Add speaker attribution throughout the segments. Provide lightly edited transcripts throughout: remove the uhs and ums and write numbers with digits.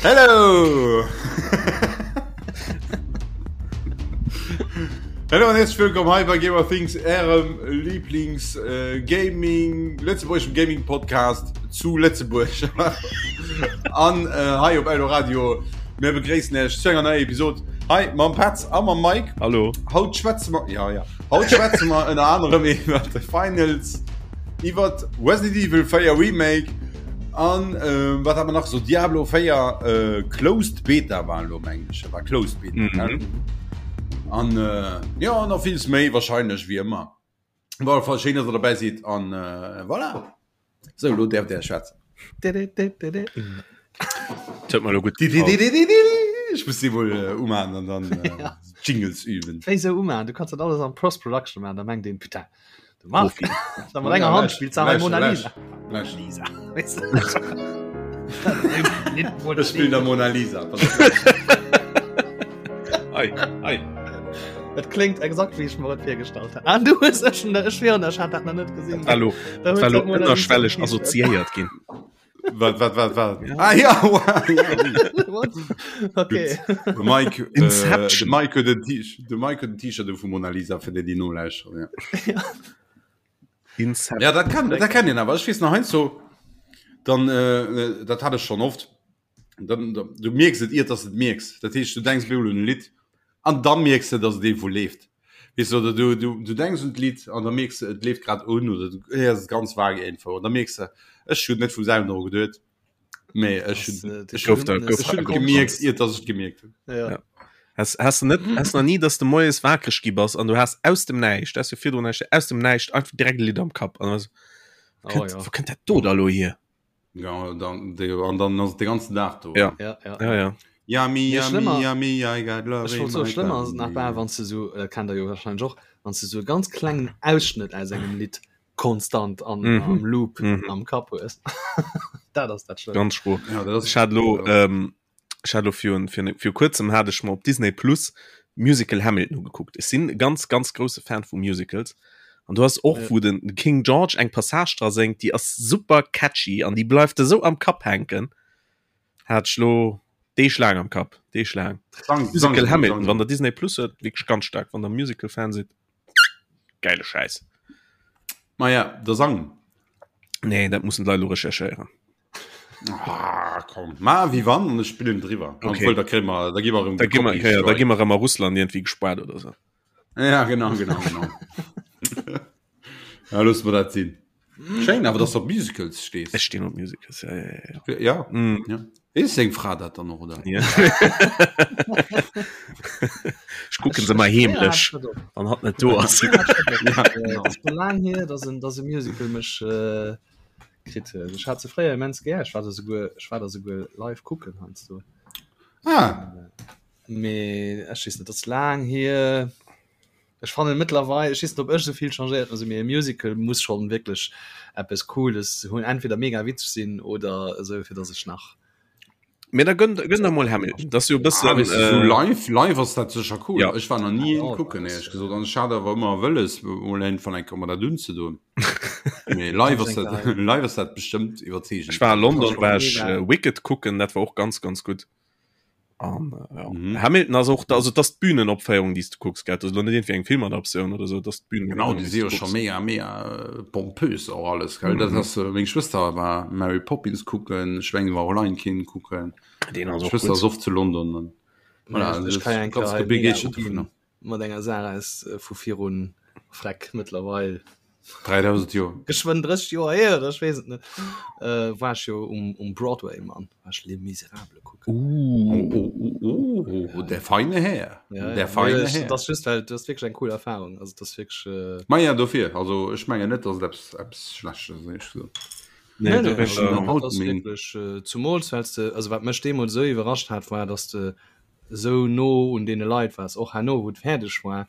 Speaker 1: Hello! Hallo an herzlich willkommen hei bei Gamer Things, ärem Lieblings äh, Gaming, lëtzebuergeschem Gaming Podcast zu Lëtzebuerg. an äh, hei op Eldoradio. Mir begréissen Iech zu enger neier Episode hei mam Petz a mam Mike.
Speaker 2: Hallo.
Speaker 1: Haut schwätze mer, ja, ja. Haut schwätze mer ënner anerem iwwer de Finals, iwwer Resident Evil 4 Remake an äh, wat hat mer nach so Diablo 4 äh, Closed Beta war lo meng ech, war Closed Beta. Mhm. Gell? An äh, ja, nach villes méi wahrscheinlech wie ëmmer. War Fall schéin, dass der dabei sidd an äh, voilà. So, lo därft der schwätzen.
Speaker 2: Huet mer lo gutt
Speaker 1: Ech muss si wohl äh, umachen an dann äh, ja. Jingles üben.
Speaker 3: Wéi sou umachen? Du kannst dat alles am Post-Production machen, da mengt een, putain, de Marc, da mat enger Hand spielt se Mona Lisa.
Speaker 1: Lisa. Ech spill der Mona Lisa.
Speaker 2: Ei, ei.
Speaker 3: Et klingt exakt wéi ech mer et virgestallt hat. Ah, du hues ech schon, ech schwören, ech hat dat nach net gesinn.
Speaker 2: Hallo,
Speaker 3: Da huet
Speaker 2: hallo,
Speaker 3: se d'Mona Lisa
Speaker 2: ënnerschwelleg
Speaker 3: T-Shirt.
Speaker 2: assoziéiert ginn.
Speaker 1: Wat, wat, wat, wat? Ah ja, wow, ja, oui.
Speaker 3: What? Okay.
Speaker 1: De Mike, äh,
Speaker 2: Inception.
Speaker 1: de Mike huet en T-Shirt, de Mike huet en T-Shirt u vu Mona Lisa, fir déi, déi nolauschteren, ja.
Speaker 2: Inception.
Speaker 1: Ja, dat kann, dat kennt een awer. Ech weess nach heiansdo, dann, äh, dat hat ech schonn oft, dann, dann, du mierks et iert, dass du et mierks. Dat heescht, du denks bemol un e Lidd an da mierks du, dass et eemol leeft. Weess du, oder du, du, du denks un d'Lidd an da mierks du, et leeft grad un oder du héiers et ganz vage iergendwou an da mierks du, ech hunn net vum selwen dru geduet, mee ech
Speaker 3: Das,
Speaker 1: hunn,
Speaker 3: äh,
Speaker 1: ech
Speaker 2: Gouf
Speaker 1: hunn,
Speaker 2: da- gouf
Speaker 1: ech hunn
Speaker 2: da
Speaker 1: et gemierkt, iert dass ech et gemierkt hunn.
Speaker 3: Ja.
Speaker 2: Ja. Has, has du net has nach nie, dass du moies wakereg gi bass an du has aus dem Näischt, das jo virdrun näischt, aus dem Näischt einfach direkt e Lidd am Kapp an also,
Speaker 3: Oh,
Speaker 2: kënnt,
Speaker 3: ja.
Speaker 2: wo kënnt dat do da lo hier?
Speaker 1: Ja, dann, de, an dann ass de ganzen Dag do.
Speaker 2: Ja.
Speaker 3: Ja, ja.
Speaker 2: Ja, ja.
Speaker 1: Yummy,
Speaker 3: Nee,
Speaker 1: yummy,
Speaker 3: schlimmer-
Speaker 1: yummy, I got love
Speaker 3: Ech
Speaker 1: in
Speaker 3: wollt soen,
Speaker 1: my
Speaker 3: schlëmmer ass et nach bal,
Speaker 1: tummy.
Speaker 3: wann s du sou, dat kennt der jo wahrscheinlech och, wann s du sou e ganz klengen Ausschnëtt aus engem Lidd konstant an,
Speaker 2: Mhm.
Speaker 3: am Loop
Speaker 2: Mhm.
Speaker 3: am Kapp hues. Dat ass dat Schlëmmst.
Speaker 2: Ganz schro.
Speaker 1: Ja, dat ass,
Speaker 2: Ech hat lo,
Speaker 1: ja.
Speaker 2: ähm, ech hat lo virun, virun, vir kuerzem hat ech mer op Disney Plus Musical Hamilton ugekuckt. Ech sinn e ganz, ganz grousse Fan vu Musicals. An du hast och,
Speaker 3: Ja.
Speaker 2: wou den King George eng Passage dra séngt, déi ass super catchy an déi bleift esou am Kapp hänken. Hat ech lo Deeg laang am Kapp, Deeg laang.
Speaker 1: Sang, sang,
Speaker 2: Musical
Speaker 1: sang,
Speaker 2: Hamilton,
Speaker 1: sang.
Speaker 2: wann der Disney Plus huet, wierklech ganz staark, wann der Musical-Fan sidd. Geile Schäiss.
Speaker 1: Ma ja, der Sang.
Speaker 2: Nee, dat mussen d'Leit lo recherchéieren.
Speaker 1: Ah, komm. Ma wie wann an ech spillen driwwer.
Speaker 2: Okay.
Speaker 1: Obwohl, da kriegen wir, da gi mer erëm
Speaker 2: Da gi mer,
Speaker 1: Copy
Speaker 2: ja, da
Speaker 1: Strike.
Speaker 2: gi mer erëm a Russland irgendwie gespaart oder so.
Speaker 1: Ja, genau, genau, genau. ja, looss mer dat sinn. Schéin, awer dass du op Musicals stees.
Speaker 2: Ech stinn op Musicals, ja, ja, ja, ja.
Speaker 1: Ja,
Speaker 2: Mm.
Speaker 1: ja. Weess seng Fra dat dann och, oder?
Speaker 2: Ja. Ech kucken se mal heemlech, wann hatt net do ass.
Speaker 1: Ja, genau.
Speaker 3: Et ass scho laang hier, dass en, dass e Musical mech äh, kritt huet. Ech hat se fréier immens gär. Ech war der souguer, ech war der souguer live kucken heiansdo.
Speaker 1: Ah,
Speaker 3: Mee ech weess net, dat ass laang hier. Ech fannen mëttlerweil, ech weess net ob ech esou vill changéiert hunn, also mee e Musical muss schonn wierklech eppes Cooles hunn, entweder mega witzeg sinn oder esou fir dass ech nach
Speaker 2: Mee da gönn, gönn der mol Hamilton, dat ass jo e
Speaker 1: ah,
Speaker 2: bëssen,
Speaker 1: weißt du, so
Speaker 2: äh,
Speaker 1: live, live ass dat sécher cool.
Speaker 2: Ja.
Speaker 1: Ech war nach nie
Speaker 3: Ja,
Speaker 1: een kucken,
Speaker 3: das,
Speaker 1: éierlech gesot. An ech hat awer ëmmer wëlles, mol een van eng Kéier dat unzedoen. Mee live ass dat, live ass dat bestëmmt iwwerzeegend.
Speaker 2: Ech war a London, war ech
Speaker 3: Mega.
Speaker 2: äh, Wicked kucken, dat war och ganz, ganz gutt. An, äh, ja.
Speaker 1: Mhm.
Speaker 2: Hamilton ass och, also dat ass d'Bühnenopféierung, déi s du kucks, gell? Dat ass lo net irgendwie eng Filmadaptioun oder sou, dat ass d'Bühnen.
Speaker 1: Genau, déi si jo scho mega, mega äh, pompös och alles, gell? Dat
Speaker 2: Mhm.
Speaker 1: ass, äh, meng Schwëster war Mary Poppins kucken, ech mengen, war och Lion King kucken.
Speaker 2: Deen ass och
Speaker 1: Schwëster
Speaker 2: gutt.
Speaker 1: ass oft zu London. An, voilà,
Speaker 3: ech
Speaker 1: das
Speaker 3: kann eng
Speaker 1: ganz
Speaker 3: Kéier mega
Speaker 1: begeeschtert
Speaker 3: uginn
Speaker 1: dovunner.
Speaker 3: mat enger Saach aus äh, vu virun Freck mëttlerweil
Speaker 1: 3000 Joer.
Speaker 3: geschwënn 30 Joer hier oder ech weess et net. Äh, war ech jo um, um Broadway, Mann, war ech Les Misérables kucken.
Speaker 2: Uh.
Speaker 1: Oh, oh, oh, oh, oh, der feine Här.
Speaker 3: Ja,
Speaker 1: Der
Speaker 3: ja.
Speaker 1: feine
Speaker 3: Nee, ech,
Speaker 1: Här.
Speaker 3: das ass just well das ass wierklech eng cool Erfahrung. Also das ass wierklech äh,
Speaker 1: Ma ja, dofir. Also ech mengen net, dass et eppes, eppes Schlechtes ass, éierlech gesot.
Speaker 2: Nee,
Speaker 3: Nee,
Speaker 2: do
Speaker 3: nee,
Speaker 2: bin
Speaker 3: also
Speaker 2: ich,
Speaker 3: dat
Speaker 1: haut
Speaker 3: ass
Speaker 1: meng-
Speaker 3: wierklech äh, zumools wells de also wat mech deemools esou iwwerrascht hat war, dass de esou no un deene Leit waars, och herno wou et fäerdeg war,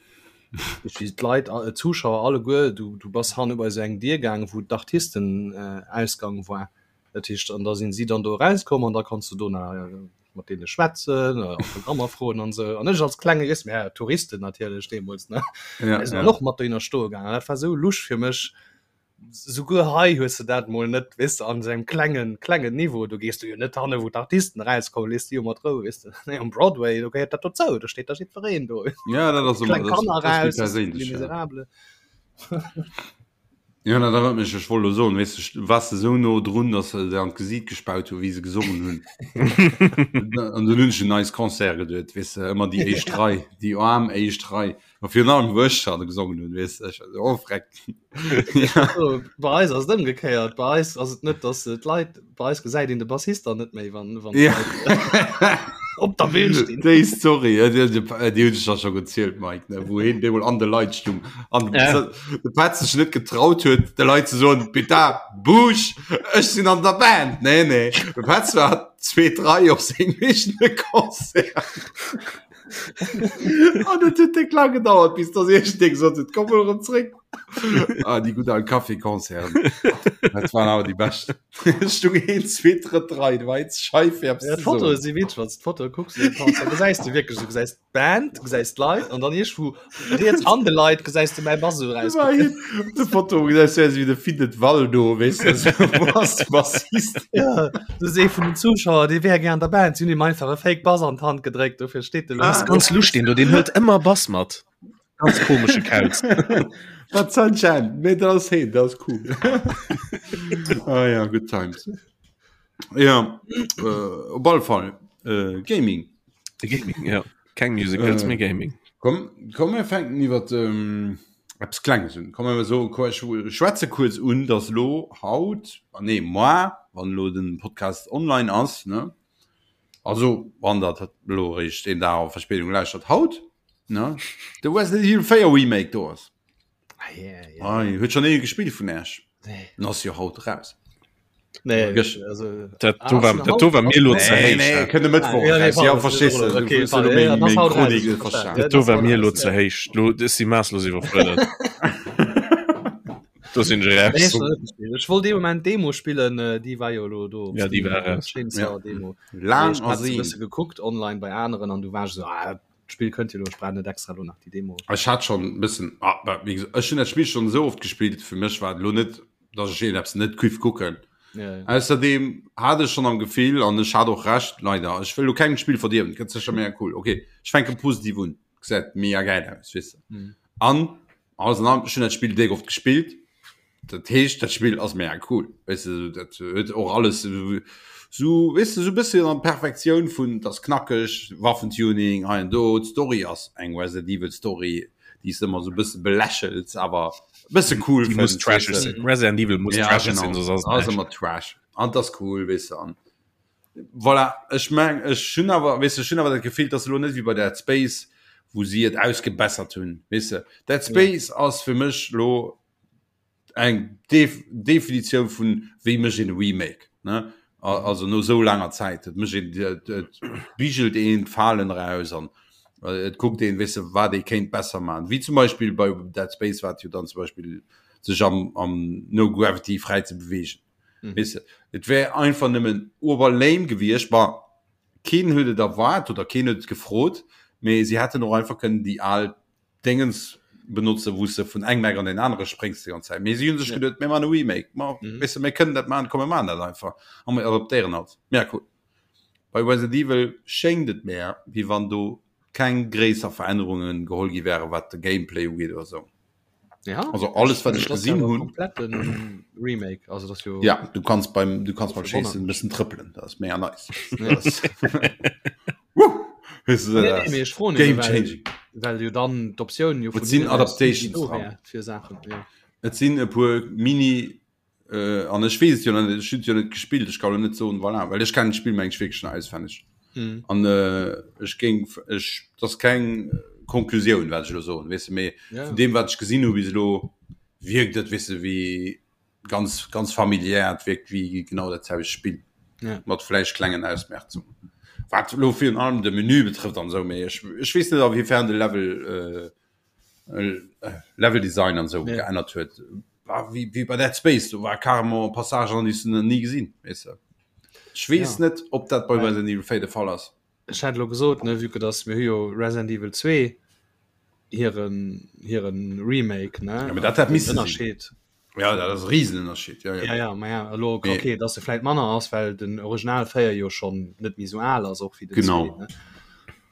Speaker 3: wéi d'Leit, d'Zuschauer alleguer, du du bass hanne bei esou eng Dier gaangen, wou d'Artistenausgang war, dat heescht, an da sinn si dann do erauskomm an da konns du do nach mat deene schwätzen, Autogrammer froen an esou. An ech als klenge Jess, mä Touristen natierlech deemools, ne,
Speaker 1: Ja,
Speaker 3: sinn
Speaker 1: ja.
Speaker 3: dann och mat dohinner stoe gaangen. Dat war esou lusch fir mech. Souguer hei hues de dat mol net, weess de, an esou engem klengen, klengen Niveau. Do gees du jo net hanne wou d'Artisten erauskommen, lees déi jo mat Rou, weess de. Nee, um Broadway, do gehéiert dat dozou, do steet da jiddwereen do.
Speaker 1: Ja, dat ass
Speaker 3: ëmmer,
Speaker 1: kleng
Speaker 3: Kanner
Speaker 1: dat ass méi
Speaker 3: raus,
Speaker 1: perséinlech,
Speaker 3: Les
Speaker 1: ja.
Speaker 3: Misérables.
Speaker 1: Ja, dat erënnert mech, ech wollt elo soen, weess de, waars de esou no drun, datt se der an d'Gesiit gespaut hu wéi se gesongen hunn. An dunn hunn ech un eis Concert geduet, weess de, ëmmer déi éischt Rei, déi aarm éischt Rei. A virun allem wou ech schonn gesongen hunn, weess de, ech war esou, oh freck.
Speaker 3: Ja. Bei eis ass et ëmgekéiert, bei eis ass et net, datt d'Leit, bei eis gesäit een de Bassist dann net méi, wann, wann
Speaker 1: Ja.
Speaker 3: d'Leit op der Bühn stinn.
Speaker 1: Déi Story, äh, déi, déi, déi hunn ech da scho gezielt, Mike, ne, wou hien deemol an de Leit stung an
Speaker 2: Ja.
Speaker 1: de Petz sech net getraut huet, de Leit ze soen, Bitte, Busch, ech sinn an der Band. Nee, nee, de Petz war zweet Rei op sengem eegene Concert. An et huet déck laang gedauert, bis dass iergendee gesot huet, komm mol erëm zréck. Ah, déi gutt al Café-Concerten. Dat waren awer déi bescht. Et stung een, zwee, drëtt Rei, du war eens schei fir eppes
Speaker 3: Ja,
Speaker 1: ze
Speaker 3: d'Fotoe
Speaker 1: soen.
Speaker 3: si witzeg, wann s de d'Fotoe kucks, dann kanns- da gesäis du wierklech, du gesäis d'Band, du gesäis d'Leit an dann iergendwou riets an de Leit gesäis du mäi Bass esou
Speaker 1: War
Speaker 3: erauskucken.
Speaker 1: hien op de Foto gesäis du wéi de Findet Waldo, weess de, esou, wo ass de Bassist?
Speaker 3: Ja, du see vun den Zuschauer, dee wär gär an der Band, si hunn him einfach e Fake Bass an d'Hand gedréckt, dofir steet de
Speaker 2: Ah,
Speaker 3: lo.
Speaker 2: ganz lustig, den do, den hëlt ëmmer Bass mat. Ganz komesche Kauz.
Speaker 1: Dat Sunshine, mee dat ass heen, dat ass cool. Ah ja, good times. Ja, äh, op alle Fall äh, Gaming.
Speaker 2: Gaming, ja. Keng Musicals,
Speaker 1: Äh.
Speaker 2: mee Gaming.
Speaker 1: Komm, komm mir fänken iwwer ähm, eppes Klenges un. Komm mir so ech schwätze kuerz un, dass lo haut, ah nee, moi, wann lo den Podcast online ass, ne? Also wann dat lo eréischt een Dag a Verspéidung lauschtert, haut, ne? De Resident Evil 4 Remake do ass.
Speaker 3: Ah, yeah, yeah.
Speaker 1: Ei, huet schon ee gespillt vun Äech?
Speaker 3: Nee.
Speaker 1: Den ass jo haut raus.
Speaker 3: Nee,
Speaker 1: Gëscht.
Speaker 3: also,
Speaker 2: Dat
Speaker 3: Ah,
Speaker 2: do war,
Speaker 3: ass
Speaker 2: dat do war mir lo ze
Speaker 1: Nee,
Speaker 2: héich.
Speaker 1: nee,
Speaker 2: dat.
Speaker 1: kënne Mëttwoch
Speaker 3: Ah, ja, nee,
Speaker 1: raus. Ja,
Speaker 3: pardon,
Speaker 1: verstees du,
Speaker 3: okay,
Speaker 1: du hues jo
Speaker 3: pardon,
Speaker 1: lo
Speaker 3: ja,
Speaker 1: meng,
Speaker 3: das
Speaker 1: meng
Speaker 3: haut raus,
Speaker 1: Chronik net
Speaker 3: verstanden.
Speaker 1: verstanen.
Speaker 3: Ja,
Speaker 2: Dat do
Speaker 3: das
Speaker 2: war
Speaker 3: haut
Speaker 2: mir lo
Speaker 3: raus,
Speaker 2: ze
Speaker 3: ja.
Speaker 2: héich. Lo ech si maasslos iwwerfuerdert. Do sinn ech
Speaker 3: Nee,
Speaker 2: raus.
Speaker 3: ech wollt net spillen. Ech wollt dee Moment Demo spillen, äh, déi war jo lo do op
Speaker 2: Ja, déi
Speaker 3: Steam,
Speaker 2: war raus.
Speaker 3: Chainsaw Demo.
Speaker 1: Laang
Speaker 3: Ech hat se
Speaker 1: ersehnt.
Speaker 3: bësse gekuckt online bei aneren an du war ech so, ah, D'Spill kënnt jo lo, ech brauch net extra lo nach déi Demo.
Speaker 1: Ech hat schon e bëssen, ah, bah, wéi gesot, ech hunn dat Spill schon esou oft gespillt, fir mech war et elo net, dass ech iergendeppes net giff kucken.
Speaker 3: Ja, ja.
Speaker 1: Ausserdeem hat ech schon am Gefill, an ech hat och Recht, leider, ech wëll elo kengem d'Spill verdierwen, et gëtt sécher mega cool, ok, ech fänke positiv un, gesäit mega gäil aus, weess de.
Speaker 3: Mhm.
Speaker 1: An alles an allem, ech hunn dat Spill déck oft gespillt, Dat heescht dat Spill ass mega cool weißt du, dat huet och alles so weißt du, so bësschen an Perfektioun vun das knackeg Waffentuning hei an do d'Story ass eng Resident Evil Story déi s ëmmer so bësse belächels awer bësse cool
Speaker 2: Die muss
Speaker 1: fënns,
Speaker 2: trashig
Speaker 1: weess de.
Speaker 2: sinn. Resident Evil muss
Speaker 1: Ja,
Speaker 2: trashig
Speaker 1: genau.
Speaker 2: sinn, soss ass et
Speaker 1: Ass
Speaker 2: näischt.
Speaker 1: ëmmer trash an das cool weess de an voilà ech meng ech hunn awer weess de ech hunn awer dat Gefill dass elo net wéi bei Dead Space wou si et ausgebessert hunn weess de Dead Space ass fir mech lo eng Def Definitioun vun wéi mécht een e Remake ne also no sou laanger Zäit et mécht een et et bigelt een d'Falen eraus an et kuckt een weess de wat ee kéint besser man wéi zum Beispill bei Dead Space wat jo dann zum Beispill sech am am No Gravity fräi ze beweegen mhm. weess de et wär einfach nëmmen ober lame gewiescht war keen huet et erwaart oder keen huet et gefrot mee si hätten och einfach kënnen déi al Dingens benotze wou s de vun engem Eck an deen anere spréngs déi ganz Zäit. Mee si hunn sech geduet, mir maachen e Remake, ma weess de, mir kënnen dat maachen, komm mir maachen dat einfach a mir adaptéieren alt. Mega cool. Bei Resident Evil schéngt et mär, wéi wann do keng gréisser Verännerunge geholl gi wären, wat de Gameplay ugeet oder sou.
Speaker 3: Ja,
Speaker 1: Also alles wat ech
Speaker 3: das
Speaker 1: gesinn
Speaker 3: ja
Speaker 1: hunn.
Speaker 3: kompletten Remake also das jo
Speaker 1: Ja, du kannst beim du kannst beim
Speaker 3: Wonnert
Speaker 1: Schéissen e bëssen trëppelen, dat ass mega nice.
Speaker 3: Ja.
Speaker 1: Dat ass- Woo! Weißt du,
Speaker 3: Nee,
Speaker 1: dat
Speaker 3: nee, mee
Speaker 1: ass
Speaker 3: ech froen
Speaker 1: Game
Speaker 3: nëmme, well,
Speaker 1: changing.
Speaker 3: well jo dann d'Optioun jo
Speaker 1: Et sinn
Speaker 3: hinnen aus
Speaker 1: Adaptations
Speaker 3: do
Speaker 1: dran.
Speaker 3: wär fir Saachen ja.
Speaker 1: Et sinn e puer Mini äh, an ech weess et jo nach net, ech hunn et jo net gespillt, ech kann lo net soen, voilà, well ech kennen d'Spill meng ech wierklech nach auswenneg.
Speaker 3: Mhm.
Speaker 1: An äh, ech géing ech dat ass keng Konklusioun wat ech elo soen, weess de, mee
Speaker 3: Ja.
Speaker 1: vun deem wat ech gesinn hu bis elo wierkt et, weess de, wéi ganz ganz familiär, et wierkt wéi genau dat selwecht Spill
Speaker 3: Ja.
Speaker 1: mat vläicht klengen Ausmerzungen. Wat elo virun allem de Menü betrëfft an esou, mee ech ech weess net a wéi fern de Level äh, Level Design an sou
Speaker 3: Ja.
Speaker 1: geännert huet. War wéi wéi bei Dead Space, do war carrément Passagen an déi s du nach ni gesinn, weess de. Ech weess
Speaker 3: Ja.
Speaker 1: net, ob dat bei Resident Evil 4 de Fall ass.
Speaker 3: Ech hat elo gesot, ne, vue que dass mir hu jo Resident Evil 2 hiren hiren Remake, ne?
Speaker 1: Ja, mee dat hätt
Speaker 3: Den
Speaker 1: misse sinn.
Speaker 3: Ënnerscheed.
Speaker 1: Ja, dat ass e Riesenënnerscheed. Ja, ja.
Speaker 3: Ja, ja, ma ja, elo, okay, nee. dass se vläit manner ass, well den Original 4 jo schon net méi sou al ass och wéi den
Speaker 1: genau.
Speaker 3: 2, ne?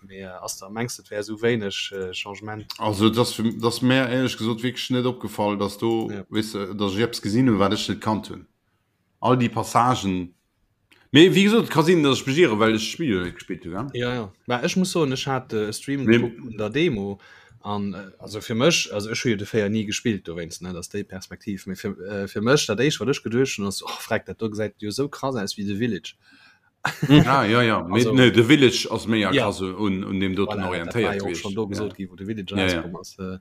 Speaker 3: Mee äh, ass da mengs et wär sou wéineg äh, Changement?
Speaker 1: Also das, das mär éierlech gesot wierklech net opgefall, dass do ja. weess de, dass ech eppes gesinn hunn, wat ech net kannt hunn. All déi Passagen Mee wéi gesot, et ka sinn, datt ech mech ieren, well ech d'Spill jo net gespillt hu, gell?
Speaker 3: Ja, ja. Mä ech muss soen, ech hat e Stream gekuckt vun der Demo an also fir mech, also ech hu jo de 4 ni gespillt dowéinst, ne, dat ass déi Perspektiv, mee fir, fir mech dat éischt wat ech geduecht hunn ass, oh freck, dat do gesäit jo esou krass aus wéi The Village.
Speaker 1: Ah ja, ja. Mee, also, nee, The Village ass méi ja. krass un, un deem doten
Speaker 3: voilà,
Speaker 1: orientéiert
Speaker 3: dat war jo och schon do gesot gi, wou The Village ja, rauskomm ass. Ja.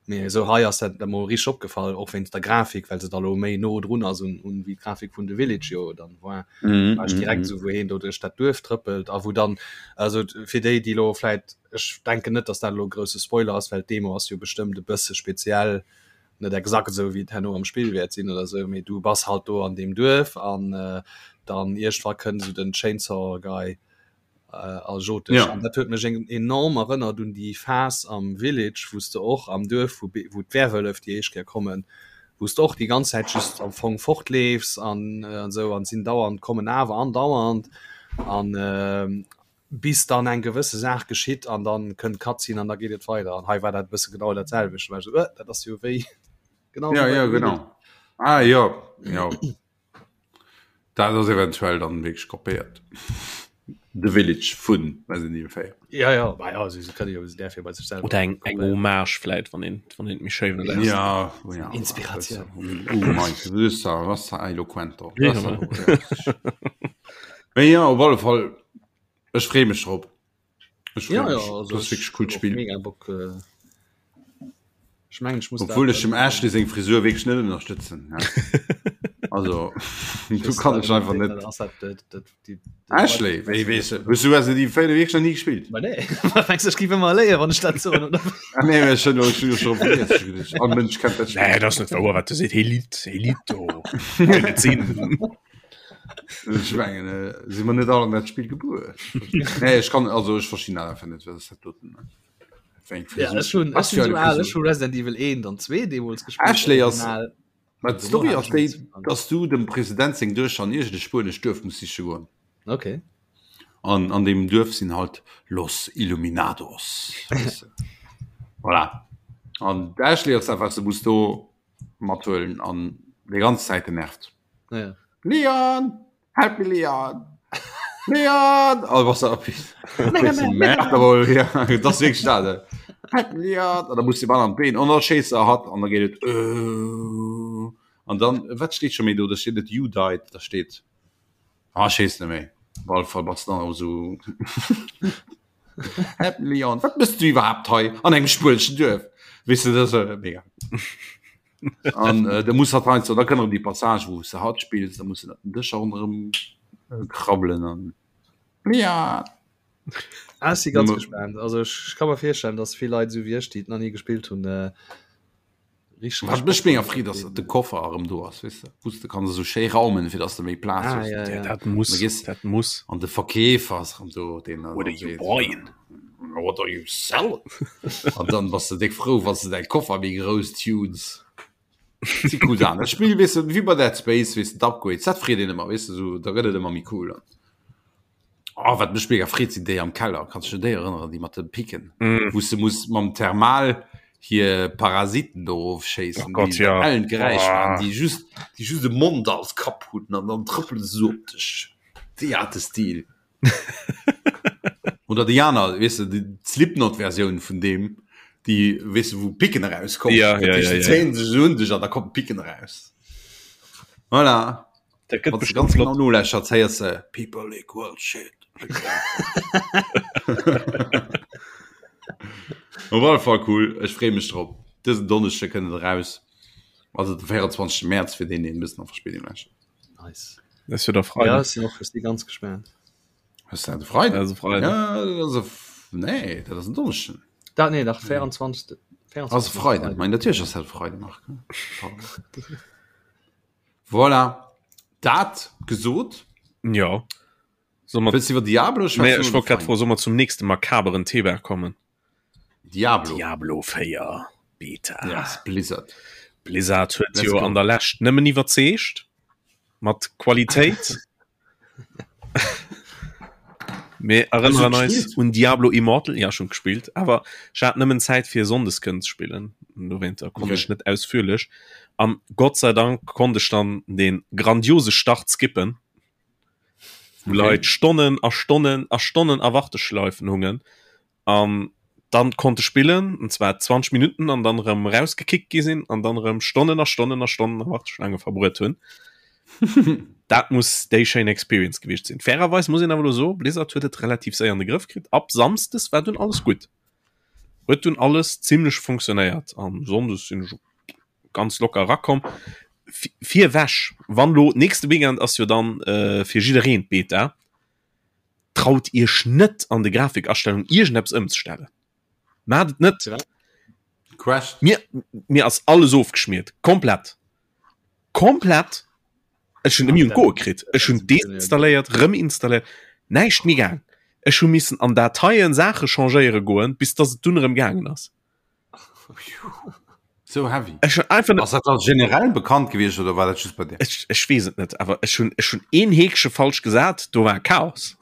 Speaker 3: Mee esou hei ass dat emol richteg opgefall, och wéinst der Grafik, well se da lo méi no drun ass un un wéi d'Grafik vun The Village jo dann war. Mm, war ech direkt mm, esou, wou heen do duerch dat Duerf trëppelt a wou dann, also fir déi, déi lo vläit, ech denken net, datt dat elo e grousse Spoiler ass, well d'Demo ass jo bestëmmt e bësse speziell, net exakt esou wéi et herno am Spill wäert sinn oder esou, mee du bass halt do an deem Duerf an dann iergendwa kënnt esou den Chainsaw Guy a jot dech.
Speaker 1: Ja.
Speaker 3: An dat huet mech enorm erënnert un déi Phas am Village, wou s de och am Duerf, wou wou d'Werwëllef déi éischt Kéier kommen, wou s de och déi ganz Zäit just am Fong fortleefs an an esou an sinn dauernd kommen awer andauernd an bis dann eng gewësse Saach geschitt an dann kënnt d'Cutscene an da geet et weider. An hei war dat e bësse genau dat selwecht. War ech esou, äh, dat ass jo wéi
Speaker 1: genau Ja, wéi bei ja, The Village. genau. Ah, jo, jo. Dat ass eventuell dann wierklech kopéiert. The Village vun Resident Evil 4.
Speaker 3: Ja, ja, bah, ja, sie können ja der bei sich selber.
Speaker 2: Oder eng, eng Hommage vläit, wann een, wann een méi schéi wëll
Speaker 1: aus. Ja, oh ja.
Speaker 3: Inspiration.
Speaker 1: Oh mein, du bist da, was da eloquent.
Speaker 2: Ja,
Speaker 1: Mee ja, op alle Fall, ech freeë mech drop. Ech
Speaker 3: Ja,
Speaker 1: freeë
Speaker 3: ja,
Speaker 1: mech.
Speaker 3: also
Speaker 1: Das ass
Speaker 3: ech
Speaker 1: wierklech coolt
Speaker 3: och
Speaker 1: Spill.
Speaker 3: mega Bock. Äh, ech mengen, ech muss
Speaker 1: Obwuel
Speaker 3: dat
Speaker 1: ech dem Ashley seng Frisur wierklech net ënnerstëtzen. Ja. Also, du kann ech einfach net.
Speaker 3: Ass dat, dat, dat, die, die
Speaker 1: Ashley, wéi weess du, hues du Resident Evil 4 wierklech nach ni gespillt?
Speaker 3: Ma nee, mengs du, ech géif ëmmer léieren, wann ech dat soen, oder?
Speaker 1: Ah, nee, ech hunn ech hunn jo scho vergiess. Ech hunn geduecht, All Mënsch kennt dat Spill.
Speaker 2: Nee, dat ass net wouer, wat du seet. Hee litt, hee litt do. Kann net sinn.
Speaker 1: Ech mengen, äh, si mer net all an dat Spill gebuer. Nee, ech kann, also ech verstinn dat einfach net, wat ass dat doten? Wat fir eng
Speaker 3: Ja,
Speaker 1: Frisur?
Speaker 3: ech hunn,
Speaker 1: Was
Speaker 3: ech
Speaker 1: fir
Speaker 3: sinn
Speaker 1: eng
Speaker 3: sou al,
Speaker 1: Frisur?
Speaker 3: ech hu Resident Evil 1 an 2 deemools gespillt,
Speaker 1: Ashley ass,
Speaker 3: original.
Speaker 1: ma
Speaker 3: Dono
Speaker 1: d'Story
Speaker 3: hat
Speaker 1: ass
Speaker 3: ech
Speaker 1: déi,
Speaker 3: nichts verstanden.
Speaker 1: dass du dem President seng Duechter an iergend e spuenescht Duerf muss siche goen.
Speaker 3: Okay.
Speaker 1: An an deem Duerf sinn halt Los Illuminados. Weess de. Voilà. An d'Ashley ass dat, wat se muss do mathuelen an déi ganz Zäit genervt.
Speaker 3: Ja.
Speaker 1: Leon! Help me Leon! Leon! Oh, was da ja, das wirklich da. Help me Leon! An da muss de Ball an d'Been an da schéisst er hatt an da geet et äh, an dann wat steet scho méi do? Da steet net you died, da steet ah, ech weess net méi. Op alle Fall bass dann och esou Help me Leon, wat mëss du iwwerhaapt hei an engem spueneschen Duerf? Weess de, dat ass mega. An äh, da muss hat heiansdo, da kënne déi Passage, wou se hatt spills, da muss den Dëscher ronderëm äh, krabbelen an ja.
Speaker 3: Ah, ech si ganz gespannt. Also ech, ech ka mer virstellen, dass vill Leit esou wéi ech, déi et nach ni gespillt hunn, äh,
Speaker 1: richteg Wat mech mega freet, ass, datt de Koffer erëm do ass, weess de, wou s de kanns esou schéi raumen, fir datt s de méi Plaz
Speaker 3: Ah,
Speaker 1: hues.
Speaker 3: ja,
Speaker 2: Ja,
Speaker 3: ja.
Speaker 2: dat muss,
Speaker 1: Da gees
Speaker 2: dat muss.
Speaker 1: an de Verkeefer ass erëm do, deen dann
Speaker 2: What are you
Speaker 1: seet,
Speaker 2: buying?
Speaker 1: What are you selling? An dann bass de déck frou, wann s de däi Koffer méi grouss tunes. Si cool Saachen. Dat Spill, weess de, wéi bei Dead Space, weess de, d'Upgrades, dat freet een ëmmer, weess de, sou, da gëtt et ëmmer méi cool. Oh, wat mech mega freet, sinn déi am Keller. Kanns du dech un déi erënneren, déi mat de Picken,
Speaker 2: Mm.
Speaker 1: wou s de muss mam Thermal hir Parasiten do erofschéissen,
Speaker 2: Oh Gott,
Speaker 1: déi
Speaker 2: ja.
Speaker 1: ellen Geräisch
Speaker 2: Oh.
Speaker 1: maachen, déi just, déi just e Mond als Kapp hunn an dann trëppele se sou op dech. Déi hate Stil. Oder déi aner, weess de, déi Slipknot-Versioun vun deem, déi, weess de, wou Picken erauskommen.
Speaker 2: Ja,
Speaker 1: Dat
Speaker 2: ja,
Speaker 1: heescht,
Speaker 2: ja,
Speaker 1: déi
Speaker 2: ja.
Speaker 1: zéien sech esou un dech an da kommen d'Picken eraus. Voilà.
Speaker 2: Dat gëtt
Speaker 1: Wann s de
Speaker 2: bestimmt
Speaker 1: ganz genau
Speaker 2: flott.
Speaker 1: nolauschterts, héiers de People equal shit. Op alle Fall cool, ech freeë mech drop. Dësen Donneschde kënnt et eraus, also de 24. Mäerz fir deen, deen e bëssen a Verspéidung lauschtert.
Speaker 3: Nice.
Speaker 2: Das ist ja der
Speaker 3: Ja,
Speaker 2: Freitag.
Speaker 3: ech sinn och ech si ganz gespaant.
Speaker 1: Ass dat e Freiden?
Speaker 2: Also Freitag.
Speaker 1: Ja, dat ass e F nee, dat ass en Donneschden.
Speaker 3: Dat nee, dach 24. 24.
Speaker 1: Ass e Freiden. Mein natierlech ass dat e Freiden, Marc. Pardon. Voilà. Dat gesot.
Speaker 2: Ja. Soll mer
Speaker 1: Wëlls du iwwer Diablo
Speaker 2: Nee,
Speaker 1: schwätzen
Speaker 2: ech
Speaker 1: oder
Speaker 2: wollt grad
Speaker 1: Final?
Speaker 2: froen, soll mer zum nächste makaberen Thema kommen?
Speaker 1: Diablo.
Speaker 2: Diablo 4 Beta.
Speaker 1: Yes, Blizzard.
Speaker 2: Blizzard huet jo an der Lescht nëmmen iwwerzeegt mat Qualitéit. Mir erënneren eis un Diablo Immortal, ja schon gespillt, awer ech hat nëmmen Zäit fir Sonndes kënnen ze spillen. Dowéinter konnt okay. ech net ausführlech. An Gott sei Dank konnt ech dann den grandiose Start skippen. Wou okay. Leit Stonnen a Stonnen a Stonnen a Warteschleifen hungen. An dann konnte spillen und zwar 20 Minuten an dann rem rausgekickt gi sinn an dann rem Stonnen a Stonnen a Stonnen a Warteschlange verbruet hunn. Dat muss déi schéin Experience gewiescht sinn. Fairerweis muss een awer elo soen, Blizzard huet et relativ séier an de Grëff kritt. Ab Samsdes war dunn alles gutt. Huet dunn alles zimlech funktionéiert an Sonndes sinn ech ganz locker erakomm. Virwech, wann lo nächste Weekend ass jo dann äh, fir jiddereen d'Beta. Traut iech net an de Grafikastellungen iergendeppes ëmzestellen. Maacht et net.
Speaker 1: Crashed.
Speaker 2: Mir, mir ass alles ofgeschmiert. Komplett. Komplett. Ech hunn nëmme un d'Goe kritt. Ech hunn deinstalléiert, rëm installéiert. Näischt méi gaang. Ech hu missen an Dateien Saache changéiere goen, bis dass et dunn erëm gaangen ass.
Speaker 1: So heavy.
Speaker 2: Ech hun einfach
Speaker 1: Ass dat dann generell bekannt gewiescht oder war dat just bei dir?
Speaker 2: Ech, ech weess et net, awer ech hunn ech hunn een Heekche falsch gesat, do war Chaos.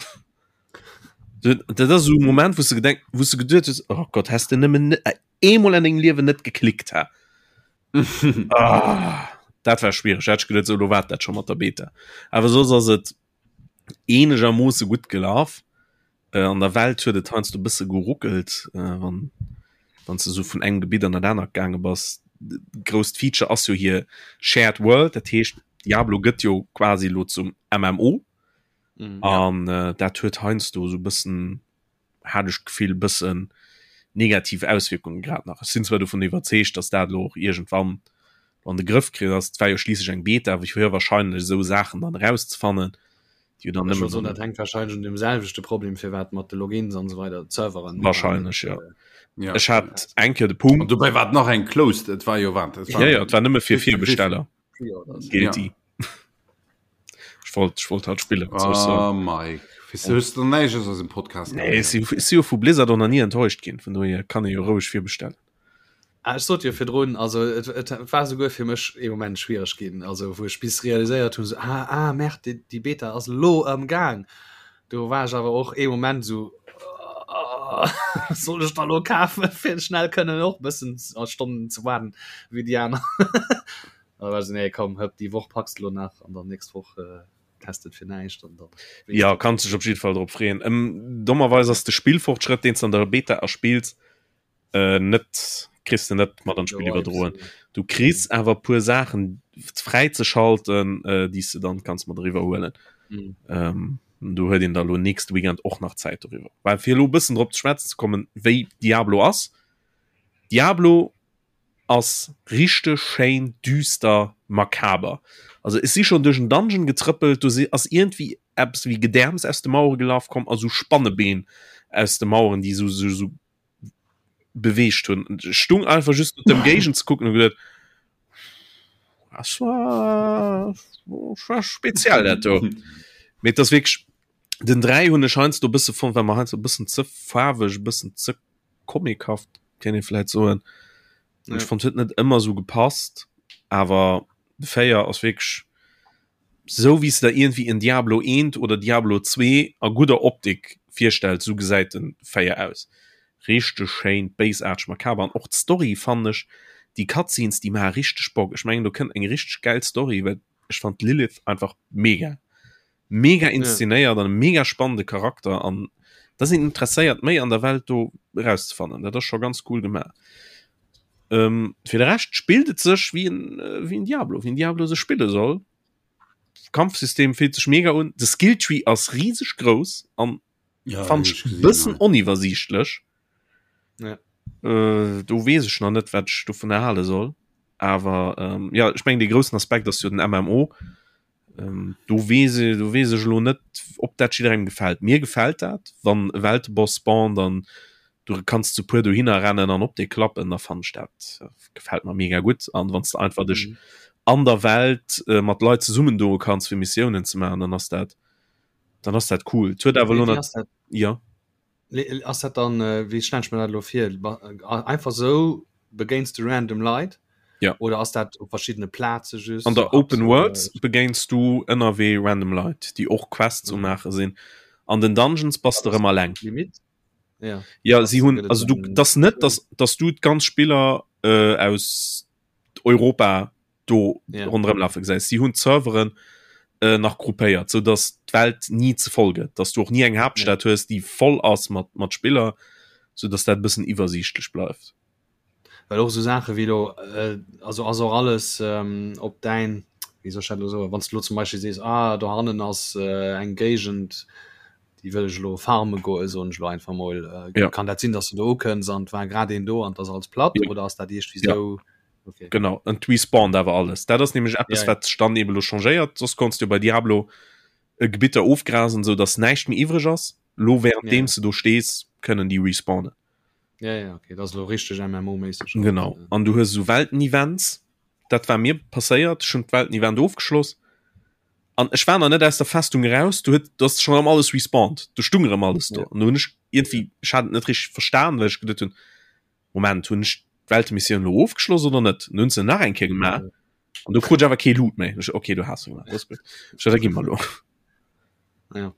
Speaker 2: Dat ass esou e Moment, wou s de gedenk, wou s de geduet hues, oh Gott, häss de nëmmen net äh, eemol an dengem Liewen net geklickt, ha. ah, dat war schwiereg. Hätt ech geduet, sou, lo war dat scho mat der Beta. Awer soss ass et eenegermoosse gutt gelaf. Äh, an der Welt huet et heiansdo e bësse geruckelt, äh, wann wann s de sou vun engem Gebitt an dat anert gaange bass. Grousst Feature ass jo hir Shared World, dat heescht Diablo gëtt jo quasi lo zum MMO.
Speaker 3: Mhm.
Speaker 2: An äh, dat huet heiansdo sou bëssen, hat ech d'Gefill, bëssen negativ Auswierkungen grad nach. Ech sinn zwar dovun iwwerzeegt, dass dat lo och iergendwann an de Grëff kritt ass. Et war jo schliisslech eng Beta, wou fir wahrscheinlech esou Saachen dann erauszefannen, déi jo dann
Speaker 3: Ech
Speaker 2: nëmmen
Speaker 3: wollt soen, dat hänkt wahrscheinlech un deem selwechte Problem, firwat mat de Logins an esou weider, d'Serveren.
Speaker 2: Wahrscheinlech, ja.
Speaker 1: Ja.
Speaker 2: Ech hat eng Kéier de Punkt.
Speaker 1: An dobäi war et nach eng closed, et war jo wat? Et war
Speaker 2: Ja, ja, et war nëmme fir Virbesteller.
Speaker 3: Pre-Orders.
Speaker 2: Guilty. Ech wollt, ech wollt halt spillen. was soll ech
Speaker 1: Ah,
Speaker 2: soen?
Speaker 1: Mike, wéis du, hues du näischt aus eisem Podcast
Speaker 2: Nee, ech si, ech si jo vu Blizzard och nach ni enttäuscht ginn, vun dohier kann ee jo roueg virbestellen.
Speaker 3: Ah, ech sot jo virdrun, also et, et war souguer fir mech ee Moment schwiereg ginn, also wou ech bis realiséiert hunn, so, ah, ah, merde, déi, déi Beta ass elo am Gaang. Do war ech awer och ee Moment sou, ah, soll ech da lo kafen, fir schnell kënnen och bëssen a Stonnen ze waarden wéi déi aner. An da war ech sou, nee, komm, hëpp, déi Woch packs de lo nach an dann nächst Woch äh, test et fir näischt an dann.
Speaker 2: Ja, kanns dech op jidde Fall drop freeën. Ähm, dommerweis ass de Spillfortschrëtt, deen s de an der Beta erspills, äh, net kriss de net mat an d'Spill iwwerdroen. Du kriss awer puer Saachen fräi ze schalten, äh, déi s de dann kanns mat eriwwer huelen.
Speaker 3: Mhm.
Speaker 2: Ähm, do huet een da lo nächste Weekend och nach Zäit doriwwer. Well fir elo bëssen drop ze schwätzen ze kommen, wéi Diablo ass. Diablo ass richteg schéin düster makaber. Also ech si schonn duerch en Dungeon getrëppelt, do si ass iergendwéi eppes wéi Gedäerms aus de Mauere gelaf komm a sou Spannebeen aus de Maueren, déi sou sou sou beweegt hunn. Ech stung einfach just op dem Géigend ze kucken und gedacht, das war, das war speziell dat do. Mee das wirklich den 3 hunn ech heiansdo e bësse fonnt, well mer heiansdo e bëssen ze faarweg, e bëssen ze comichaft, kéint ee vläit soen.
Speaker 3: Ja.
Speaker 2: Ech fonnt huet net ëmmer sou gepasst, awer de 4 ass wierklech Sou wéi s de der iergendwéi en Diablo 1 oder Diablo 2 a gudder Optik virstells, sou gesäit den 4 aus. Richteg schéin, béisaarteg, makaber an och d'Story fannen ech, déi Cutscenes déi maache richteg Bock. Ech mengen do kënnt eng richteg gäil Story, well ech fand d'Lilith einfach mega, mega inszenéiert an e mega spannende Charakter an da sinn interesséiert méi an der Welt do erauszefannen. Dat ass scho ganz cool gemaach. Ähm, fir de Rescht spillt et sech wéi en, äh, wéi en Diablo, wéi en Diablo sech spille soll. Kampfsystem fillt sech mega un. De Skilltree ass rieseg grouss an
Speaker 1: Ja,
Speaker 2: fand
Speaker 1: hab
Speaker 2: ech
Speaker 1: ich gesehen,
Speaker 2: bëssen
Speaker 1: ja.
Speaker 2: oniwwersiichtlech.
Speaker 3: Ja.
Speaker 2: Äh, do weess ech nach net, wat ech dovun erhale soll. Awer ähm, ja, ech mengen, dee groussen Aspekt ass jo den MMO. Ähm, do weess e, do weess ech elo net, ob dat jidderengem gefält. Mir gefält dat, wann e Welteboss spawnt an du kanns zu puer dohinner rennen an op dee klappen, da fannen ech dat äh, gefält mer mega gutt. An wann s de einfach dech
Speaker 3: Mhm.
Speaker 2: an der Welt äh, mat Leit zesummen doe kanns fir Missiounen ze maachen, dann ass dat dann ass dat cool. Et huet awer
Speaker 3: Wéi
Speaker 2: elo
Speaker 3: wéi
Speaker 2: nat
Speaker 3: ass dat?
Speaker 2: ja.
Speaker 3: Le- Ass dat dann, äh, wéi stell ech mir dat elo vir? Ba- äh, Einfach sou begéins de random Leit?
Speaker 2: Ja.
Speaker 3: Oder ass dat op verschiddene Plaze
Speaker 2: just? An der Open World begéins du ënnerwee random Leit, déi och Quests um maache sinn. An den Dungeons bass de rëm alleng.
Speaker 3: Limit?
Speaker 2: Ja, ja si hunn also du das net, dass, dass du d'ganz Spiller äh, aus Europa do ja. ronderëm lafe gesäis. Si hunn d'Serveren äh, nach gruppéiert, sou dass d'Welt ni ze voll gëtt, dass du och ni eng Haaptstad ja. hues, déi voll ass mat mat Spiller, sou dass dat e bëssen iwwersiichtlech bleift.
Speaker 3: Well och sou Saache wéi lo, äh, also ass och alles ähm, op däin, wéi soll ech dat lo soen, wann s du lo zum Beispill sees, ah do hannen ass äh, eng Géigend, déi wëll ech elo farme goen, soen ech elo einfach mol, äh,
Speaker 2: ja.
Speaker 3: kann dat sinn, dass du do ukënns an et war grad een do an et ass alles platt
Speaker 2: ja.
Speaker 3: oder ass dat iergendwéi
Speaker 2: ja.
Speaker 3: sou? Okay.
Speaker 2: Genau, an et respawnt awer alles. Dat ass nämlech eppes,
Speaker 3: ja, ja.
Speaker 2: wat sech dann eben elo changéiert. Soss konns du bei Diablo äh, Gebitter ofgrasen, sou dass näischt méi iwwreg ass. Lo währenddeem
Speaker 3: ja.
Speaker 2: du do stees, kënnen déi respawnen.
Speaker 3: Ja, ja, okay. Dat ass elo richteg MMO-méisseg.
Speaker 2: Genau. An du hues esou Welten-Events. Dat war mir passéiert. Ech hunn d'Welten-Event ofgeschloss. An ech war nach net aus der Festung eraus, du huet, du ass schon erëm alles respawned. Du stung erëm alles do.
Speaker 3: Ja.
Speaker 2: An du hunn ech irgendwie, ech hat et net richteg verstan, well ech geduet hunn, Moment, hunn ech d'Weltemissioun elo ofgeschloss oder net? An du hunn se nach eng Kéier gemaach. An du krut ech awer kee Loot méi. Ech, okay, du has se gemaach. Dat ass gutt. Ech, da gi mer elo.
Speaker 3: Ja.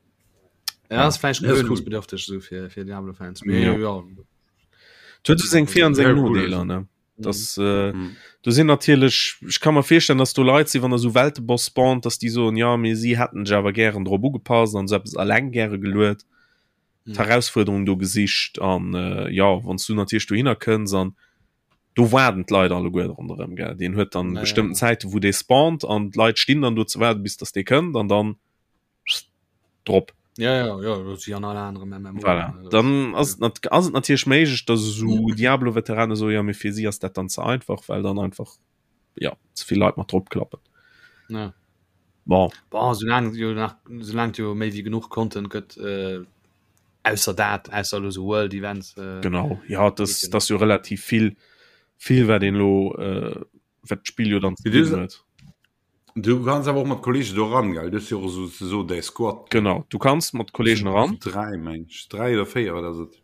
Speaker 3: Ja, ass vläicht
Speaker 1: Ja, ist cool.
Speaker 3: gewöhnungsbedürftig so fir, fir Diablo-Fans. Mee
Speaker 2: Ja.
Speaker 3: ja.
Speaker 2: Et huet esou seng Vir an seng
Speaker 1: Sehr cool.
Speaker 2: Nodeeler, ne? Das, äh,
Speaker 1: Mhm.
Speaker 2: do sinn natierlech, ech ka mer virstellen, dass do Leit sinn, wann der sou Welteboss spawnt, dass déi soen, ja, mee si hätten sech awer gären drop ugepasst an sou eppes alleng gäre geluet,
Speaker 3: Mhm.
Speaker 2: d'Herausfuerderung do gesicht an äh, ja, wann s du natierlech dohinner kënns an do waarden d'Leit alleguer ronderëm, gell. Deen huet dann
Speaker 3: Ja, ja.
Speaker 2: bestëmmten Zäiten, wou dee spawnt an d'Leit stinn dann do ze waarden, bis dass dee kënnt an dann drop.
Speaker 3: Ja, ja, ja, dat ass wéi an alle aneren MMO.
Speaker 2: Voilà. Dann ass et nat ass et natierlech méiglech, dass esou Diablo-Veterane soen, jo, mee fir si ass dat dann ze einfach, well dann einfach ja ze vill Leit mat drop klappen.
Speaker 3: Ja.
Speaker 2: Bon.
Speaker 3: Bon, soulaang jo nach, soulaang et jo méi wéi genuch Content gëtt, äh, ausser dat, ausser elo sou World Events. Äh,
Speaker 2: Genau, ja, das,
Speaker 3: geht jo
Speaker 2: das ass jo relativ vill, vill wat een elo, äh, wat d'Spill jo dann ze
Speaker 1: Mee du
Speaker 2: bidden huet.
Speaker 1: Du kanns awer och mat Kollegen do ran, gell? Du hues jo och esou ze soen däi Squad.
Speaker 2: Genau, du kanns mat Kollegen eran.
Speaker 1: 3 meng ech, 3 oder 4, wat ass et?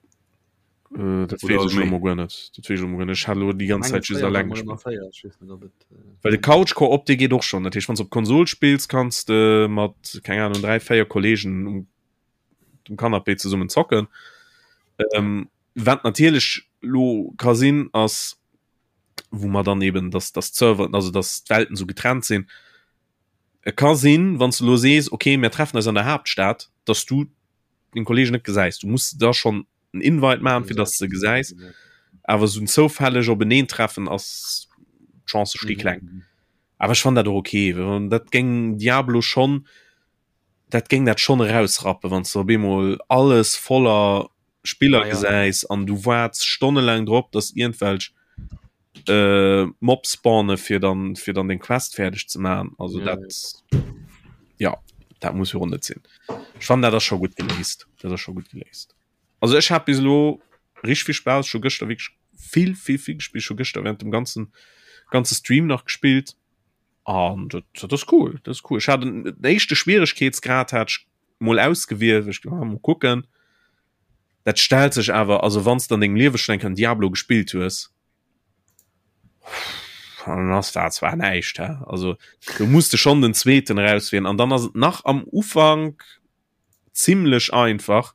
Speaker 2: Äh, dat
Speaker 1: Oder
Speaker 2: weess ech elo
Speaker 1: méi?
Speaker 2: mol guer net. Dat weess ech elo mol guer net. Ech hat elo déi ganz
Speaker 3: Mengen
Speaker 2: Zäit just
Speaker 3: 4 war
Speaker 2: alleng
Speaker 3: mol ëmmer
Speaker 2: gespillt.
Speaker 3: 4, ech weess net ob et äh,
Speaker 2: Well de Couch Co-op dee geet och schonn. Dat heescht, wann s de op Konsol spills, kanns de mat, keng Ahnung, 3, 4 Kollegen um dem Canapé zesummen zocken. Ähm, wat natierlech lo ka sinn, ass, wou mer dann eben dass dass d'Serveren, also dass d'Welten sou getrennt sinn. Et ka sinn, wann s de lo sees, okay, mir treffen eis an der Haaptstad, dass du deng Kollegen net gesäis. Du muss da schonn en Invite maachen, fir dass de se gesäis. Awer sou en zoufälleg Openeentreffen ass, d'Chancë sti kleng. Awer ech fannen dat och okay, well dat géing Diablo schonn dat géing dat schonn erausrappen, wann s de op eemol alles voller Spiller
Speaker 3: Ah, ja.
Speaker 2: gesäis an du waarts stonnelaang drop, dass iergendwelch äh, Mobs spawne fir dann fir dann deng Quest fäerdeg ze maachen. Also
Speaker 3: Ja,
Speaker 2: dat ja, dat muss jo och net sinn. Ech fannen dat ass scho gutt geléist. Dat ass scho gutt geléist. Also ech hat bis elo richteg vill Spaass, ech hu gëschter wierklech vill vill vill gespillt, ech hu gëschter während dem ganzen ganze Stream nach gespillt. An dat, dat ass cool, dat ass cool. Ech hat den, den éischte Schwieregkeetsgrad hat ech mol ausgewielt, ech ah, mol kucken. Dat stellt sech awer, also wann s de an dengem Liewe schon eng Kéier en Diablo gespillt hues, dann ass dat zwar näischt, hä? Also du muss de schon den zweeten erauswielen an dann ass et nach am Ufank zimlech einfach,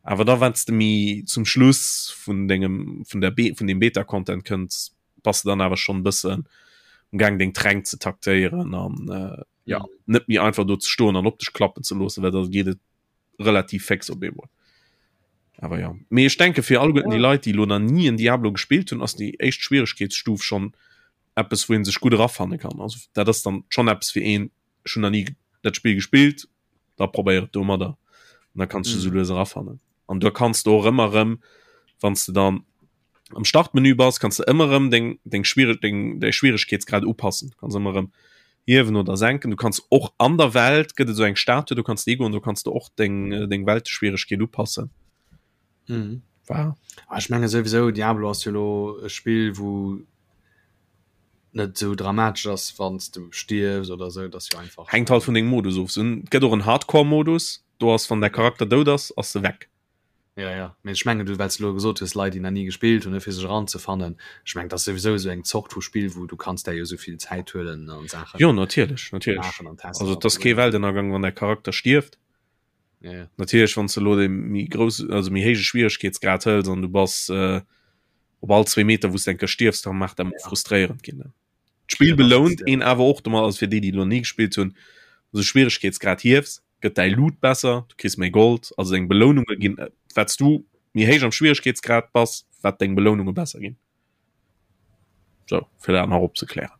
Speaker 2: awer da wann s de méi zum Schluss vun dengem vun der Be vun dem Beta-Content kënns, bass de dann awer schonn e bëssen um Gaang deng Tränk ze taktéieren an äh, ja net méi einfach do ze stoen an op dech klappen ze loossen, well da geet et relativ féx op eemol. Awer ja, mee ech denke fir alleguerten déi Leit, déi elo nach ni en Diablo gespillt hunn, ass déi éischt Schwieregkeetsstuf schonn eppes, wou ee sech gutt erafanne kann. Also dat ass dann schonn eppes fir een, ech hunn nach ni dat Spill gespillt, da probéier et domadder an da kanns du mm. sou lues erafannen. An du kanns du och ëmmer rëm, wann du dann am Startmenü bass, kanns du ëmmer rëm deng, deng, Schwierig, deng, deng Schwieregkeetsgrad upassen. Du kanns ëmmer rëm hiewen oder senken. Du kanns och an der Welt gëtt et sou eng Statue, du kanns déi goen, du kanns du och deng, deng Welteschwieregkeet upassen.
Speaker 3: Mhm.
Speaker 2: War.
Speaker 3: Ah, ech menge souwisou Diablo ass jo lo e Spill, wou net sou dramatesch ass, wann s du stierfs oder sou, dat ass jo einfach.
Speaker 2: Hänkt halt vun dengem Modus of. Et gëtt och en Hardcore-Modus, do ass wann däi Charakter dout ass, ass e weg.
Speaker 3: Ja, ja. Mee ech mengen, du, well s de elo gesot hues, Leit, déi nach ni gespillt hunn, ne, fir sech eranzefannen. Ech mengen, dat ass souwisou esou eng Zort vu Spill, wou du kanns där jo esou vill Zäit huelen an Saachen
Speaker 2: Jo, natierlech, natierlech.
Speaker 3: maachen an testen
Speaker 2: Also
Speaker 3: an
Speaker 2: et ass kee Weltennergang, wann däi Charakter stierft.
Speaker 3: Ja, ja.
Speaker 2: Natierlech, wann s de elo dee méi grouss, also méi héije Schwieregkeetsgrad hëls an du bass äh, op all zwee Meter, wou s de eng Kéier stierfs, da mag dat mol frustréierend ginn, ne. D'Spill belount een awer och domat, also fir déi, déi elo ni gespillt hunn, also Schwieregkeetsgrad hiefs, gëtt däi Loot besser, du kriss méi Gold, also deng Beloununge ginn, wat s du méi héich am Schwieregkeetsgrad bass, wat deng Beloununge besser ginn. Sou, fir dat nach opzeklären.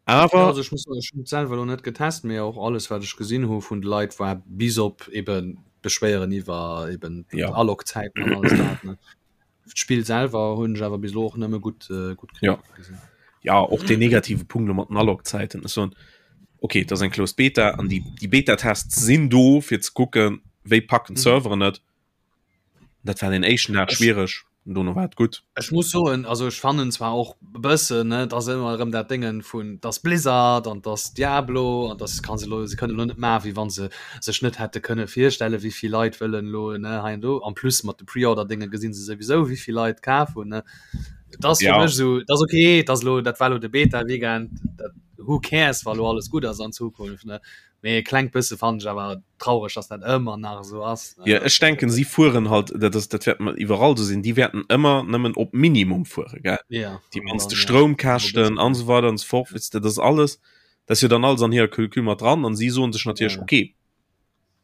Speaker 3: Awer. Ja, also ech muss soen, ech hunn et selwer elo net getest, mee och alles wat ech gesinn hu vun de Leit war bis op eben Beschwéieren iwwer eben d'Alog-Zäiten an alles dat, ne. D'Spill selwer hunn ech awer bis elo och nëmme gutt äh, gutt
Speaker 2: ja. gesinn. Ja och den negative Punkt mat den Alog-Zäiten ass soen, okay, dat ass eng Closed Beta an déi, déi Beta-Tests sinn do fir ze kucken, wéi packen mhm. d'Serveren et. Dat war den éischten Dag schwiereg, dono war et gutt.
Speaker 3: Ech muss soen, also ech fannen zwar och bëssen ne, dass ëmmer erëm dat Déngen vun dass Blizzard an dass Diablo an dass kann se lo se kënnen lo net maachen, wéi wann se sech net hätte kënne virstellen, wéi vill Leit wëllen lo ne hei an do. En plus mat de Pre-Order-Dénge gesinn se souwisou, wéi vill Leit kaf hunn ne. Et ass fir
Speaker 2: Ja.
Speaker 3: mech esou, et ass okay, et ass lo dat war lo de Beta-Weekend, dat who cares, wa lo alles gutt ass an Zukunft ne. Mee e klengt bësse fannen ech awer traureg, dass dat ëmmer nach esou ass.
Speaker 2: Ja, ech denken, si fueren halt, dat ass, dat wäert iwwerall esou sinn, déi wäerten ëmmer nëmmen op Minimum fuere, gell?
Speaker 3: Ja.
Speaker 2: Déi mannste Stroumkäschten an esou weider an esou fort, weess de, dat ass alles, dat ass jo dann alles an hirer Calcul mat dran an si soen sech natierlech,
Speaker 3: Ja.
Speaker 2: okay,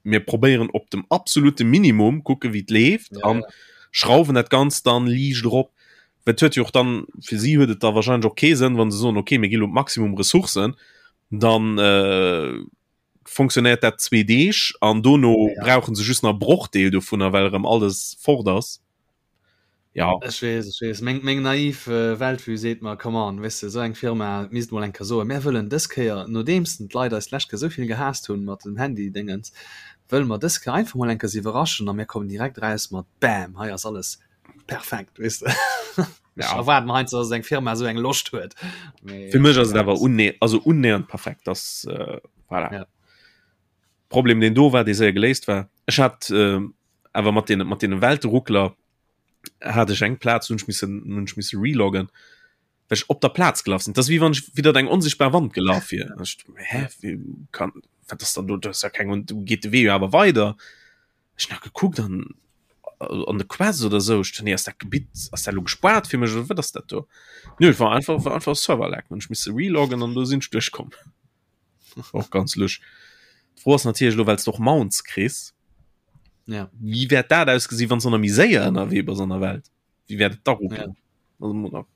Speaker 2: mir probéieren op dem absolute Minimum, kucke wéi et leeft
Speaker 3: Ja,
Speaker 2: an
Speaker 3: ja.
Speaker 2: schrauwen dat Ganzt dann liicht erop. Well et huet jo och dann, fir si huet et da wahrscheinlech och kee Sënn, wa se soen, okay, mir gi lo d'Maximum Ressourcen, dann äh, funktionéiert dat zwee Deeg an dono
Speaker 3: Ja.
Speaker 2: brauchen se just nach Brochdeel dovunner, well erëm alles fort ass. Ja.
Speaker 3: Ech weess, ech weess. Meng, meng naiv äh, Weltvue seet mer, come on, weess de, esou eng Firma misst mol eng Kéier soen, mär wëllen dës Kéier, nodeems d'Leit eis d'lescht Kéier esou vill gehaasst hunn mat dem Handy-Déngens, wëlle mer dës Kéier einfach mol eng Kéier se iwwerraschen a mir kommen direkt eraus mat bam, hei ass alles perfekt, weess de. Ech
Speaker 2: Ja.
Speaker 3: erwaarden heiansdo, dass eng Firma esou eng Loscht huet. Mee,
Speaker 2: Fir mech ass et
Speaker 3: ja,
Speaker 2: awer unne also unnähernd perfekt, dass äh, voilà.
Speaker 3: Ja.
Speaker 2: Problem deen do war, dee séier geléist war. Ech hat äh, awer mat den mat den Welteruckler hat ech eng Plaz hunn ech missen hunn ech misse reloggen, well ech op der Plaz gelaf sinn. Dat ass wéi wann ech widder eng onsichtbar Wand gelaf wier. Ech, hä, wéi kann wat ass dann do? Do ass ja keng und do geet de Wee jo awer weider. Ech nach gekuckt an an de Quest oder sou. Ech nee, ass dat Gebitt ass dat lo gespaart fir mech oder wat ass dat do? Nö, et war einfach war einfach Server-Lag. Hunn ech misse reloggen an do sinn ech duerchkomm. Och ganz lusch. D'Fro ass natierlech elo, well s de och Mounts kriss,
Speaker 3: Ja.
Speaker 2: wéi wäert dat ausgesinn, wann s de nach méi séier ënnerwee bass an der Welt? Wéi wäert et da ruckelen?
Speaker 3: Ja.
Speaker 2: Also muss nach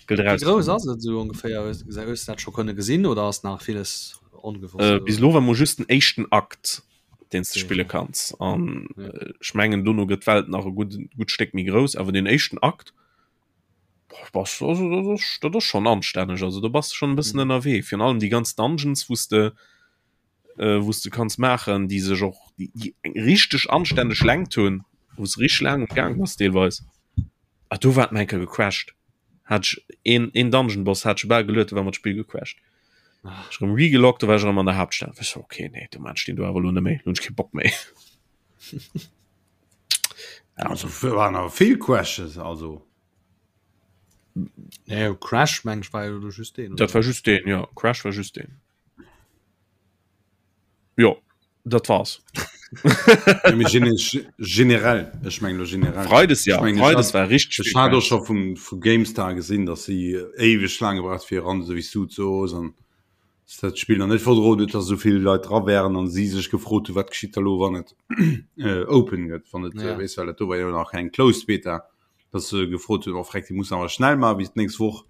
Speaker 2: gëllt
Speaker 3: Wéi
Speaker 2: eraus.
Speaker 3: grouss ass et esou ongeféier? Hues hues du dat scho kënne gesinn oder ass nach villes ongewosst?
Speaker 2: Äh, bis elo war mol just den éischten Akt, deen s de
Speaker 3: Okay.
Speaker 2: spille kanns. An
Speaker 3: Ja.
Speaker 2: äh, ech mengen, dono gëtt d'Welt nach e gutt gutt Stéck méi grouss, awer den éischten Akt, boah, bass, also, dat ass, dat ass schonn anstänneg. Also do bass de schonn e bëssen
Speaker 3: Mhm.
Speaker 2: ënnerwee. Virun allem déi ganz Dungeons, wou s de äh, wou s de kanns maachen, déi sech och déi, déi eng richteg anstänneg Längt hunn, wou s richteg laang um Gaang bass deelweis. Ah, do war et mol eng Kéier gecrashed. Hat ech een, een Dungeon Boss hat ech bal geluet, do war mer d'Spill gecrashed.
Speaker 3: Ah.
Speaker 2: Ech erëm regeloggt, do war ech erëm an der Haaptstad. Ech so, okay, nee, do maan ech deen do awer elo net méi, lo hunn ech kee Bock méi.
Speaker 1: Ja. Also waren awer vill Crashes, also.
Speaker 3: Nee, Crash meng ech war jo just deen.
Speaker 2: Dat war just deen, ja. Crash war just deen. Jo, dat war's.
Speaker 1: Ja, mee gene generell, ech meng lo generell.
Speaker 2: Freides ja,
Speaker 1: Ech mengen, ech
Speaker 2: Freides
Speaker 1: hat,
Speaker 2: war richtig
Speaker 1: ech
Speaker 2: vill
Speaker 1: hat och
Speaker 2: Crash.
Speaker 1: scho vum, vu GameStar gesinn, dass si éiweg laang gebraucht fir eran, esou wéi s du et soos, an dass dat Spill nach net verdroen huet, dass esou vill Leit dra wären an si sech gefrot hu, wat geschitt da lo, wann et äh, open gëtt, wann et,
Speaker 3: Ja.
Speaker 1: äh, weess, well dat do war jo nach eng Closed Beta, dass se gefrot hunn, oh freck, déi mussen awer schnell maachen bis d'nächst Woch.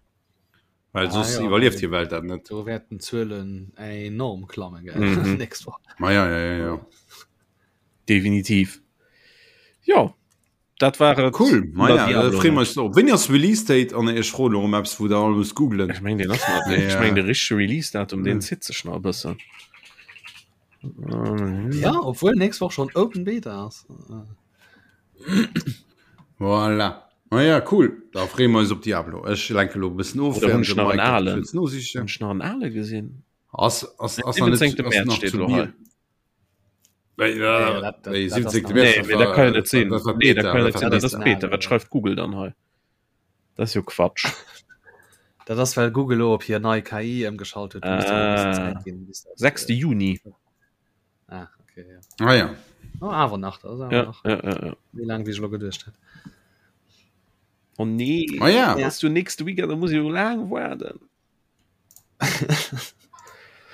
Speaker 1: Well
Speaker 3: Ah,
Speaker 1: soss
Speaker 3: ja,
Speaker 1: iwwerlieft hir Welt dat net.
Speaker 3: Do wäerten d'Zuelen enorm klammen gell
Speaker 2: Mhm.
Speaker 3: nächst Woch.
Speaker 1: Ma ja, ja, ja, ja.
Speaker 2: Definitiv. Jo, dat war et.
Speaker 1: Cool. Ma
Speaker 2: Über
Speaker 1: ja,
Speaker 2: Diablo
Speaker 1: da freeë mer
Speaker 2: net.
Speaker 1: eis drop. Wéini ass Release Date? An ech froen elo erëm eppes, wou der all musst googlen.
Speaker 2: Ech meng, deen ass nach
Speaker 1: Mee,
Speaker 2: net. Ech meng,
Speaker 1: äh,
Speaker 2: de richtege Release-Datum, deen zitt sech nach e bëssen.
Speaker 3: Ja, obwuel nächst Woch schon Open Beta ass.
Speaker 1: Voilà. Ma ja, cool. Da freeë mer eis op Diablo. Ech lenke lo e bëssen of,
Speaker 2: Oder hunn
Speaker 1: während
Speaker 2: ech
Speaker 1: de
Speaker 2: nach en
Speaker 1: Mike dat
Speaker 2: alen?
Speaker 1: kuerz nosichen.
Speaker 2: Hunn ech nach en ale gesinn?
Speaker 1: Ass, ass, ass nach net,
Speaker 2: 17.
Speaker 1: ass
Speaker 2: März
Speaker 1: nach
Speaker 2: steet
Speaker 1: zu
Speaker 2: elo
Speaker 1: Bier.
Speaker 2: hei. Dat kann net sinn. Nee, dat kann net sinn. Dat ass Beta. Wat schreift Google dann hei? Dat ass jo Quatsch.
Speaker 3: Dat ass well Google lo op hir nei KI ëmgeschalt huet.
Speaker 2: Ah, 6. Juni.
Speaker 3: Ah, okay,
Speaker 1: ja. Ah, ja.
Speaker 3: Oh, awer nach, dat ass awer
Speaker 2: ja,
Speaker 3: nach.
Speaker 2: Ja, ja, ja.
Speaker 3: Méi laang wéi ech lo geduecht hat.
Speaker 2: Oh nee,
Speaker 1: ah, ja.
Speaker 2: ja. du nächste Weekend, da muss ich jo laang waarden.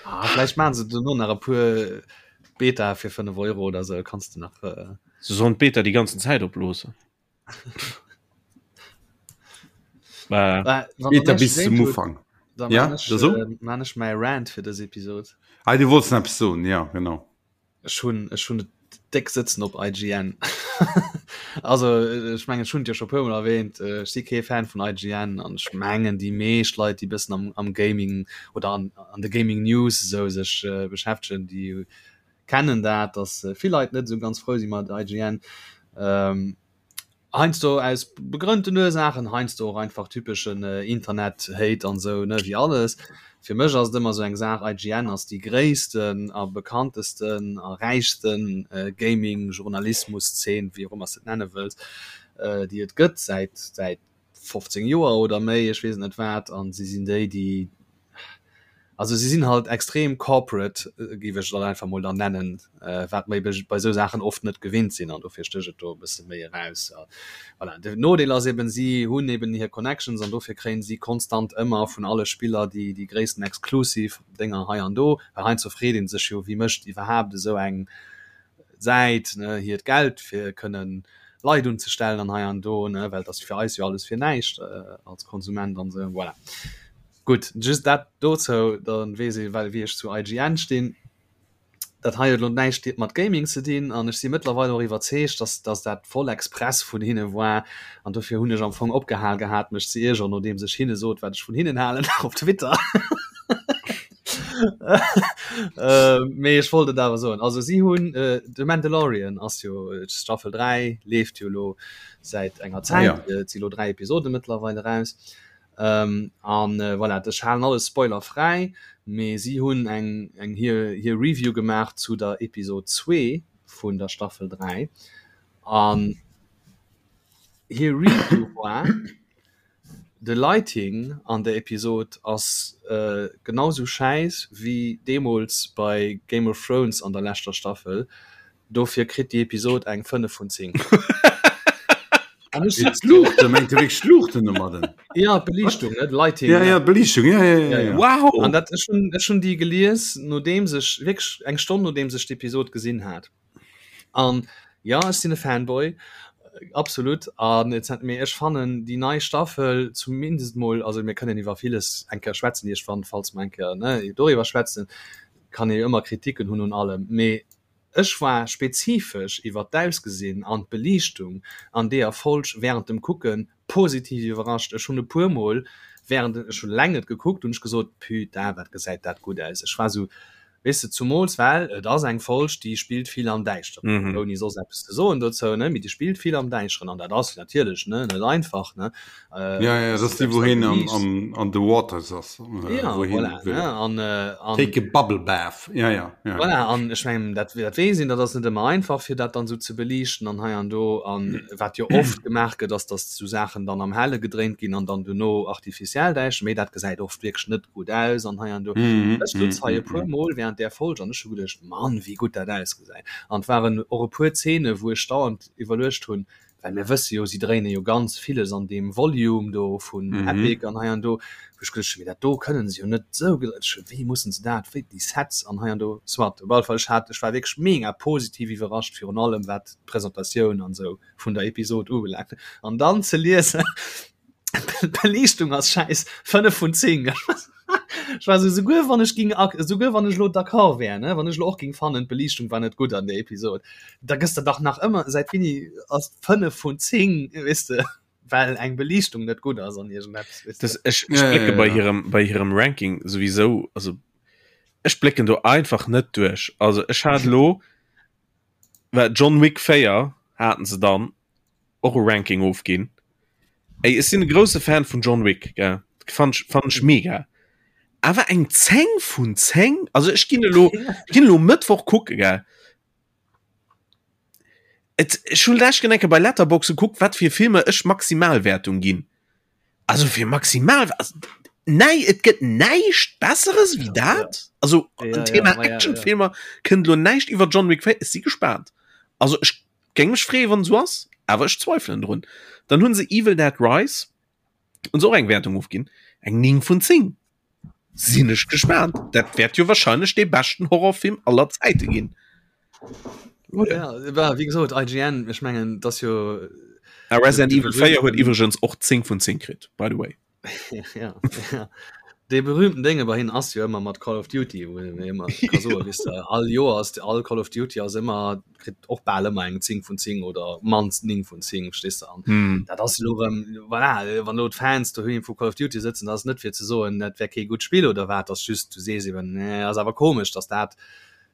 Speaker 3: ah, vielleicht machen se duerno nach e puer Beta fir 5 Euro oder sou, kanns du nach. Äh...
Speaker 2: Se sollen d'Beta déi ganzen Zäit oploossen.
Speaker 1: Äh, Beta bis zum Ufang.
Speaker 3: Da
Speaker 1: ja,
Speaker 3: man ech,
Speaker 1: so?
Speaker 3: äh, man ech mäi Rant fir dës Episod.
Speaker 1: Ah, du wolltest eppes soen, ja, genau.
Speaker 3: Ech hunn ech hunn et déck sëtzen op IGN. Also ech mengen ech hunn et jo scho puer mol erwähnt, ech si kee Fan vun IGN an ech mengen déi meescht Leit déi bëssen am am Gaming oder an an de Gaming News esou sech beschäftegen, déi kennen dat, datt vill Leit net esou ganz frou si mat IGN. Heiansdo aus begrënnten Ursaachen, heiansdo och einfach typeschen Internet-Hate an esou, ne, wéi alles. Fir mech ass et ëmmer esou eng Saach, IGN ass déi gréissten a bekanntesten a räichsten Gaming-Journalismus-Zeen, wéi och ëmmer s de et nenne wëlls, déi et gëtt säit, säit 15 Joer oder méi, ech weess et net wat, an si sinn déi, déi, also si sinn halt extrem corporate, géif ech et dann einfach mol dann nennen, wat mer ebe bei esou Saachen oft net gewinnt sinn an dofir stécht et do e bësse méi eraus. Voilà, den Nodeel ass eben, si hunn eben hir Connections an dofir kréien si konstant ëmmer vun alle Spiller déi, déi gréissten exclusive Dénger hei an do, well heiansdo freet ee sech jo, wie mécht iwwerhaapt esou eng Säit, ne, hiert Geld fir kënnen Leit unzestellen an hei an do, ne, well et ass fir eis jo alles fir näischt als Konsument an esou. Voilà. Gutt, just dat dozou, da weess ee well wéi ech zu IGN stinn. Dat hei huet elo näischt mat Gaming ze dinn an ech si mëttlerweil och iwwerzeegt, dass dass dat voll express vun hinne war an dofir hunn ech am Fong opgehal gehat mech ze iergeren, nodeems ech hinne sot wat ech vun hinnen halen op Twitter. Mee ech wollt et awer soen. Also si hunn The Mandalorian ass jo Staffel 3 leeft jo elo säit enger Zäit, et si lo 3 Episode mëttlerweil eraus. An voilà, ech halen alles spoilerfräi, mee si hunn eng eng hir hir Review gemaach zu der Episod 2 vun der Staffel 3 an hir Review war, De Lighting an der Episod ass genau sou schäiss wéi deemols bei Game of Thrones an der leschter Staffel, dofir kritt déi Episod eng 5 vun 10.
Speaker 1: An ech sutz do. D'Luuchten, mengt de wierklech d'Luuchten domadden?
Speaker 3: Ja, d'Beliichtung, ne,
Speaker 1: Lighting. Ja, ja, d'Beliichtung, ja, ja, ja, ja.
Speaker 2: Wow!
Speaker 3: An dat, ech hunn, ech hunn déi gelies, nodeems ech, wierklech eng Stonn nodeems ech d'Episod gesinn hat. An jo, ech sinn e Fanboy, absolut. An et hat, mee ech fannen déi nei Staffel zumindest mol, also mir kënnen iwwer villes eng Kéier schwätzen iergendwann, falls mer eng Kéier, ne, doriwwer schwätzen, kann ee jo ëmmer Kritiken hunn un allem, mee ech war spezifesch iwwer d'Ausgesinn an d'Beliichtung an deeër Folg während dem Kucken positiv iwwerrascht. Ech hunn e puer Mol während, ech hunn eleng et gekuckt, hunn ech gesot, Putain, wat gesäit dat gutt aus. Ech war esou, Weess de, zumools well et ass eng Folg, déi spillt vill am Däischteren, ouni soss eppes ze soen dozou, ne, mee déi spillt vill am Däischteren an dat ass natierlech, ne, net einfach, ne.
Speaker 1: Ja, ja, dat ass déi, wou hien am, am, an the waters ass.
Speaker 3: Ja, wou hien voilà, ne, an,
Speaker 1: an. Take a bubble bath, ja, ja,
Speaker 3: ja. Voilà, an ech mengen, dat, dat weess een, dat ass net ëmmer einfach, fir dat dann esou ze beliichten an hei an do. An wat jo oft gemaach gëtt, ass, datt esou Saachen dann am Helle gedréint ginn an dann duerno artificiell däischter, mee dat gesäit oft wierklech net gutt aus an hei an do. Ech sutz hei e puer Mol während där Folg an ech hu geduecht, Mann, wéi gutt dat ausgesäit. An et waren och e puer Zeene wou ech dauernd iwwerluecht hunn, well mir wësse jo, si dréine jo ganz villes an deem Volume do vun Epic an hei an do, wou ech geduecht hunn, mee dat do kënnen se jo net esou, wéi mussen se dat, wéi déi Sets an hei an do. Soit, op alle Fall, ech hat, ech war wierklech mega positiv iwwerrascht, virun allem wat d'Presentatioun an esou vun der Episod ubelaangt. An dann ze liesen, D'Beliichtung ass schäiss, 5 vun 10. Ech war sou, souguer wann ech ging, souguer wann ech lo d'accord wär, ne, wann ech lo och ging fannen, d'Beliichtung war net gutt an der Episod, da gëss de dach nach ëmmer, säit wéini ass 5 vun 10, weess de, well eng Beliichtung net gutt ass an iergendeppes,
Speaker 2: weess de. Das, ech, ech blécke bei hirem, bei hirem Ranking souwisou, also ech blécken do einfach net duerch. Also ech hat lo, well John Wick 4 haten se dann, och e Ranking ofginn. Ey, ech sinn e grousse Fan vun John Wick, gell? Fand ech, fand ech mega. Awer eng 10 vun 10? Also ech ginn elo, ech ginn elo Mëttwoch kucke, gell? Et, ech hunn lescht eng Kéier bei Letterboxd gekuckt, wat fir Filmer ech Maximalwäertung ginn. Also fir maximal also, nei et gëtt näischt besseres wéi dat. Also ja, Thema ja, Actionfilmer ja, ja. kënnt lo näischt iwwer John Wick 4 ech si gespaant. Also ech géing mech freeë wann sou ass, awer ech zweifelen drun. Dann hunn se Evil Dead Rise hunn se och eng Wäertung ofginn, eng 9 vun 10. Sinn ech gespaant. Dat wäert jo wahrscheinlech dee beschten Horrorfilm aller Zäite ginn.
Speaker 3: Oder? Ja, wéi gesot, IGN, ech mengen, dass jo.
Speaker 2: A Resident Evil 4 huet iwwregens och 10 vun 10 kritt, by the way.
Speaker 3: ja, ja. Dee berühmten Dénge bei hinnen ass jo ëmmer mat Call of Duty, wou een ëmmer ka soen, weess de, all Joer ass all Call of Duty ass ëmmer kritt och bal ëmmer eng 10 vun 10 oder mannst 9 vun 10 verstees de an mm. dat ass lo rëm voilà, wann lo d'Fans doheem vu Call of Duty sëtzen, dat ass net fir ze soen, dat wär kee gutt Spill oder wat, ass just du sees eben nee, ass awer komesch, dass dat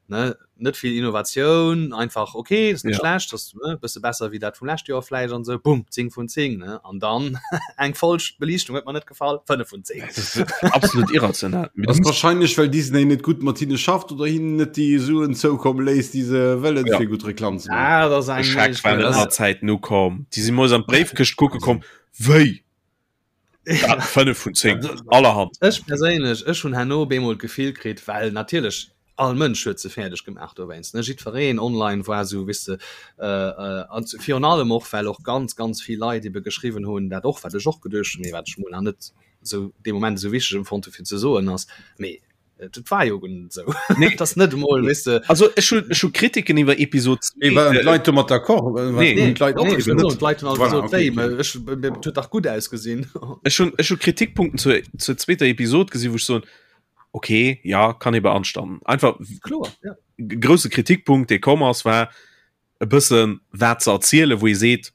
Speaker 3: ne net vill Innovatioun einfach okay ist net ja. schlecht das ne, bësse besser wie dat vum leschte Joer vläicht an sou bumm 10 vun 10 ne an dann eng falsch Beliichtung huet mer net gefall 5 vun 10
Speaker 2: absolut irrational
Speaker 1: das wahrscheinlich well Disney net gut mat hinne schafft oder hinnen net déi Suen zoukomme léisst déi se wëllen
Speaker 2: ja.
Speaker 1: fir gutt Reklam
Speaker 2: ze maachen. Ah, das eng Scheck war net mat Zäit no komm déi si moes an d'Bréifkëscht kucke komm wéi 5 vun 10 allerhand.
Speaker 3: Ech perséinlech ech hunn herno bemol d'Gefill kritt well natierlech all Mënsch huet se fäerdeg gemaach dowéinst ne jiddwereen online war sou weess de an virun allem och well och ganz ganz vill Leit ebe geschriwwen hunn dat och wat ech och geduecht hunn mee wat ech mol nach net sou dee Moment esou wichteg empfonnt hu fir ze soen ass mee et war jo guer net esou
Speaker 2: Nee.
Speaker 3: et ass net emol weess de
Speaker 2: Also ech hunn ech hu Kritiken iwwer Episod
Speaker 1: Mee waren d'Leit domat d'accord?
Speaker 2: Nee.
Speaker 1: Hunn d'Leit och
Speaker 3: Nee,
Speaker 1: eben net?
Speaker 3: d'Leit hunn all
Speaker 1: Voilà,
Speaker 3: gesot
Speaker 1: okay,
Speaker 3: wéi
Speaker 1: okay.
Speaker 3: mä ech et huet dach gutt ausgesinn.
Speaker 2: Ech hunn ech hu Kritikpunkten zur zur zweeter Episod gesinn wou ech soen okay ja kann ee beanstanden. Einfach
Speaker 3: Kloer, ja.
Speaker 2: grousse Kritikpunkt dee komm ass war e bëssen wat ze erzielen, wou ee seet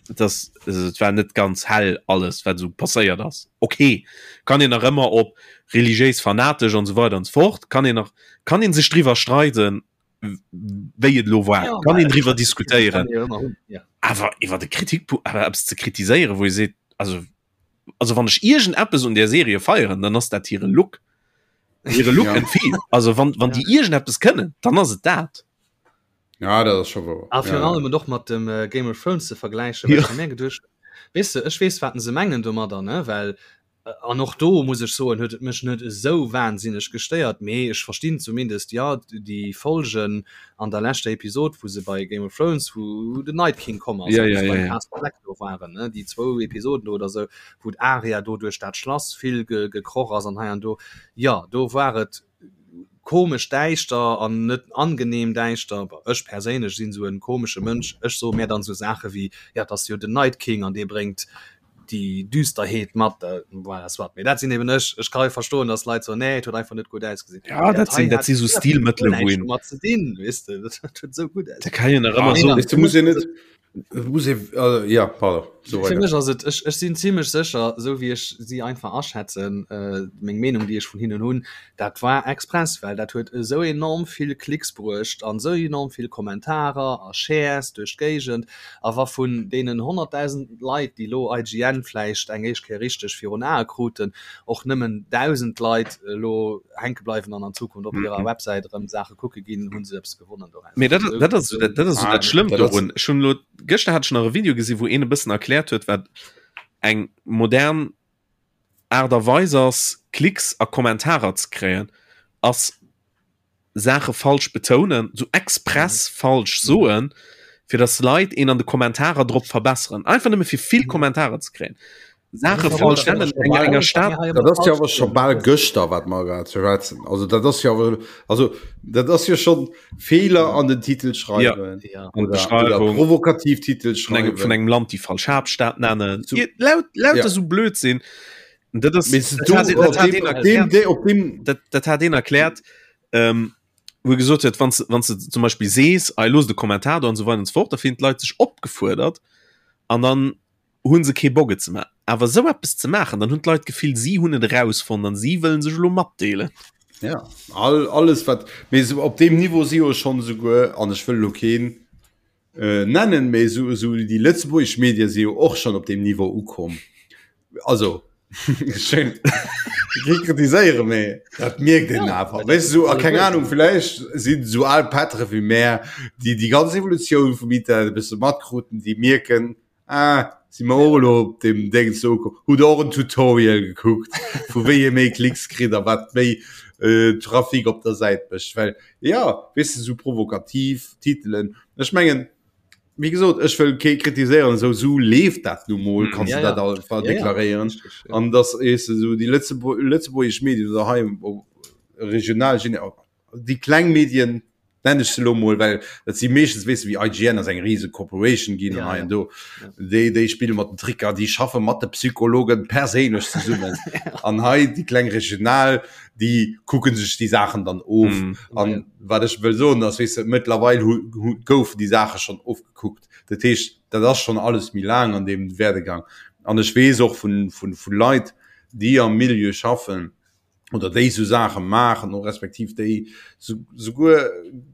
Speaker 2: dass also et war net ganz hell alles wat esou passéiert ass. Okay kann een nach ëmmer op religiéis fanatesch an esou weider an esou fort kann een nach kann een sech driwwer streiden wéi et elo war
Speaker 3: Ja,
Speaker 2: kann een driwwer
Speaker 3: kann
Speaker 2: diskutéieren
Speaker 3: ee jo ëmmer hunn, ja.
Speaker 2: awer iwwer de Kritikpunkt awer eppes ze kritiséieren wou ee seet also also wann ech iergendeppes un der Serie feieren, dann ass dat hire Look. Hire Look
Speaker 1: Ja.
Speaker 2: and feel. Also wann, wann
Speaker 3: Ja.
Speaker 2: déi iergendeppes kënnen, dann ass et dat.
Speaker 1: Ja, dat ass scho wouer.
Speaker 3: A virun
Speaker 1: Ja, ja.
Speaker 3: allem et och mat dem äh, Game of Thrones ze vergläichen, well
Speaker 2: Ja.
Speaker 3: ech hu mir geduecht, weess de, ech weess, wat se mengen domadder, ne, well An och do muss ech soen, huet et mech net esou wahnsinneg gestéiert, mee ech verstinn zumindest, jo, déi Folgen an der leschter Episod, wou se bei Game of Thrones, wou den Night King komm ass,
Speaker 2: Ja,
Speaker 3: wou
Speaker 2: ja,
Speaker 3: se
Speaker 2: ja,
Speaker 3: beim
Speaker 2: ja.
Speaker 3: Castle Black do waren, ne, déi zwou Episoden do oder esou, wou d'Arya do duerch dat Schlass vill ge gekroch ass an hei an do, jo, do war et komesch däischter an net angenehm däischter. Bon, ech perséinlech sinn esou e komesche Mënsch, ech soe mär dann esou Saache wéi, jo, et ass jo den Night King an dee bréngt déi Düsterheet mat, voilà, soit. Mee dat sinn eben ech. Ech ka jo verstoen, dass Leit soen, nee, et huet einfach net gutt ausgesinn.
Speaker 2: Ja, dat sinn, dat si sou Stilmëttele, wou een.
Speaker 3: Mat ze dinn, weess de, dat huet esou gutt
Speaker 2: Da kann een nach ëmmer soen.
Speaker 1: Weess de, muss een net, muss ee, also, ja, pardon, so
Speaker 3: Fir
Speaker 1: weider.
Speaker 3: mech ass et, ech, ech sinn zimlech sécher, esou wéi ech si einfach aschätzen, meng Meenung, déi ech vun hinnen hunn, dat war express, well dat huet esou enorm vill Klicks bruecht an esou enorm vill Kommentarer a Shares duerch d'Géigend. A wa vun deenen 100.000 Leit, déi elo IGN vläicht eng éischt Kéier richteg virun Ae kruten, och nëmmen 1.000 Leit elo hänke bleiwen an an Zukunft op hirer Websäit erëm Saache kucke ginn, hu se eppes gewonnen doraus.
Speaker 2: Mee dat, dat ass, dat ass esou dat Schlëmmt dorun. Ech hunn elo, gëschter hat ech nach e Video gesinn, wou een e bëssen erkläert huet, wat eng modern Aart a Weis ass, Klicks a Kommentarer ze kréien, ass Saache falsch betounen, sou express falsch soen, fir dass Leit een an de Kommentarer drop verbesseren. Einfach nëmme fir vill Kommentarer ze kréien. Saache falsch nennen, enger enger Stad.
Speaker 1: Dat ass jo awer scho bal gëschter, wat mer grad schwätzen. Also dat ass jo awer, also dat ass jo schonn Feeler an den Titel schreiwen.
Speaker 2: Ja.
Speaker 1: Oder, oder provokativ Titel
Speaker 2: schreiwen. Vun engem, vun engem Land déi falsch Haaptstad nennen. So, laut, lauter ja. so Blödsinn. Dat ass, dat, dat hat een erkläert, ähm, wou gesot huet, wann wann du zum Beispiel sees, ei los de Kommentar do an so weiter und so fort, da finden d'Leit sech opgefuerdert an dann hunn se kee Bock et ze maachen. Awer esou eppes ze maachen, dann hunn d'Leit d'Gefill, si hunn et erausfonnt an si wëllen sech elo matdeelen.
Speaker 1: Ja, all, alles wat, mee esou op deem Niveau si jo schonn esouguer, an ech wëll elo keen äh, nennen, mee esou, esou déi lëtzebuergesch Medie si jo och schonn op deem Niveau ukomm. Also. Schön. Kee kritiséiere méi. Dat mierkt een ja, awer. Weißt du, so, keng Ahnung, vielleicht sinn so al Pättere wéi mär, déi déi ganz Evolutioun vum Internet e bësse matkruten, déi mierken, ah, si mer och elo op dem Ding so ukomm. Hutt och en Tutorial gekuckt, vu wéi ee méi Klicks kritt a wat méi äh, Trafic op der Säit mécht. Well ja, weess du, so provokativ Titelen. Ech mengen, Wéi gesot, ech wëll kee kritiséieren, esou sou leeft dat nu mol, kanns du dat einfach deklaréieren. An dass weess de sou déi lëtzebuergesch Medien oder hei regional, déi kleng Medien nennen ech se elo mol, well dat si meeschtens weess de wéi IGN ass eng rise Corporation ginn an hei an do, déi déi spille mat den Tricker, déi schaffe mat de Psychologen perséinlech zesummen. An hei déi kleng regional, déi kucke sech déi Saachen dann of. An Wat ech wëll soen ass, weess de, mëttlerweil hu, hu, goufen déi Saache schonn ofgekuckt. Dat heescht, dat ass schonn alles méi laang an deem Werdegang. An ech weess och vun, vun, vu Leit, déi am Milieu schaffen oder déi esou Saache maachen, och respektiv déi souguer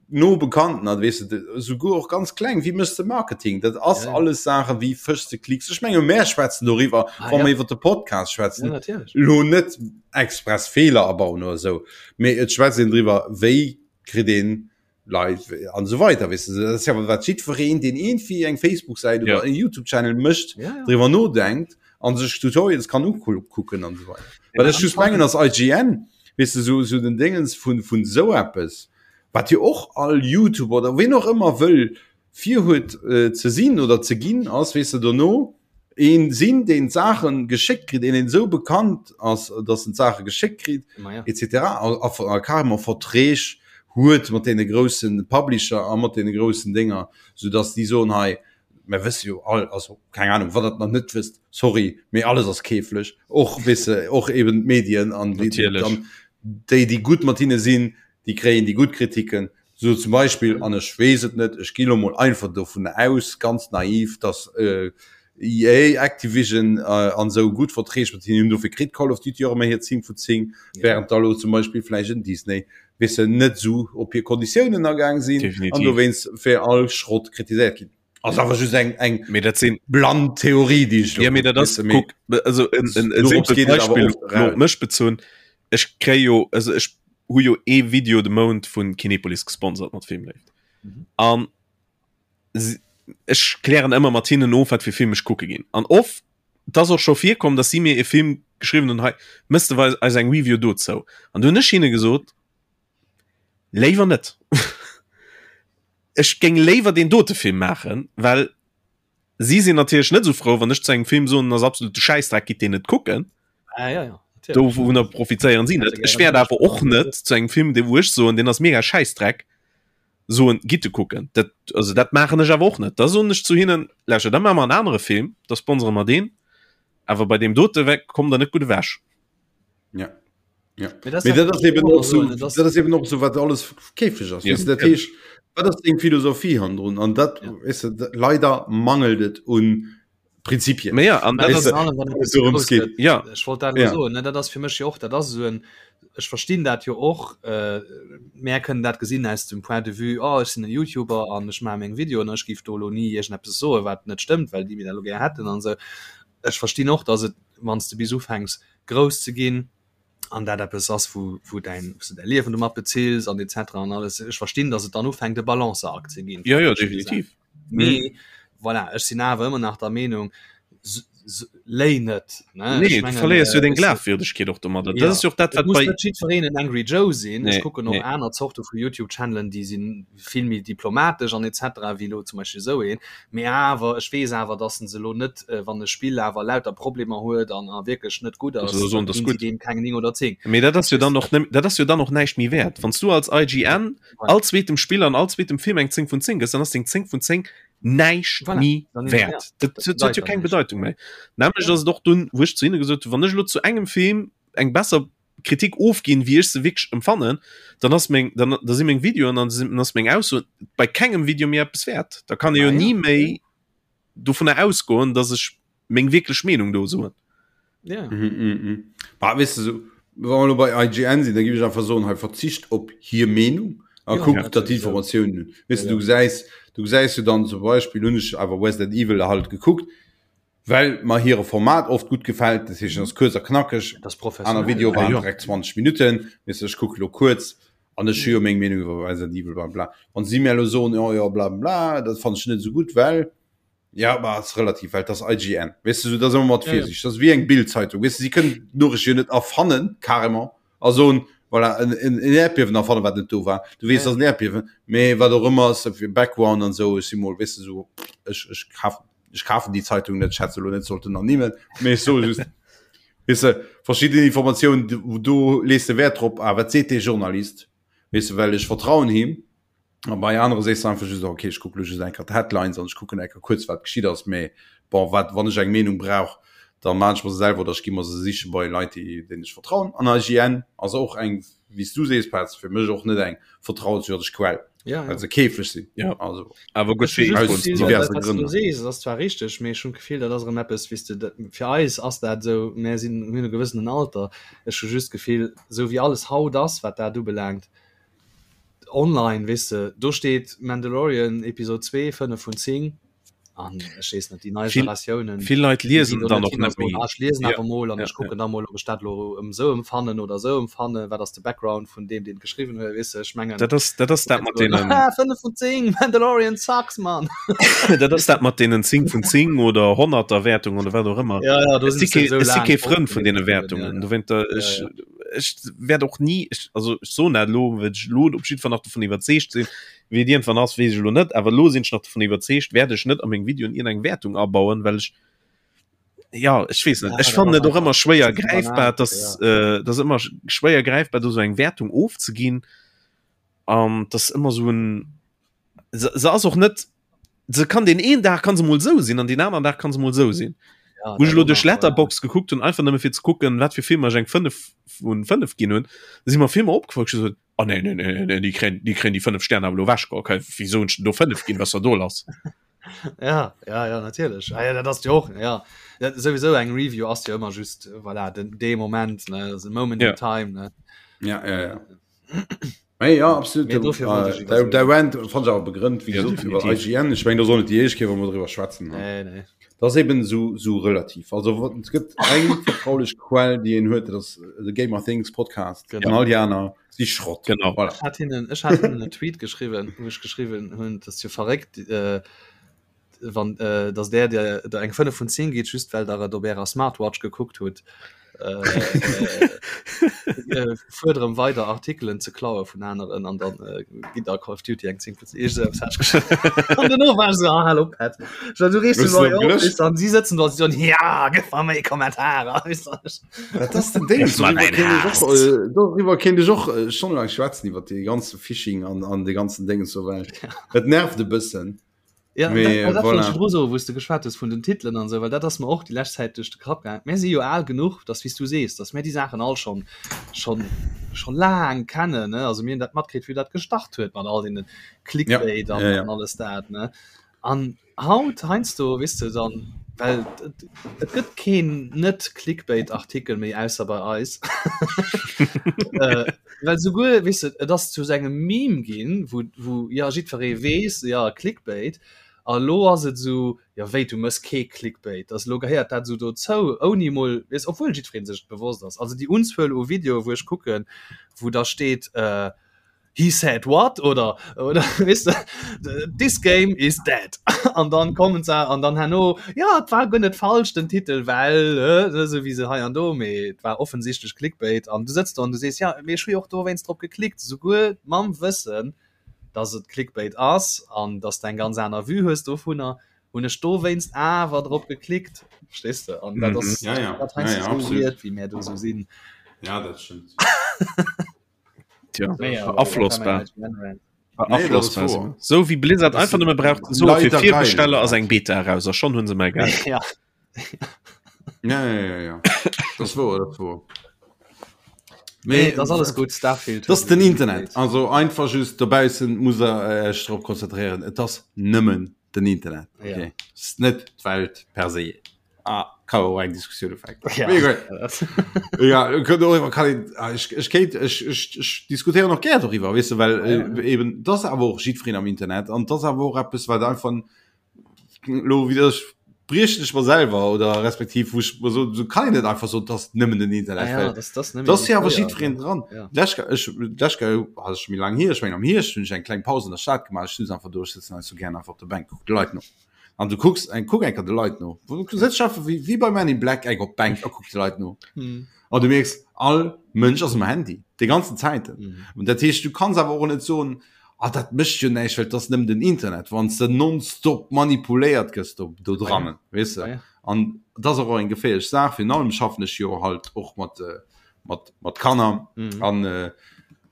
Speaker 1: no Bekannten, an weess de, souguer och ganz kleng, wéi méchs de Marketing? Dat ass ja, ja. alles Saache wéi fëschs de Klicks. Ech menge mär schwätzen doriwwer, ah, wa ja. mer iwwer de Podcast schwätzen. Ja, Lo net express Feeler abauen oder esou, mee et schwätzt een driwwer, wéi kritt een Leit an esou weider, weess de. Dat ass jo wat jiddwereen, deen iergendwéi eng Facebook-Säit oder en YouTube-Channel mécht, driwwer nodenkt a sech Tutorials kann ukucken an esou weider. Wat ech just mengen ass, IGN, weess de, esou esou den Déngens vun vun esou eppes, wat jo och all YouTuber oder ween och ëmmer wëll virhuet ze sinn oder ze ginn, ass, weess de, dono een sinn, deen d'Saache geschéckt kritt, een, deen esou bekannt ass, datt en d'Saache geschéckt kritt, etc. A, a carrément Verträg huet mat deene grousse Publisher a mat deene groussen Dénger, soudatt déi soen, hei, mer wësse jo all, also keng Ahnung, wann Der et nach net wësst, sorry, mee alles ass keeflech, och, weess de, och eben d'Medien an déi, déi, déi gutt mat hinne sinn, déi kréien déi gutt Kritiken. Sou zum Beispill, an ech weess et net, ech gi lo mol einfach dovun aus, ganz naiv, dass EA, Activision an esou gutt Verträg mat hinnen hunn, dofir kritt Call of Duty och ëmmer hir 10 vu 10, während da lo zum Beispill vläicht en Disney, weess de, net esou op hir Konditiounen agaang sinn an dowéinst fir all Schrott kritiséiert ginn. Ass awer just eng eng
Speaker 2: Mee dat sinn
Speaker 1: blann Theorie, déi ech lo
Speaker 2: Ja, mee dat ass, kuck, also en, en, en simpelt Beispill lo op mech bezunn, ech kréie jo, also ech hu jo ee Video de Mount vun Kinepolis gesponsert mat Filmléift. An ech klären ëmmer mat hinnen of, wat fir Film ech kucke ginn. An oft, et ass och scho virkomm, datt si mir e Film geschriwwen hunn, hei, mëss de eis eng Review dozou. An du hunn ech hinne gesot, Léiwer net. Ech géing léiwer deen dote Film maachen, well si sinn natierlech net esou frou, wann ech zu engem Film soen, en ass absolute Schäissdreck, gitt deen net kucken.
Speaker 3: Ah, ja, ja,
Speaker 2: Dovunner profitéieren si net. Ech wäert awer och net zu engem Film, dee wou ech soen, deen ass mega Schäissdreck, soen, gitt e kucken. Dat, also dat maachen ech awer och net. Da soen ech zu hinnen, lauschtert, da maache mer en anere Film, da sponsere mer deen, awer bei deem dote kommt der net gutt ewech.
Speaker 1: Ja. Ja. Mee das, dat ass eben och so, dat ass eben och so wat alles käfeg ass. Ja. Dat heescht, wat ass deng Philosophie handrun an dat ja. weißt du, leider mangelt et un Prinzipien.
Speaker 2: Ja, an dat ass,
Speaker 3: ja. Ech wollt dat ja. so, ne, dat ass fir mech jo och dat ass so en ech verstinn dat jo och äh, mär kënnen dat gesinn aus dem Point de vue oh, ech sinn en YouTuber an ech maache meng Videoen ech géif do lo ni iergendeppes soe wat net stëmmt, well déi mir dat lo gär hätten an esou. Ech verstinn och, datt et wann s de bis ufänks grouss ze ginn an dat eppes ass wou wou däin wou s de däi Liewen domat bezills an etc an alles, ech verstinn, datt et dann ufänkt e Balanceakt ze ginn.
Speaker 2: Jo, jo, definitiv.
Speaker 3: Mee voilà, ech sinn awer ëmmer nach der Meenung, léi net,
Speaker 2: ne? Nee, du verléiers jo deng Glafwierdegkeet och domadder. Dat ass jo och dat,
Speaker 3: wat bei. Et muss net jiddwereen en Angry Joe sinn. Ech kucken och aner Zorte vu YouTube-Channelen, déi si vill méi diplomatesch an etc. Wéi elo zum Beispill esou een. Mee awer, ech weess awer, dass en se elo net, wann e Spill awer lauter Problemer huet an a wierklech net gutt ass,
Speaker 2: dann ginn
Speaker 3: si deem keng 9 oder 10.
Speaker 2: Mee dat ass jo dann och, dat ass jo dann och näischt méi wäert. Wann s du als IGN all zweetem Spill an all zweetem Film eng 10 vun 10 gëss, dann ass deng 10 vun 10 näischt méi wäert. Dat huet jo keng Bedeitung méi. Nämlech ass et och dunn, wou ech zu hinne gesot hunn, wann ech elo zu engem Film eng besser Kritik ofginn, wéi ech se wierklech empfannen, dann ass meng, dann, da si meng Videoen an dann ass meng Ausso bei kengem Video méi eppes wäert. Da kann ee jo ni méi dovunner ausgoen, dass ech meng wierklech Meenung do soen.
Speaker 1: Ja. Mhm, mhm, mhm. Bah, weißt du, so, wa mer lo bei IGN sinn, da géif ech einfach soen, hei verzicht op hir Meenung a ja, kuck, ja, datt d'Informatiounen hunn. Weißt du, du gesäis, du gesäis jo dann zum Beispill, hunn ech awer Resident Evil halt gekuckt. Well mer hire Format oft gutt gefält, dat heescht, en ass kuerz a knackeg.
Speaker 3: Dat ass professionell.
Speaker 1: Aner Videoe waren direkt 20 Minutten, weess de, ech kucke lo kuerz an ech hu jo meng Meenung iwwer Resident Evil bla bla. Wann si mir elo soen, jo jo bla bla, dat fannen ech net esou gutt, well, ja, ma ass relativ, well et ass IGN, weess de, sou, dat ass ëmmer mat Virsiicht, dat ass wéi eng Bild-Zeitung, weess de, si kënnen d'Noriicht jo net erfannen, carrément, a soen, voilà, en, en, en Äerdbiewen erfannen, wat net do war. Du weess, et ass en Äerdbiewen, mee wat och ëmmer ass, fir Background an esou, ech si mol, weess de, sou, ech, ech kafen. Ech kafen déi Zeitung net, ech hätt se elo net sollten ernimmen, mee ech soe just, weess de, verschidden Informatiounen, do lees de Wäert drop, ah, wat seet dee Journalist, weess de, well ech vertrauen him. A bei anere sees de einfach just, okay, ech kucke lo just eng Kéier d'Headlines an ech kucken eng Kéier kuerz, wat geschitt ass, mee bon, wat, wann ech eng Meenung brauch, da maan ech mer se selwer oder ech gi mer se siche bei Leit, déi, deenen ech vertrauen. An IGN ass och eng, wéi s du sees, Petz, fir mech och net eng vertrauenswürdeg Quell.
Speaker 3: ja,
Speaker 1: ja. se käflech sinn
Speaker 2: ja. also awer gut
Speaker 3: diverse Grënn ass zwar richteg mee ech hunn d'Gefill dat ass erëm eppes wéis de dat fir eis ass dat esou mär sinn hunn e gewëssenen Alter ech hu just d'Gefill esou wéi alles haut ass wat dat ubelaangt online weess de do steet Mandalorian Episode 2 5 vun 10 an ech weess net déi nei Generatiounen
Speaker 2: vill Leit liesen dann och net méi
Speaker 3: ech liesen awer mol an ech kucken da mol ob ech dat lo ëm sou emfannen oder sou emfannen wat ass de Background vun deem deen geschriwwen huet weess de ech mengen
Speaker 2: dat ass dat ass dat mat deenen
Speaker 3: 5 vun 10 Mandalorian sucks man
Speaker 2: dat ass dat mat deenen 10 vun 10 oder 100er Wäertung oder wat och ëmmer
Speaker 3: ja, ja,
Speaker 2: do si kee si kee Frënd vun deene Wäertungen du wéint der ech ech wäert och ni ech also ech soen dat elo well ech elo op jiddwer Fall nach dovun iwwerzeegt sinn Wéi et iergendwann ass, weess ech elo net, awer elo sinn ech nach dovun iwwerzeegt, wäert ech net a meng Videoen iergendeng Wäertung abauen, well ech, ja, ech weess net, ech fannen et och ëmmer schwéier gräifbar, dass, äh, dass ëmmer schwéier gräifbar do sou eng Wäertung ofzeginn an dass ëmmer sou en, se, se ass och net, se kann deen een Dag kann se mol sou sinn an deen aneren Dag kann se mol sou sinn.
Speaker 3: Ja,
Speaker 2: Wou ech elo duerch
Speaker 3: ja.
Speaker 2: Letterboxd gekuckt hunn, einfach nëmme fir ze kucken, wat fir Filmer ech eng 5 vun 5 ginn hunn, si mer Filmer opgefall, ech gesot, Oh nee, nee, nee, nee, déi kréien, déi kréien déi 5 Sterne awer elo ewech geholl. Okay, wéi soen ech denn do 5 ginn, was da do lass?
Speaker 3: Ja, ja, ja, natierlech. Ah, ja, dat ass jo och, ja. Dat, sowieso eng Review ass jo ëmmer just, voilà, den, dee Moment, ne, also moment
Speaker 2: ja.
Speaker 3: in time, ne.
Speaker 1: Ja, ja, ja. Hey, ja, absolut.
Speaker 3: Mee dofir wollt ech
Speaker 1: iwwer der Rant fand ich awer begrënnt, wie
Speaker 2: ja,
Speaker 1: gesagt, iwwer IGN. Ich mein, da soll net déi éischt Kéier, wou mer driwwer schwätzen.
Speaker 3: Nee, nee.
Speaker 1: Das ass eben so, so relativ. Also et gëtt eng vertraulich Quell, déi een huet, dat ass the Gamer Things Podcast.
Speaker 3: Genau.
Speaker 1: An all déi aner si Schrott.
Speaker 2: Genau.
Speaker 1: Voilà.
Speaker 3: Ech hat hinnen, ech hat hinnen en Tweet geschriwwen, wou ech geschriwwen hunn, dass jo verréckt, äh, wann, äh, dass där, der, der eng 5 vun 10 geet, just well der et op ärer Smartwatch gekuckt hutt. Äh, äh, fuerderen weider Artikelen ze klaue vun aneren an dann äh, ginn der Call of Duty eng 10 vun 10. Ech selbst hat geschrieben. An duerno war ech so, ah, hallo Pat. So, du reegst
Speaker 1: Hues
Speaker 3: du
Speaker 1: du
Speaker 3: op,
Speaker 1: gelöscht?
Speaker 3: weißt du, an sie sitzen dort, sie so, ja, gib mal méi Kommentarer. Weißt du.
Speaker 1: Dat ass den Ding.
Speaker 2: Gib mal
Speaker 1: Doriwwer
Speaker 2: dein
Speaker 1: kéint ech
Speaker 2: Hass.
Speaker 1: och, äh, doriwwer kéint ech och äh, stonnelang schwätzen iwwer dee ganze Phishing an, an de ganzen Déngen so well. Et nervt e bëssen.
Speaker 3: Ja,
Speaker 1: Mee,
Speaker 3: dat, dat wollt
Speaker 1: voilà.
Speaker 3: ech virdru soen, wou s de geschwat hues vun den Titelen an esou, well dat ass mer och déi lescht Zäit duerch de Kapp gaangen. Mär si jo al genuch, dass, wéi s du sees, dass mär déi Saachen all schonn, schonn, scho laang kennen, ne? Also mir hunn dat matkritt, wéi dat gestart huet mat all deene Clickbait
Speaker 1: Ja,
Speaker 3: an,
Speaker 1: ja, ja.
Speaker 3: an alles dat, ne? An haut heiansdo, weess de, dann, well et, et gëtt keen net-Clickbait-Artikel méi, ausser bei eis. äh, well souguer, weess de, et ass zu sou engem Meme ginn, wou, wou ja jiddweree weess, ja Clickbait. A lo ass et esou, ja wéi, du mëss kee Clickbait, also lo gehéiert dat esou dozou, ouni mol, weess, obwuel jiddweree sech et bewosst ass. Also déi Unzuel u Videoe wou ech kucken, wou da steet, äh, He said what oder oder weess de, this game is dead an dann kommen se an dann herno ja et war guer net falsch den Titel well äh, esou wéi se hei an do mee et war offensichtlech Clickbait an du sëtz do an du sees ja mee ech hu jo och dowéinst drop geklickt souguer mam Wëssen dass et Clickbait ass an dass de eng ganz aner Vue hues dovunner hunn ech dowéinst awer drop geklickt verstees de an dat ass
Speaker 1: Ja, ja.
Speaker 3: dat
Speaker 1: Ja,
Speaker 3: heiansdo
Speaker 1: ja,
Speaker 3: esou
Speaker 1: absolut.
Speaker 3: weird wéi mär do esou sinn.
Speaker 1: Ja, dat stëmmt.
Speaker 2: Tja,
Speaker 3: Nee, aber
Speaker 2: beaflossbar.
Speaker 1: Nee,
Speaker 2: Beaflossbar. So wie Blizzard
Speaker 1: Das
Speaker 2: einfach
Speaker 1: sind
Speaker 2: nëmme braucht so fir
Speaker 1: leider geil.
Speaker 2: Virbesteller ass eng Beta eraus a schon hunn se mei Geld.
Speaker 3: Ja.
Speaker 1: Ja, ja, ja, ja. Das wor, das wor.
Speaker 3: Nee, das alles gut Starfield.
Speaker 1: Das den Internet. Also einfach just dobaussen muss er äh, drop konzentrieren. Et ass nëmmen den Internet.
Speaker 3: Ja.
Speaker 1: Okay. Ist net d'Welt per se. Ah, kann och eng Diskussioun ufänken.
Speaker 3: Ja.
Speaker 1: Mee gutt. Ja, könnt och iwwer kann een, ah, ech, ech kéint, ech, ech, ech diskutéieren och gär doriwwer, weess de, well
Speaker 3: Ja, ja.
Speaker 1: äh, eben das awer och jiddwereen am Internet an das awer och eppes, wat einfach lo wéi ech. briechen ech mer selwer oder respektiv wou ech mer soen, esou kann een net einfach soen, dass nëmmen den Internet,
Speaker 3: Ah ja,
Speaker 1: well
Speaker 3: das, das
Speaker 1: dass jo awer jiddwereen dran.
Speaker 3: Ja.
Speaker 1: D'lescht Kéier, ech, d'lescht Kéier, ah, ass scho méi laang hier, ech mengen am Hierscht hunn ech eng kleng Paus an der Stad gemaach, ech sutz einfach do, ech sëtzen hei sou gären einfach op der Bänk, kuck de Leit no. An du kucks eng, kuck eng Kéier de Leit no. Du sëtz einfach wéi, wéi bei Men in Black eng op d'Bänk a kucks de Leit no.
Speaker 3: Mhm.
Speaker 1: An du mierks, all Mënsch ass um Handy, déi ganzen Zäiten.
Speaker 3: Mhm.
Speaker 1: Und dat heescht, du kanns awer och net soen, ah, dat mécht jo näischt, well et ass nëmmen den Internet, wann s de nonstop manipuléiert gëss do, do drannen, weess de.
Speaker 3: Ah ja.
Speaker 1: An dat ass och eng geféierlech Saach. Virun allem schaffen ech jo halt och mat, mat, mat Kanner
Speaker 3: Mhm.
Speaker 1: an äh,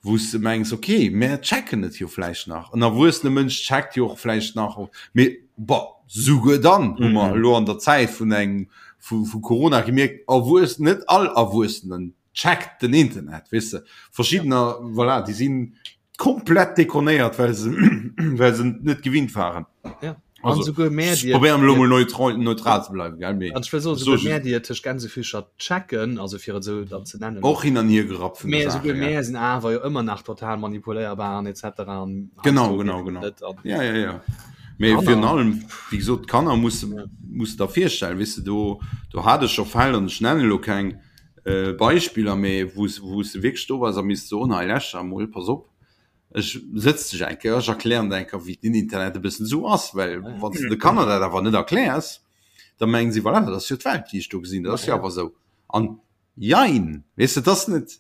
Speaker 1: wou s de mengs, okay, mär checken et jo vläicht nach. En erwuessene Mënsch checkt jo och vläicht nach, mee bon, souguer dann hu mer
Speaker 2: Mhm.
Speaker 1: elo an der Zäit vun engem, vu, vu Corona gemierkt, Erwuess, net all Erwuessenen checkt den Internet, weess de. Verschiddener, voilà, déi sinn komplett dekonéiert, well se, well se net gewinnt waren.
Speaker 3: Ja.
Speaker 1: Also,
Speaker 3: An souguer mär,
Speaker 1: ech
Speaker 3: déi et-
Speaker 1: probéieren elo mol neutral, neutral ze bleiwen, gell, mee
Speaker 3: An ech wëll soen,
Speaker 1: so
Speaker 3: souguer
Speaker 1: just-
Speaker 3: mär, déi et tëscht Gänsefüßcher checken, also fir et esou dann ze nennen,
Speaker 1: och hin an hier gerappt vun
Speaker 3: Mä
Speaker 1: der
Speaker 3: souguer
Speaker 1: Sache, ja.
Speaker 3: mär sinn awer jo ëmmer nach total manipuléierbar an etc. An
Speaker 1: Genau,
Speaker 3: heiansdo
Speaker 1: genau,
Speaker 3: eben
Speaker 1: genau.
Speaker 3: net an
Speaker 1: Ja, ja, ja. Mee
Speaker 3: Kanner.
Speaker 1: virun allem, wéi gesot, d'Kanner muss
Speaker 3: Ja.
Speaker 1: muss der virstellen, weess de, do, do hat ech scho Fäll, an ech nennen elo keng äh, Beispiller, mee wou s, wou s de wierklech do bass a misst soen, hei läscht emol, pass op, ech sëtz dech eng Kéier, ech erklären der eng Kéier, wéi den Internet e bëssen esou ass, well wann s de de Kanner dat awer net erkläers, da mengen si, voilà, dat ass jo d'Welt, déi ech do gesinn, dat ass jo awer esou. An jein, weess de, dat ass net,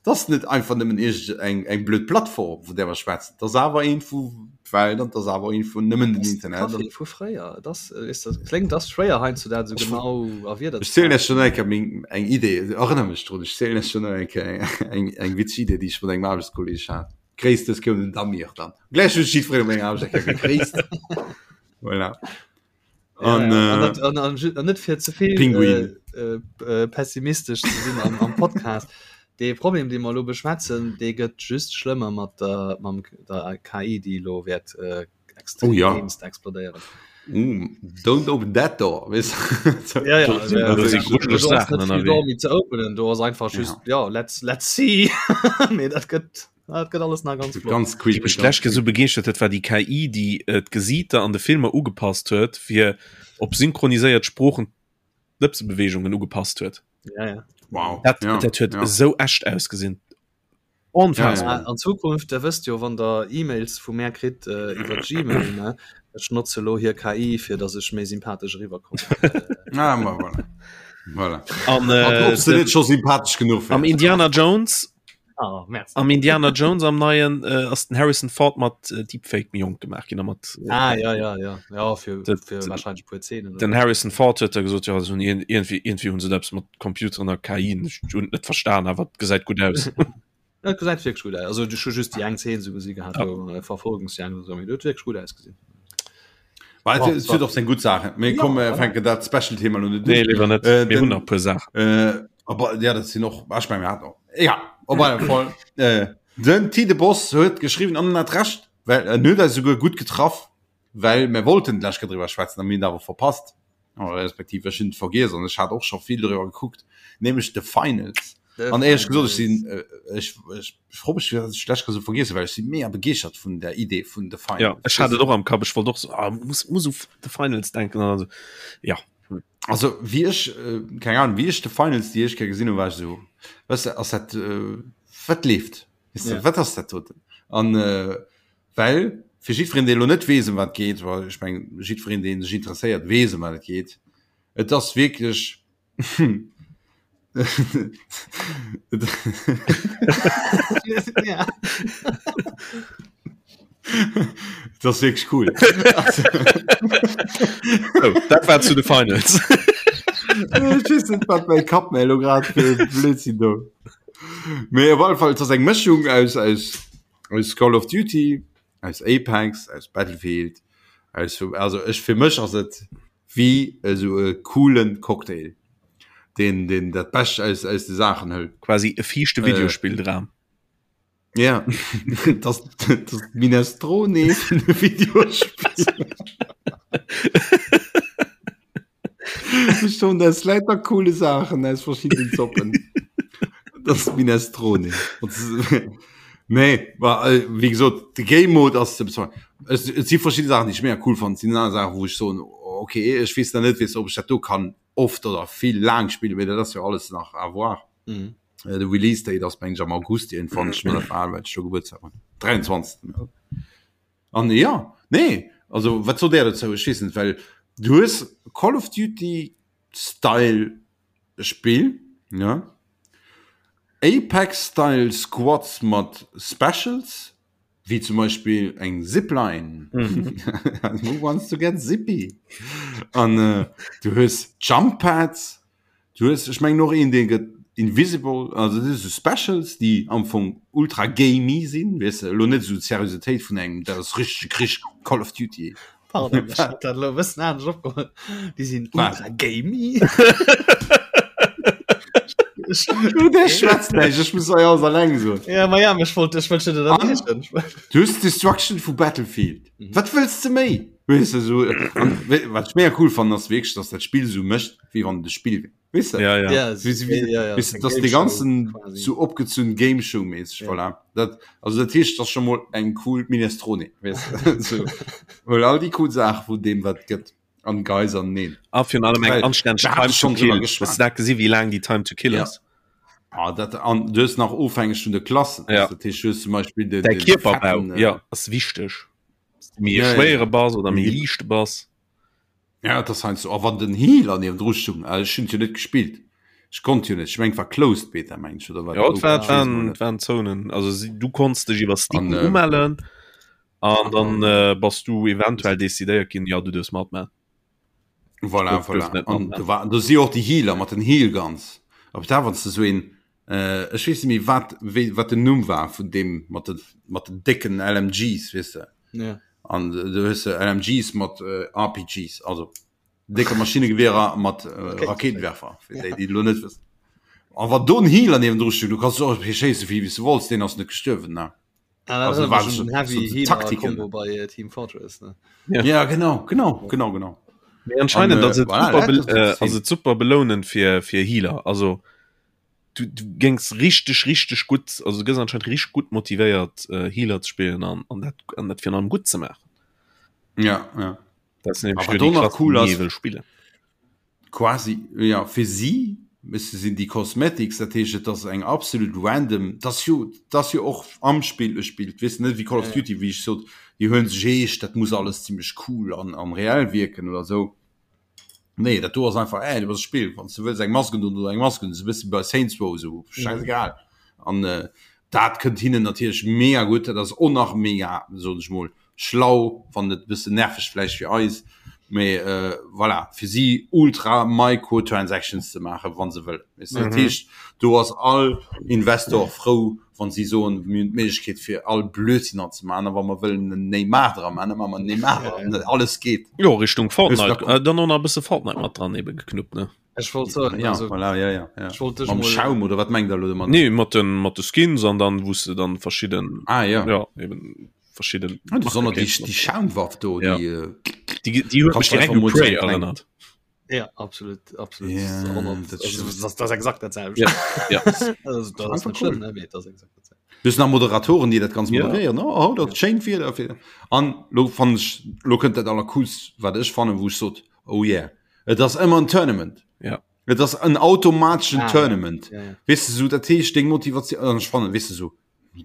Speaker 1: dat ass net einfach nëmmen iergend eng, eng blöd Plattform, vun där mer schwätzen, dat ass awer eent vu d'Welt an dat ass awer eent vun nëmmen den Internet.
Speaker 3: Café vu fréier, et ass, weess de, kléngt, ass schwéier heiansdo dat esou genau a Wierder
Speaker 1: Ech zielen lech schon eng Kéier meng, eng Idee, erënner mech drun, ech zielen lech schon eng Kéier eng, eng witzeg Idee, déi ech mat engem Aarbechtskolleg hat. Gréisst, dës koum den Damir dann. Gläich hunn ech jiddweree op menger Aarbecht eng Kéier gegréisst. Voilà.
Speaker 3: An,
Speaker 1: ja,
Speaker 3: ja. An, dat, an, an, an net fir zevill
Speaker 1: Pinguin.
Speaker 3: Äh, äh, pessimistesch ze sinn am, am Podcast. De Problem, dee mer elo beschwätzen, dee gëtt just schlëmmer mat der, mam, der KI, déi elo wäert äh,
Speaker 1: Oh ja.
Speaker 3: extremst explodéieren.
Speaker 1: Mm, don't open that door. Weißt du?
Speaker 3: Ja, ja,
Speaker 2: Do
Speaker 3: also,
Speaker 2: sinn- do si
Speaker 3: also,
Speaker 2: grujeleg
Speaker 3: do ass
Speaker 2: Saachen
Speaker 3: net vill
Speaker 2: ënnerwee.
Speaker 3: Door méi ze openen, do ass einfach just, ja, ja let's, let's see. Mee dat gëtt, dat gëtt alles nach ganz flott.
Speaker 1: Ganz
Speaker 2: Déi
Speaker 1: creepy.
Speaker 2: mech
Speaker 1: ganz
Speaker 2: d'lescht Kéier sou
Speaker 1: creepy.
Speaker 2: begeeschtert huet, war déi KI, déi äh, d'Gesiiter an de Filmer ugepasst huet, fir op synchroniséiert Sproochen d'Lëpsebeweegungen ugepasst huet.
Speaker 3: Ja, ja.
Speaker 1: Wow.
Speaker 2: Dat,
Speaker 1: ja,
Speaker 2: dat huet
Speaker 1: ja.
Speaker 2: esou echt ausgesinn. Onfassbar.
Speaker 1: Ja,
Speaker 3: An Zukunft, der wësst jo, wann der E-Mails vu mär kritt äh, iwwer Gmail, ne? Ech notze lo hir KI, fir dass ech méi sympathesch eriwwerkommen.
Speaker 1: Ah, ma voilà. Voilà.
Speaker 2: An,
Speaker 1: An
Speaker 2: äh,
Speaker 1: ob se
Speaker 2: den,
Speaker 1: net scho sympathesch genuch
Speaker 2: am
Speaker 1: wär.
Speaker 2: Indiana Jones
Speaker 3: Ah, merci.
Speaker 2: am Indiana Jones am neien äh, ass den Harrison Ford mat äh, Deepfake méi jonk gemaach ginn a mat äh,
Speaker 3: Ah, ja, ja, ja. Ja, fir,
Speaker 2: Dat-
Speaker 3: fir wahrscheinlech puer Szenen.
Speaker 2: den Harrison Ford huet da gesot ja hunn irgendwie irgendwie hunn se eppes mat Computeren a KI ech hunn et net verstan awer et gesäit gutt aus.
Speaker 3: Dat gesäit wierklech gutt aus. Also ech hu just déi eng Szene sou gesi gehat,
Speaker 2: Ja.
Speaker 3: wou äh, Verfolgungsjagd oder sou, mee dat huet wierklech gutt ausgesinn.
Speaker 1: Well,
Speaker 3: Bon,
Speaker 1: et huet och seng gutt Saachen. Mee
Speaker 3: Ja,
Speaker 1: komm, äh,
Speaker 3: voilà.
Speaker 1: fänken dat Special-Thema lo net
Speaker 2: Nee
Speaker 1: un.
Speaker 2: léiwer net
Speaker 1: Äh,
Speaker 2: mir hunn
Speaker 1: den,
Speaker 2: nach e puer Saachen.
Speaker 1: äh, aber ja, dat sinn och, ah, ech meng, mir haten och. Egal, op alle Fall. Äh, den Tide Boss huet geschriwwen an en hat Recht, well en huet eis souguer gutt getraff, well mir wollten d'lescht Kéier driwwer schwätzen a mir hunn et awer verpasst, oder respektiv ech hunn et vergiess an ech hat och scho vill driwwer gekuckt, nämlech The Finals.
Speaker 3: The
Speaker 1: An éierlech gesot, ech
Speaker 3: Finals.
Speaker 1: sinn, äh, ech, ech fro mech, firwat ech d'lescht Kéier esou vergiess hunn, well ech si mega begeeschtert vun der Idee vun The
Speaker 2: Ja,
Speaker 1: Finals.
Speaker 2: ech hat et och am Kapp, ech wollt och so, ah, muss, muss u The Finals denken an also, ja.
Speaker 1: Also wéi ech, äh, keng Ahnung, wéi ech The Finals déi éischt Kéier gesinn hunn, war ech esou, weißt du, ass dat, äh, wat leeft? Weißt du,
Speaker 3: Ja.
Speaker 1: wat ass dat doten? An äh, well fir jiddwereen, dee elo net weess, ëm wat et geet, well ech meng, jiddwereen, dee sech interesséiert, weess, ëm wat et geet. Et ass wierklech
Speaker 3: Ja.
Speaker 1: Et ass wierklech cool.
Speaker 2: Oh, dat war zu The Finals.
Speaker 1: Ech weess net, wat mäi Kapp mir elo grad fir e Blödsinn do. Mee op alle Fall, et ass eng Mëschung aus, aus, aus Call of Duty, aus Apex, aus Battlefield, aus, also ech, fir mech ass et wéi esou e coolen Cocktail, deen, deen dat Bescht aus, aus de Saachen hëlt.
Speaker 2: Quasi e fiichte Videospilldram.
Speaker 1: Ja, das, das Minestrone vun de Videospiller. Schon das lauter coole Sachen aus verschiedenen Zoppen. Das Minestrone. Nee, war, äh, wie gesagt, de Game Mode ass ze bezweifeln. Es, et si verschiedene Sachen, déi ech mega cool fand, sinn aner Sachen, wou ech soen, oh. okay ech weess nach net weess ob ech dat do kann oft oder vill laang spillen, mee dat ass jo alles nach à voir.
Speaker 3: Mhm.
Speaker 1: Äh, de Release Date ass meng ech am August iergendwann, ech muss dat well ech do Gebuertsdag hunn. 23. An ja, nee, also wat sot Där dozou? Ech weess net, well du hues Call of Duty Style Spill, ja. Apex Style Squads mat Specials, wéi zum Beispill eng Zipline. Who wants to get zippy? An äh, du hues Jump Pads, du hues, ech mengen och een, dee gëtt invisible, also dat si sou Specials, déi am Fong ultra gamey sinn, weess de, elo net esou d'Seriositéit vun engem, dat ass richtege Krich, Call of Duty.
Speaker 3: Pardon, ech hat dat elo e bëssen anescht opgeholl. Déi sinn ultra gamey.
Speaker 1: Du, der schwätzt näischt, ech muss hei alles alleng soen.
Speaker 3: Ja, ma ja, ech wollt, ech wollt schon ënnerbriechen.
Speaker 1: Du hues Destruction vu Battlefield. Mhm. Wat wëlls de méi? Weess de, so, an, wat ech mega cool fannen, ass wierklech, dass dat Spill sou mécht, wéi wann et e Spill wär. Weess de?
Speaker 2: Ja, ja.
Speaker 3: Ja,
Speaker 1: Wéi, wéi,
Speaker 3: ja, ja,
Speaker 1: weess de, dass de ganzen sou opgezunn Game Show mäßig,
Speaker 3: Ja.
Speaker 1: voilà. Dat, also dat heescht, dat ass scho mol eng cool Minestrone, weess de? So, huel all déi cool Saache vun deem, wat et gëtt, an geis an neen.
Speaker 2: A virun allem eng
Speaker 1: Well,
Speaker 2: anstänneg
Speaker 1: da hat
Speaker 2: Time
Speaker 1: ech
Speaker 2: to
Speaker 1: schonn drüber
Speaker 2: Kill.
Speaker 1: geschwat.
Speaker 2: Hues du dat gesi wéi laang déi Time to Kill
Speaker 1: Ja.
Speaker 2: ass?
Speaker 1: Ah, dat, an du hues nach ofhängeg vun de Klassen.
Speaker 2: Ja.
Speaker 1: Dat heescht, du hues zum Beispill den,
Speaker 2: Däi
Speaker 1: den
Speaker 2: Kierperbau,
Speaker 1: fetten, äh,
Speaker 2: ja, ass wichteg. Méi e
Speaker 1: Ja, ja,
Speaker 2: schwéiere
Speaker 1: ja.
Speaker 2: bass oder méi
Speaker 1: Méi-
Speaker 2: liichte bass.
Speaker 1: Ja, dat ass heiansdo. A wann den Healer niewendru stung, äh, ech hunn et jo net gespillt, ech konnt jo net, ech meng war Closed Beta meng ech oder wat?
Speaker 2: Ja, et war,
Speaker 1: Open,
Speaker 2: et
Speaker 1: ech weess
Speaker 2: waren,
Speaker 1: emol
Speaker 2: et
Speaker 1: net.
Speaker 2: waren Zonen. Also si, du konns dech iwwer Steam
Speaker 1: An, äh,
Speaker 2: umellen an dann äh, bass du eventuell decidéiert ginn, ja, du duerfs matman.
Speaker 1: Voilà,
Speaker 2: Duerf- duerf
Speaker 1: voilà.
Speaker 2: net
Speaker 1: An
Speaker 2: matman.
Speaker 1: do war, do si och déi Healer mat den Heal Guns. Op da wann s de sou een, äh, ech weess net méi wat, wéi, wat den Numm war vun deem mat de, mat den décken LMGs, weess de.
Speaker 3: Ja.
Speaker 1: An du hues de LMGs mat äh, RPGs, also décke Maschinnegewehrer mat äh, Rakéitenwerfer, fir déi, déi et lo net wëssen. An wann do en Healer niewendru steet, du kanns och schéisse wéi s du wollts, deen ass net gestuerwen, ne?
Speaker 3: Ah,
Speaker 1: Also
Speaker 3: dat
Speaker 1: war
Speaker 3: war
Speaker 1: so-
Speaker 3: schon Heavy
Speaker 1: so
Speaker 3: Healer
Speaker 1: Taktiken.
Speaker 3: Combo bei äh, Team Fortress ne?
Speaker 2: Ja.
Speaker 1: Ja, genau, genau, genau, genau.
Speaker 2: Mee anscheinend
Speaker 1: An, äh,
Speaker 2: ass et
Speaker 1: voilà,
Speaker 2: super,
Speaker 1: dat
Speaker 2: be
Speaker 1: ass das
Speaker 2: äh,
Speaker 1: Ziel.
Speaker 2: ass et super belounend fir, fir Healer. Also du, du géings richteg, richteg gutt, also du gëss anscheinend richteg gutt motivéiert äh, Healer ze spillen an, an dat, an dat virun allem gutt ze maachen.
Speaker 1: Ja, ja.
Speaker 2: Dat sinn nämlech
Speaker 1: Aber
Speaker 2: nur déi
Speaker 1: do nach
Speaker 2: Klassen,
Speaker 1: cool
Speaker 2: déi
Speaker 1: ass-
Speaker 2: ee wëll spillen.
Speaker 1: Quasi, ja, fir si müsse sinn déi Cosmetics, dat heescht et ass eng absolut random, dat ass jo, dat ass jo och am Spill e Spill, weess net wéi Call of Duty, wéi ech sot, déi huelen sech eescht, dat muss alles zimmlech cool an an reell wierken oder esou. Nee, dat do ass einfach, äh, du bass e Spill, wann s du wëlls eng Mask un oder eng Mask un, esou e bësse bei Saints Row esou, scheißegal. An dat kënnt hinnen natierlech mega gutt, dat ass och nach mega, soen ech mol, schlau, wann net e bëssen nerveg vläicht fir eis, mee voilà, fir si ultra Microtransactions ze maachen, wa se wëllen. Weess de, dat heescht, do ass all Investor frou, wa si soen, mir hunn d'Méiglechkeet fir all Blödsinn an ze maachen, a wa mer wëllen en Neymar dra maachen, da maache mer en Neymar dran, alles geet.
Speaker 2: Jo, Richtung Fortnite,
Speaker 1: Hues
Speaker 2: dann och nach e bësse Fortnite mat dran ebe geknuppt, ne?
Speaker 3: Ech wollt soen,
Speaker 1: Ja,
Speaker 3: also,
Speaker 1: voilà, ja, ja, ja.
Speaker 3: ech wollt dech
Speaker 1: Mam
Speaker 3: mol-
Speaker 1: Schaum oder wat mengt der elo domat?
Speaker 2: Nee, mat den, mat de Skins an dann wou s de dann verschidden,
Speaker 1: Ah ja.
Speaker 2: ja, eben verschidden
Speaker 1: Ah, besonders
Speaker 2: Marke
Speaker 1: déi,
Speaker 2: kéints
Speaker 1: déi Schaumwaff do,
Speaker 2: Ja.
Speaker 1: déi, äh,
Speaker 2: Die, die huet
Speaker 1: Kannst
Speaker 2: mech direkt
Speaker 1: einfach
Speaker 2: u
Speaker 1: mol
Speaker 2: Prey
Speaker 1: so eng kleng-
Speaker 2: erënnert.
Speaker 3: Ja, absolut, absolut.
Speaker 1: Ja,
Speaker 3: 100
Speaker 1: dat
Speaker 3: also,
Speaker 1: stimmt.
Speaker 3: das, das ist exakt dat selwecht.
Speaker 2: Ja, ja.
Speaker 3: Also, das ass
Speaker 1: Einfach
Speaker 3: net
Speaker 1: cool.
Speaker 3: schlimm, ne? Mee dat ass exakt dat selwecht.
Speaker 1: Du hues nach Moderatoren, déi dat ganz
Speaker 2: Ja.
Speaker 1: moderéieren. Oh, oh, dat schéint Wieder. An lo fannen ech, lo kënnt dat allercoolst, wat ech fannen, wou ech sot, oh yeah. Et ass ëmmer en Tournament.
Speaker 2: Ja.
Speaker 1: Et ass en automateschen
Speaker 3: Ah,
Speaker 1: Tournament.
Speaker 3: Ja, ja.
Speaker 1: Weess de sou, dat heescht deng Motivatioun, an ech fannen, weess de sou,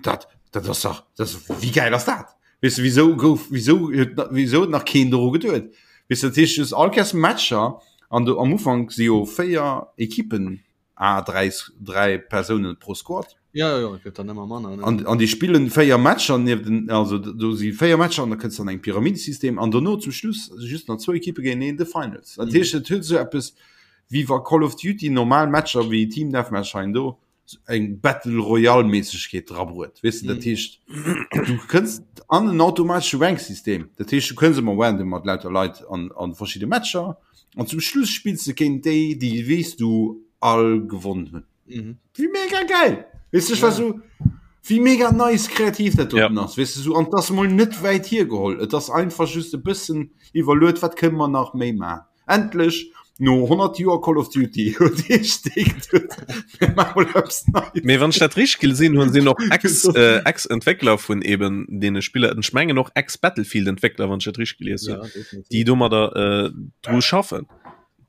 Speaker 1: dat, dat ass dach, dat ass, wéi gäil ass dat? Weess de, wisou gouf, wisou huet, wisou huet nach keen doru geduet? Weess de, dat heescht, du hues all Kéiers Matcher an du am Ufank si jo 4 Ekippen à 3, 3 Persounen pro Squad.
Speaker 3: Ja, ja, ja, et gëtt dann ëmmer manner. Ne?
Speaker 1: An, an déi spillen 4 Matcher nieft den, also do si 4 Matcher an da kënns an eng Pyramidesystem an dono zum Schluss just nach zwou Ekippe géinteneen, de Finals. Dat heescht, et huet esou eppes wéi wa Call of Duty normal Matcher wéi Team Deathmatch hei an do eng Battle Royale Méissegkeet drabruet. Weess de, dat heescht du kënns an en automatesche Ranksystem. Dat heescht du kënns ëmmer random mat lauter Leit an, an verschidde Matcher an zum Schluss spills de géint déi, déi weess du all gewonnen hunn.
Speaker 3: Mhm.
Speaker 1: Wéi mega geil! Weess du, ech war so, wéi mega nice kreativ dat doten
Speaker 2: Ja.
Speaker 1: ass, weess du, so, an 't ass mol net wäit hiergeholl, et ass einfach just e bëssen iwwerluet, wat kënne mer nach méi maachen? Endlech! No 100 Joer Call of Duty huet ee Steek huet mir maache mol
Speaker 2: eppes Neies. Mee wann ech dat richteg gesinn hunn, sinn och Ex äh, Ex-Entwéckler vun eben deene Spiller, ech mengen och Ex-Battlefield-Entwéckler, wann ech dat richteg gelies hunn, ja, déi domadder äh, dru schaffen.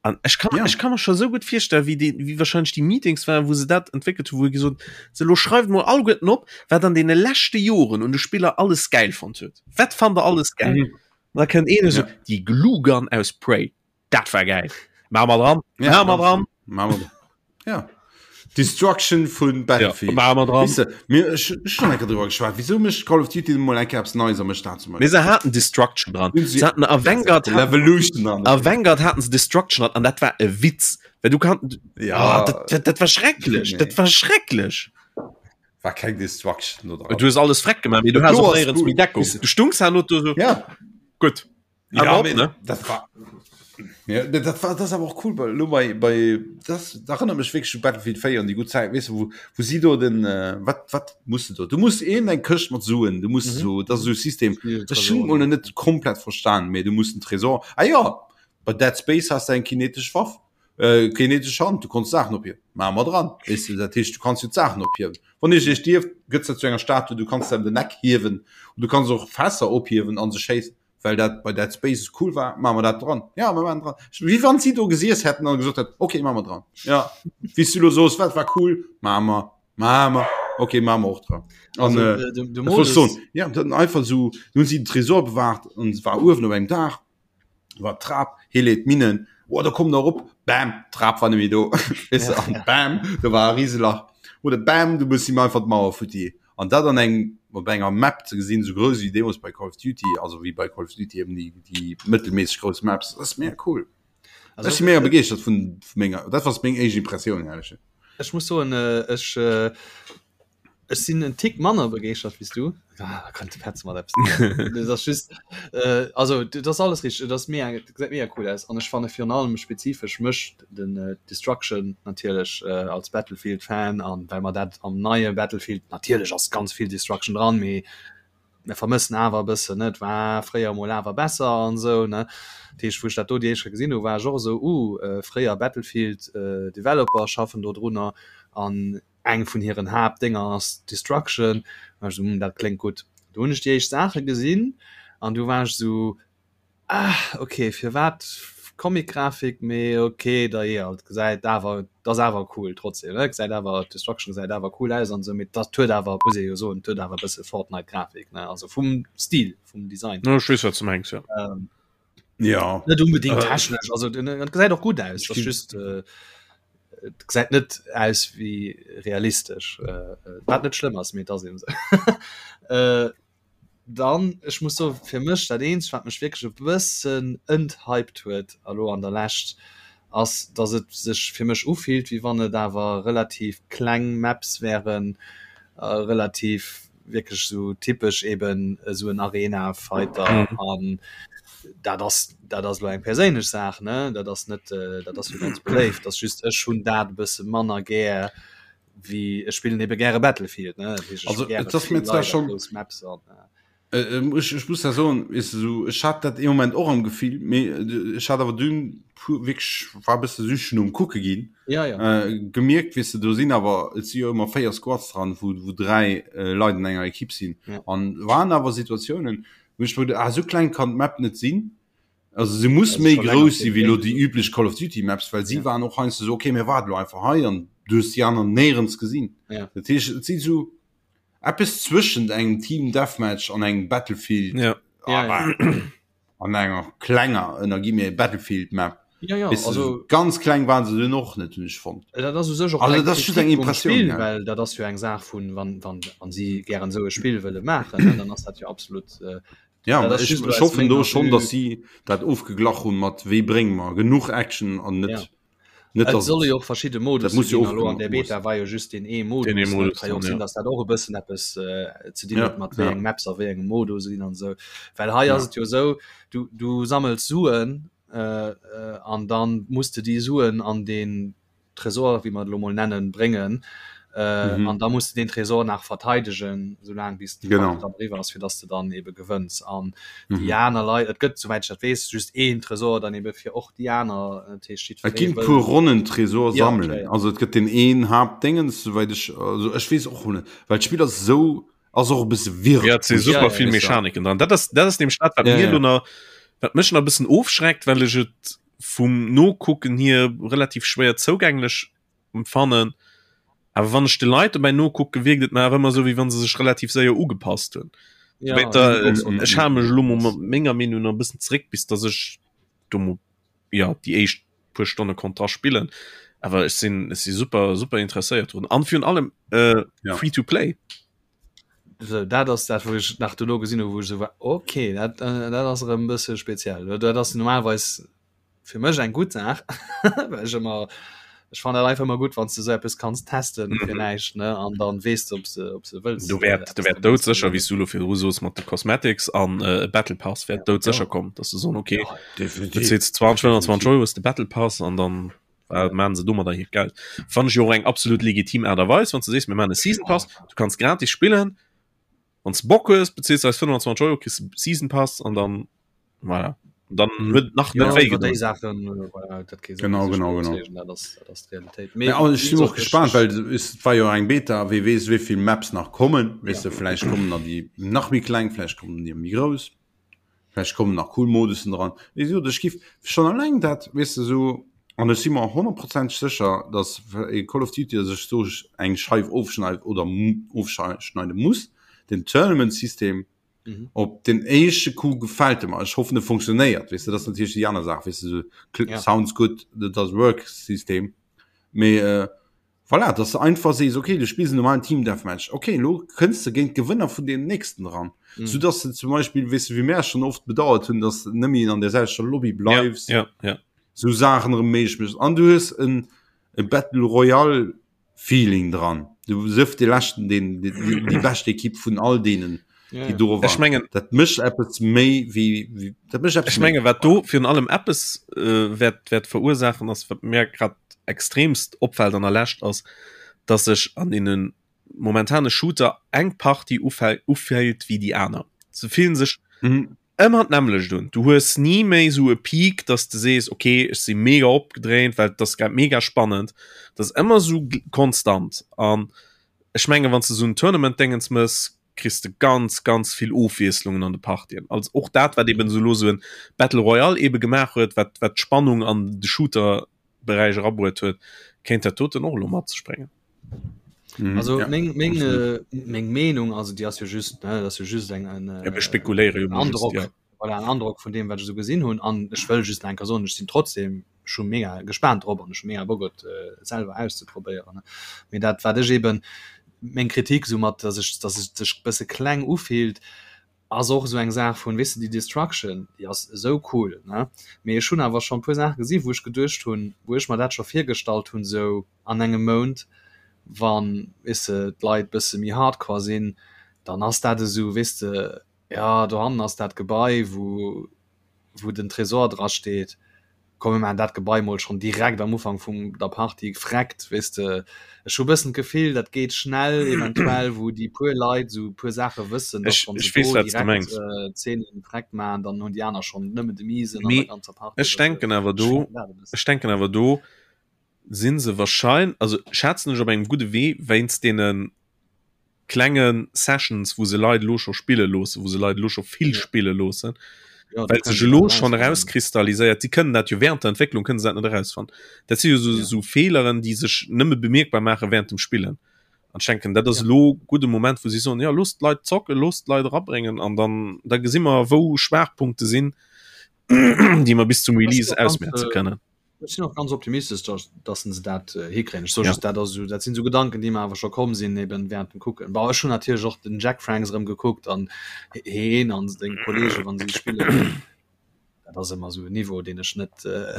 Speaker 2: An ech kann, ja. ech kann mir scho sou gutt virstellen, wéi déi, wéi wahrscheinlech déi Meetings waren, wou se dat entwéckelt hunn, wou gesot se lo schreift mol alleguerten op, wat an deene leschte Joren un de Spiller alles gäil fonnt huet. Wat fannt der alles gäil? Mhm. Da kënnt een esou, ja. déi Glue Gun aus Prey. Dat war geil. Maache mer dran.
Speaker 1: Ja, Maache mer dran. Maache mer dran. Ja. Destruction vun Battlefield. Ja,
Speaker 2: maache mer dran.
Speaker 1: Weess de, mir, ech, ech schon enker drüber geschwat. Wieso mécht Call of Duty mol eng Kéier eppes Neies a mécht dat zum
Speaker 2: Beispiel? Mee se haten Destruction dran. Se haten a Vanguard,
Speaker 1: Levolution
Speaker 2: an. A Vanguard haten se Destruction dran an dat war e Witz. Well du kann,
Speaker 1: ja.
Speaker 2: Oh, dat, dat, dat war schrecklech. Nee. Dat war schrecklech.
Speaker 1: War keng Destruction
Speaker 2: do dran. Du hues alles freck gemaach, mee du has och néierens méi Deckung. Du stungs herno do so.
Speaker 1: Ja.
Speaker 2: Gutt.
Speaker 1: Ja, op, ne? Dat war ja, dat war das awer och cool bei, lo bei, bei das da erinnert mech wéi Battlefield 4 an die gut Zeit weißt du, wo, wo sie do den äh, wat wat musst du do du musst een eng Këscht mat Suen du musst mhm. so das so System das schon mal net komplett verstan mee du musst den Tresor ah ja bei Dead Space hast du eng kinetesch Waff äh, kinetesch Hand du konntest Sachen ophiewen Maache mer dran weißt du dat heescht du kannst jo d'Saachen ophiewen wann ech ech dierf gëtt dat zu enger Statue du kannst dann den Neck hiewen und du kannst och Fässer ophiewen an se schéissen well dat bei Dead Space cool war, maache mer dat dran. Ja, mer maachen dran. Wéi wann si do gesiess hätten an gesot hätten, okay, maache mer dran. Ja, wéi s du elo soos, wat war cool, maache mer, maache mer, okay, maache mer och dran. An, also, äh, de, de Modus... Soen, ja, dann einfach so, nun si den Tresor bewahrt an war uewen op engem Daach, war d'Trap, hie leet d'Minnen, oh, da komm der erop, bam, d'Trap war net méi do. Weess de, an bam, do war e Riselach. Oder bam, du muss him einfach d'Mauer futti. An dat an engem, op enger Map ze gesinn, esou grouss wéi deemools bei Call of Duty, also wéi bei Call of Duty eben déi, déi mëttelméisseg grouss Maps, dat ass mega cool. Also, ech si mega begeeschtert vun, vun menger, dat war meng éischt Impressioun, ehrlech.
Speaker 3: Ech muss soen, ech, ech sinn en Tick manner begeeschtert wéi s du. Ah, da kënnt de Petz mat eppes. Dat ass just, also dat ass alles richteg, et ass mega, et gesäit mega cool aus an ech fanne virun allem spezifesch mech den Destruction natierlech als Battlefield Fan an well mer dat am neie Battlefield natierlech ass ganz vill Destruction dran, mee mir vermëssen awer e bëssen ne, et war fréier emol awer besser an esou ne. Dat heescht wou ech dat do déi éischt Kéier gesinn hu war ech och esou uh fréier Battlefield Developer schaffen do drunner an eng vun hiren Haaptdénger ass Destruction, war ech esou hm dat kléngt gutt. Do hunn ech déi éischt Saache gesinn an du war ech esou Ah ok, firwat Comic-Grafik, mee ok da jo et gesäit awer et ass awer cool trotzdem ne, gesäit awer d'Destruction gesäit awer cool aus an esou, mee dat huet awer muss ee jo soen, et huet awer e bësse Fortnite-Grafik ne, also vum Stil, vum Design.
Speaker 2: Jo ech weess wat s de mengs jo.
Speaker 1: Jo.
Speaker 3: Net unbedingt technesch, also et gesäit och gutt aus, et ass just et gesäit net aus wéi realistesch, wat net schlëmm ass, mee et ass eben esou. Dann, ech muss soen, fir mech dat eenzegt, wat mech wierklech e bëssen enthyped huet elo an der Lescht, ass, dass et sech fir mech ufillt, wéi wann et awer relativ kleng Maps wären, relativ wierklech esou typesch eben esou en Arena-Fighter. An dat ass, dat ass elo eng perséinlech Saach, ne, dat ass net, dat ass jo ganz beléift, ass just ech hunn dat e bësse manner gär wéi ech spillen ebe gäre Battlefield ne Dat heescht, ech
Speaker 1: Also,
Speaker 3: hu gäre
Speaker 1: et ass
Speaker 3: vill
Speaker 1: mir zwar
Speaker 3: Leit a
Speaker 1: schon-
Speaker 3: grouss Maps an äh,
Speaker 1: Äh, ähm, ech, ech muss da soen, weess de, so, ech hat dat ee Moment och am Gefill, mee äh, ech hat awer dunn puer wierklech war e bësse süchten um kucke ginn,
Speaker 3: ja ja
Speaker 1: äh, gemierkt, weess de, do sinn awer, et si jo ëmmer 4 Squads dran, wou, wou 3 äh, Leit an enger Ekipp sinn.
Speaker 3: Ja.
Speaker 1: An waren awer Situatiounen, wou ech mir geduet, ah, sou kleng kann d'Map net sinn. Also se muss méi grouss si wéi lo déi üblech Call of Duty Maps, well si waren och heiansdo sou, okay mir waarden lo einfach hei an du hues déi aner néierens gesinn.
Speaker 3: Ja.
Speaker 1: Dat heescht et si sou eppes zwëschent engem Team Deathmatch an engem Battlefield
Speaker 2: ja.
Speaker 3: Ja, ja.
Speaker 1: an enger klenger ënner gi mir Battlefield Map.
Speaker 3: Ja, ja,
Speaker 1: Weißt du,
Speaker 3: also
Speaker 1: so ganz kleng waren se dunn och net hunn ech fonnt.
Speaker 3: Dat ass u sech och
Speaker 1: Also
Speaker 3: keng
Speaker 1: dat ass just eng
Speaker 3: Kritik vum
Speaker 1: Impressioun,
Speaker 3: Spill,
Speaker 1: ja.
Speaker 3: well dat ass jo eng Saach vun wann wann wann si gären esou e Spill wëlle maachen, ne, dann ass dat jo absolut äh,
Speaker 1: Ja,
Speaker 3: Dat ass
Speaker 1: ech,
Speaker 3: just
Speaker 1: ech
Speaker 3: aus
Speaker 1: hoffen do
Speaker 3: menger
Speaker 1: schon,
Speaker 3: Vue.
Speaker 1: dass si dat ofgeglach hunn mat wéi brénge mer genuch Action an net
Speaker 3: Ja.
Speaker 1: net
Speaker 3: Et
Speaker 1: dass
Speaker 3: solle jo och verschidde
Speaker 1: dat
Speaker 3: Modusse
Speaker 1: muss jo
Speaker 3: ginn. Elo an der
Speaker 1: ofgemaach
Speaker 3: Beta war jo just deen ee Modus.
Speaker 2: Deen ee
Speaker 3: ne? Et
Speaker 2: Modus
Speaker 3: ka jo
Speaker 2: dann,
Speaker 3: och sinn,
Speaker 2: ja.
Speaker 3: dass dat och e bëssen eppes äh, ze dinn
Speaker 1: Ja,
Speaker 3: huet mat wéi
Speaker 1: ja.
Speaker 3: eng Maps a wéi engem Modus sinn an esou. Well hei
Speaker 1: Ja.
Speaker 3: ass et jo esou, du, du sammels Suen äh, äh, an dann muss de déi Suen an deen Tresor, wéi mer et elo mol nennen, bréngen. Äh, mhm. An da muss du den Tresor nach verteidegen, soulaang bis
Speaker 1: genau.
Speaker 3: dann riwwer ass, fir dass du dann ebe gewënns. An mhm. déi aner Leit, et gëtt soweit ich dat weess, just een Tresor dann ebe fir och déi aner
Speaker 1: äh, Et ginn puer Ronnen Tresor ja, sammelen. Okay, ja. Also et gëtt den een Haaptdingens, soweit ich also ech weess och net, well d'Spill ass sou ass och e bësse
Speaker 2: wirr. Ja, et si super ja, ja, vill Mechaniken dran. Dat ass dat ass nämlech dat, wat ja, mir ja. lo wat mech nach e bëssen ofschreckt, well ech et vum Nokucken hier relativ schwéier zougänglech empfannen. Awer wann ech de Leit dobäi nokucken, wierkt et mer awer ëmmer esou, wéi wann se sech relativ séier ugepasst hunn. Ja, ech hale mech elo mol mat menger Meenung nach e bëssen zeréck, bis datt ech do mol, ja, déi éischt puer Stonne konnt dra spillen. Awer ech sinn, ech si super, super interesséiert drun. An virun allem äh, ja. free to play.
Speaker 3: So, dat ass dat, wou ech nach dono gesinn hu, wou ech esou war, okay, dat, äh, dat ass erëm e bësse speziell. Dat ass normalerweis fir mech eng gutt Saach well ech ëmmer ech fannen dat einfach ëmmer gutt wann s de sou eppes kanns testen fir näischt ne an dann weess de ob s de ob s de wëlls
Speaker 2: Do wäert do wäert doudsécher wéi s du elo virdru soos mat de Cosmetics an e Battle Pass wäert doudsécher kommen, dass se soen okay bezils 20 25 Euro hues de Battle Pass an dann maachen se domadder hiert Geld. Fannen ech jo och eng absolut legitim Aart a Weis wann s de sees mir maachen e Season Pass, du kanns gratis spillen, Wann s Bock hues, beziels eis 25 Euro, kriss de Season Pass an dann voilà. Dann mhm. huet nach
Speaker 3: net wéi gedoen. Sachen, äh, voilà, dat
Speaker 1: genau, genau, genau. Dat ass, dat ass d'Realitéit. Ja, also, ich sinn och gespannt, well es war jo eng Beta, wie weess wéivill Maps nach kommen. Weess ja. du, vielleicht kommen da déi nach méi kleng, vielleicht kommen déi méi grouss. Vläicht kommen nach cool Modussen dran. Wéi gesot, ech giff schonn alleng dat, weess de, esou, an ech si mer honnertprozenteg sécher, datt e Call of Duty sech do eng Scheif ofschneit oder ofschneide muss, den Tournament-System. Op den éischte Coup gefält e mer. Ech hoffen, e funktionéiert, weess de, dat ass natierlech déi aner Saach, weess de, esou sounds good, that does work System. Mee Voilà, dass de einfach sees, okay, du spills en normalen Team Deathmatch, okay, elo kënns de géint d'Gewënner vun deem nächsten eran. Mm. Sou dass de zum Beispill, weess de, wéi mär schonn oft bedauert hunn, dass de nëmme an der selwechter Lobby bleifs.
Speaker 2: Ja, ja, ja.
Speaker 1: Sou Saachen erëm méiglech méchs. An du hues en e Battle Royale Feeling dran. Du sief de leschten, deen, déi, déi bescht Ekipp vun all deenen,
Speaker 2: ja, déi do
Speaker 1: waren.
Speaker 2: Ech mengen,
Speaker 1: dat mécht eppes méi wéi, wéi dat mécht
Speaker 2: eppes Ech menge wat do virun allem eppes äh, wäert, wäert verursaachen, ass wat mir grad extremst opfällt an der Lescht ass, dass sech an deene momentane Shooter eng Partie ufält wéi déi aner. Se fillen sech mhm. ëmmer d'nämmlecht un. Du hues ni méi sou e Peak, dass de sees, okay, ech si mega opgedréint, well dat ass grad mega spannend. Dat ass ëmmer sou konstant. An ech menge wann s de sou en Tournament-Déngens mëss, kriss de ganz ganz vill Ofwiesslungen an de Partien. Also och dat wat eben sou lo sou en Battle Royale ebe gemaach huet, wat wat d'Spannung an de Shooter-Beräich erabruet huet, kéint dat doten och elo mat sech bréngen.
Speaker 3: Mhm, also ja, meng, meng, äh, meng Meenung also die ass jo just ne, das jo just eng en
Speaker 2: äh, ja, spekuléiere
Speaker 3: jo Androck ja. voilà, en Androck vun dem wat ech so gesinn hunn an ech wëll just enker soen ech sinn trotzdem schon mega gespannt drop an ech mega Bock et äh, selwer auszeprobéieren mee dat wat ech eben meng Kritik so mat dass ech dass et sech bësse kleng ufillt ass och esou eng Saach vun weess de déi Destruction déi ass esou cool ne mee ech hunn awer schonn puer Saache gesi wou ech geduecht hunn wou ech mer dat scho virgestallt hunn esou an engem Mount wann weess de d'Leit bësse méi hardcore sinn dann ass dat esou weess de jo dohannen ass dat Gebai wou wou den Tresor dra steet, komm mir maachen dat Gebai mol schonn direkt am Ufank vum der Partie freckt, weess de. Ech hu bëssen d'Gefill, dat geet schnell eventuell, wou déi puer Leit esou e puer Saache wëssen,
Speaker 2: datt wann se do
Speaker 3: direkt Zeenen freckt maachen, dann hunn déi aner schonn nëmmen de Miesen
Speaker 2: an der ganzer Partie. Ech denken awer do, ech denken awer do si se wahrscheinlech, also schätzen ech op engem gudde Wee wéinst deene klenge Sessions, wou se Leit elo scho spille loossen, wou se Leit elo scho vill spille loossen, ja, well sech elo schonn erauskristalliséiert, si kënnen dat jo während der Entwécklung kënnen se dat net erausfannen. Dat si jo so, ja. so Feeleren, déi sech nëmme bemierkbar maache während dem Spillen. An ech denken, dat ass ja. elo gudde Moment, wou si soen, ja loosst d'Leit zocken, loosst d'Leit erabréngen an dann da gesi mer, wou Schwaachpunkte sinn, déi mer bis zum Release ausmerze kënnen.
Speaker 3: Ech sinn och ganz optimistesch, dass, dass se dat äh, hikréien. Ech soe just, dat ass esou, dat sinn esou Gedanken, déi mer awer scho komm sinn eben während dem Kucken. Bon, ech hunn natierlech och den Jack Franks erëm gekuckt an heen an seng Kollegen, wann si spillen. Dat ass ëmmer esou en Niveau, deen ech net
Speaker 1: äh,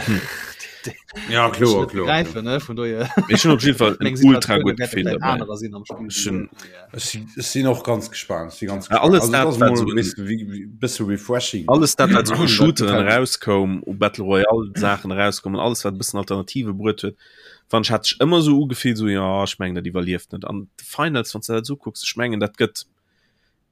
Speaker 1: ja, kloer, kloer,
Speaker 3: gräifen ne vun dohier.
Speaker 2: Ech hunn op jeden Fall en ultra gutt Gefill
Speaker 1: dabei. Anerer sinn am Spill.
Speaker 2: Ech hunn
Speaker 1: Ech si- ech sinn och ganz gespannt. Ech si ganz
Speaker 2: Ja, alles
Speaker 1: Also,
Speaker 2: dat,
Speaker 1: dat ass
Speaker 2: wat
Speaker 1: mol
Speaker 2: so
Speaker 1: e bësse wéi- wéi- bësse refreshing.
Speaker 2: alles dat wat so u
Speaker 1: Dat
Speaker 2: Shooteren
Speaker 1: gefällt mir.
Speaker 2: erauskoum, u Battle Royale Saachen erauskoum an alles wat e bëssen Alternative bruet huet, fand ech hat sech ëmmer sou ugefillt sou jo ech mengen dat iwwerlieft net an de Finals wann s de dat sou kucks, ech mengen dat gëtt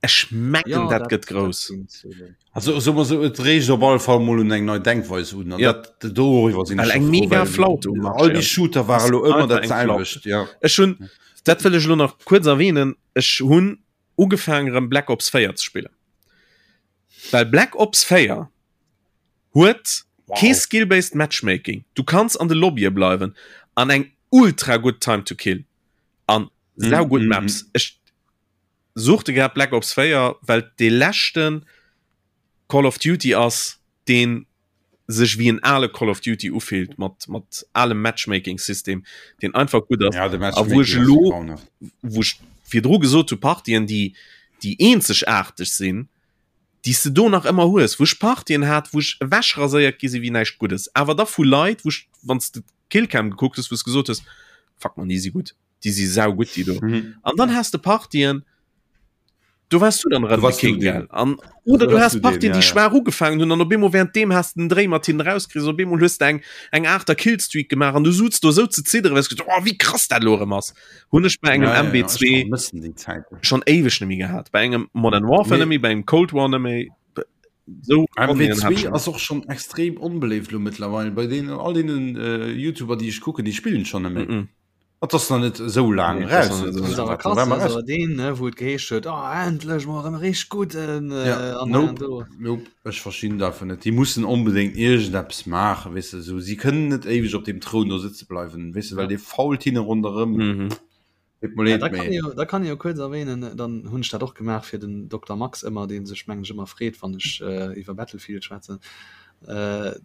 Speaker 2: Ech mengen
Speaker 3: Ja,
Speaker 2: dat gëtt grouss.
Speaker 3: dat,
Speaker 1: Also so mal so, et reegt op alle Fall mol un eng nei Denkweis un. An
Speaker 2: Ja.
Speaker 1: dat doriwwer sinn
Speaker 2: Well
Speaker 1: ech
Speaker 2: eng
Speaker 1: scho froh,
Speaker 2: mega
Speaker 1: well
Speaker 2: Flaute um
Speaker 1: all
Speaker 2: Marché
Speaker 1: déi
Speaker 2: ass.
Speaker 1: Shooter ware lo ëmmer
Speaker 2: Einfach
Speaker 1: dat
Speaker 2: eng Flaute.
Speaker 1: selwecht. Ja.
Speaker 2: Ech hunn, dat wëll ech elo nach kuerz erwähnen, ech hunn ugefaangen erëm Black Ops 4 ze spillen. Well Black Ops 4 huet
Speaker 1: Wow.
Speaker 2: kee skill-based Matchmaking. Du kanns an de Lobbye bleiwen an eng ultra gutt Time to kill an saugutt
Speaker 1: Mm, mm,
Speaker 2: Maps. Ech suchte grad Black Ops 4, well et dee leschten Call of Duty ass, deen sech wéi en ale Call of Duty ufillt, mat, mat alem Matchmaking-System, deen einfach gutt ass.
Speaker 1: Ja, de
Speaker 2: A wou ech
Speaker 1: Matchmaking ass
Speaker 2: elo,
Speaker 1: grauenhaft.
Speaker 2: wou ech virdru gesot hu, Partien, déi, déi eenzegaarteg sinn, déi s de do nach ëmmer hues, wou ech Partien hat, wou ech ewechraséiert gi si wéi näischt Guddes, awer da vu Leit, wou ech, wann s de d'Killcam gekuckt hues, wou s gesot hues, Fuck man, déi si gutt. déi si sau gutt déi do
Speaker 1: mhm.
Speaker 2: an dann hast de Partien du warst du dann
Speaker 1: du warst
Speaker 2: King,
Speaker 1: du den.
Speaker 2: an oder du, du hast Partien
Speaker 1: ja,
Speaker 2: die schwer ugefangen hun an op bemol während dem hast den Dreh mat hin rauskriegst op bemol hues eng eng achter Killstreak gemacht an du suzt du so ze ziddere weißt du, oh, wie krass dat lo erëm ass hunn ech bei engem
Speaker 1: ja, ja, ja,
Speaker 2: MB2
Speaker 1: ich vermissen die Zeit.
Speaker 2: schon éiweg nemmi gehat bei engem Modern Warfare
Speaker 1: Nee.
Speaker 2: nemmi bei engem Cold War nemmi so
Speaker 1: MW2 ass och schon extrem onbeléift lo mittlerweile bei denen all denen äh, YouTuber die ich kucken die spillen schon nemmi.
Speaker 2: mm -mm.
Speaker 1: Et ass nach net esou laang
Speaker 2: Nee, et ass
Speaker 1: raus.
Speaker 2: nach net esou
Speaker 3: Das ist
Speaker 2: laang.
Speaker 3: awer krass, das ist awer deen, ne, wou et geheescht huet, oh, endlech mol erëm e richteg gudden äh,
Speaker 1: Ja,
Speaker 3: an hei an
Speaker 1: nope,
Speaker 3: do.
Speaker 1: nope, ech verstinn dat einfach net. Déi mussen onbedéngt iergendeppes maachen, weess de, esou. Si kënnen net éiweg op deem Troun do sëtze bleiwen, weess de, well
Speaker 3: Ja.
Speaker 1: dee fault hinne ronderëm.
Speaker 2: Mhm.
Speaker 1: Deet mer
Speaker 3: Ja,
Speaker 1: leed,
Speaker 3: da kann
Speaker 1: mee.
Speaker 3: jo, da kann jo kuerz erwähnen, dann hunn ech dat och gemaach fir den Dokter Max ëmmer, dee sech mengen ech ëmmer freet, wann ech äh, iwwer Battlefield schwätzen. Ech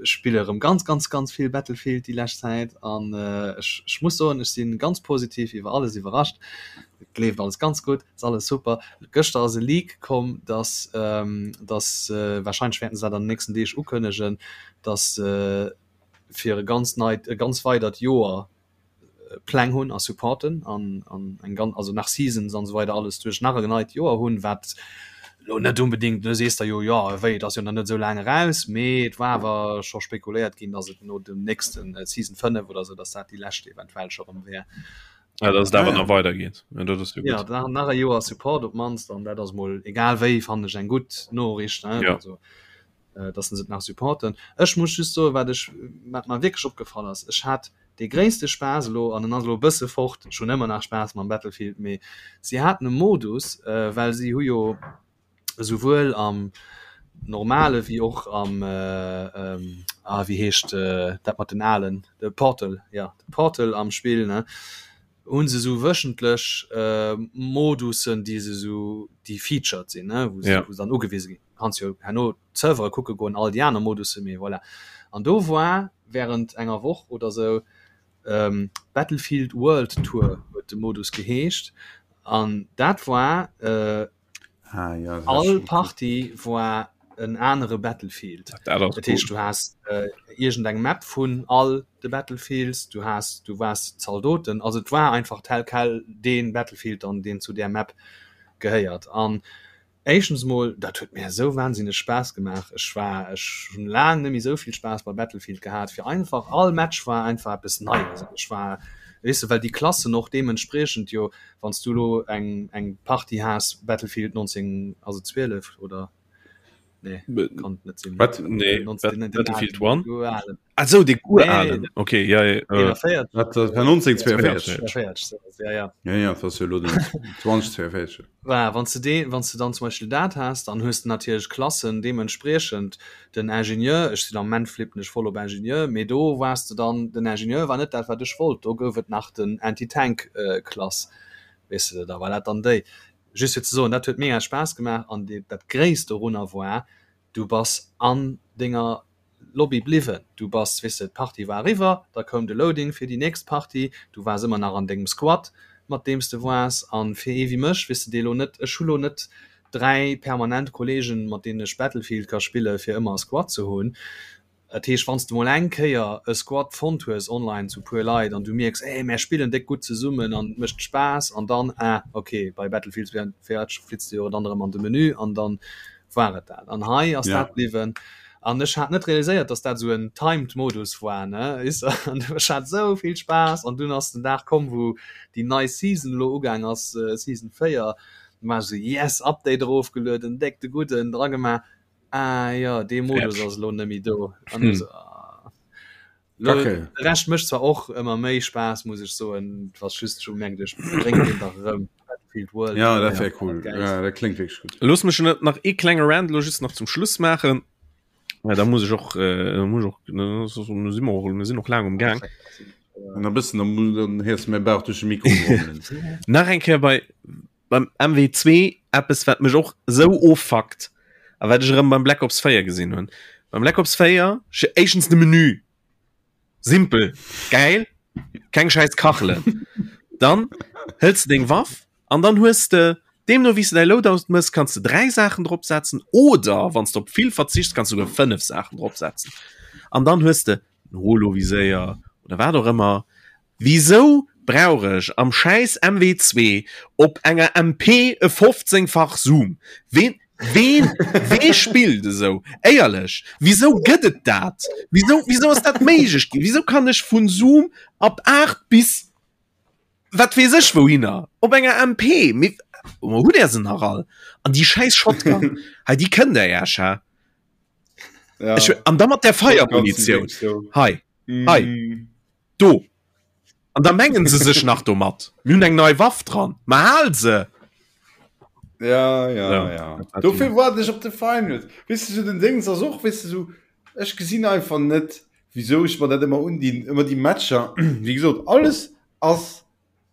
Speaker 3: spille erëm ganz ganz ganz vill Battlefield déi lescht Zäit an ech ech muss soen, ech si ganz positiv iwwer alles iwwerrascht. Et leeft alles ganz gutt, ass alles super. Gëschter ass e Leak komm, dass dass warscheinlech wäerten se dat an den nächsten Deeg ukënnegen, dass se fir e ganz neit e ganz weidert Joer Pläng hunn a supporten an an eng ganz also nach Seasons an esou weider alles duerch nach e neit Joer hunn, wat lo net unbedingt du sees der jo jo wéi et ass jo nach net esou laang eraus, mee et war awer scho spekuléiert ginn, datt et no dem nächsten Season 5 oder esou, datt dat déi lescht eventuell scho rëm wär.
Speaker 2: Ja, dass et
Speaker 1: Ah
Speaker 2: awer
Speaker 1: ja.
Speaker 2: nach weidergeet. Ja, dat ass jo
Speaker 3: Ja,
Speaker 2: gutt.
Speaker 3: nach nach e Joer Support op d'mannst an dat ass mol egal wéi fannen ech eng gutt Noriicht, ne
Speaker 2: Ja.
Speaker 3: also dass se et nach supporten. Ech muss just soen, wat ech, wat mer wierklech opgefall ass, ech hat dee gréisste Spaass elo, an en ass elo e bësse fort, ech hunn ëmmer nach Spaass mam Battlefield, mee si haten e Modus, well si hu jo esouwuel am normale wéi och am, ah wéi heescht dat mat den alen, de Portal, jo, de Portal am Spill, ne, hu se esou wöchentlech Modussen, déi se esou, déi featured sinn, ne, wou se dann ugewise ginn. Kanns jo herno d'Servere kucke goen, all déi aner Modusse, mee voilà. An do war während enger Woch oder sou Battlefield World Tour huet de Modus geheescht an dat war
Speaker 1: Ah, ja, das
Speaker 3: all
Speaker 1: schon cool.
Speaker 3: Partie war en anere Battlefield.
Speaker 2: Dat ass
Speaker 3: Dat heescht
Speaker 2: cool.
Speaker 3: du has iergend eng Map vun all de Battlefields, du has du waars Zaldoten, also et war einfach tel quel dee Battlefield dann deen zu där Map gehéiert an Éischtens mol, dat huet mär esou wahnsinneg Spaass gemaach. Ech war, ech hunn laang net méi esou vill Spaass bei Battlefield gehat, fir einfach all Match war einfach eppes Neies an ech war, weess de, well déi Klassen och deementspriechend jo, wann s du elo eng eng Partie has Battlefield 19, also 12 oder nee, kann et net sinn,
Speaker 1: Wat?
Speaker 2: Nee,
Speaker 3: 19, den
Speaker 2: Battlefield
Speaker 3: alen,
Speaker 2: 1?
Speaker 3: den alen.
Speaker 2: Ah sou, dee
Speaker 3: Nee,
Speaker 2: uralen, okay, ja, ja, äh,
Speaker 3: 41.
Speaker 1: Wat, dat war 1942?
Speaker 3: 42, sou, ja, ja.
Speaker 1: Ja, ja, dat ass jo elo den 2042.
Speaker 3: Voilà, wann s de dee, wann s de dann zum Beispill dat has, dann hues de natierlech Klassen deementspriechend. Den Ingenieur, ech sinn am Moment flippen ech voll op Ingenieur, mee do waars de dann, den Ingenieur war net dat wat ech wollt, do gouf et nach den Anti-Tank Klass, weess de, da war dat dann déi. Just fir ze soen, dat huet mega Spaass gemaach an dee, dat Gréisst dorunner war, du bass an denger Lobby bliwwen. Du bass, weess de, d'Partie war eriwwer, da koum de Loading fir déi nächst Partie, du waars ëmmer nach an dengem Squad, mat deem s de waars. A fir ee wéi mech, weess de, dee lo net, ech hu lo net. 3 permanent Kollegen, mat deenen ech Battlefield ka spille fir ëmmer e Squad ze hunn. Dat heescht, wann s de mol eng Kéier e Squad fonnt hues online zu puer Leit an du mierks, ey, mär spillen déck gutt zesummen an et mécht Spaass an dann, ah ok, bei Battlefield 4 flitts de jo dann erëm an de Menü an dann war et dat. An hei ass dat bliwwen an ech hat net realiséiert, dass dat esou en timed Modus war, ne, weess de. An ech hat esou vill Spaass an dunn ass den Dag komm, wou déi nei Season elo ugaang ass, Season 4, du war ech esou, yes, Update erofgelueden, déck de Gudden dragemaach, ah jo, dee Modus ass elo net méi do. An ech esou, ah. Lo, okay. De Rescht mécht zwar och ëmmer méi Spaass, muss ech soen, was just schon merkt ech bréngt den dach erëm
Speaker 1: Battlefield World. Ja, dat wär cool. Ja, dat klingt wierklech
Speaker 2: gutt. Looss mech net nach ee klenge Rant lo just nach zum Schluss maachen. Ja, da muss ech och, äh, muss ech och, ne, so, so, mir sinn och, mir sinn och laang um Gang.
Speaker 1: An e bëssen, dann, dann héiers du mäi Bauch duerch de Mikro
Speaker 2: grummelen. Nach eng Kéier bei, beim MW2 eppes wat mech och sou offuckt a wat ech erëm beim Black Ops 4 gesinn hunn. Beim Black Ops 4 éischtens de Menü simpel geil keng scheiß Kachelen. Dann hëls de deng Waff an dann hues de deemno wéi s de däi Loadout mëss kanns de 3 Saachen drop setzen oder wann s de op vill verzichts kanns du souguer 5 Saachen drop setzen an dann hues de en Holoviséier oder wat och ëmmer Wisou brauch ech am schäiss MW2 op enger MP e 15 fach Zoom? Ween ween wee spillt esou? Éierlech, wisou gëtt et dat? Wisou wisou ass dat méiglech ginn? Wisou kann ech vun Zoom ab 8 bis wat weess ech wouhinner op enger MP? Mee hutt där se nach all? An déi schäiss Shotgun hei, déi kënnt der Iech, hä?
Speaker 1: Ja.
Speaker 2: Ech, an da mat der Feiermunitioun hei hei.
Speaker 1: Mm.
Speaker 2: Do! An da mengen se sech nach domat, mir hunn eng nei Waff dran. Ma hal se!
Speaker 1: Ja, ja, ja. ja. Dofir waarden ech op de Finals. Weess de, sou den Déngs ass och, weess de, sou, ech gesinn einfach net, wisou ech mer dat ëmmer undinn, ëmmer déi Matcher. Wéi gesot, alles ass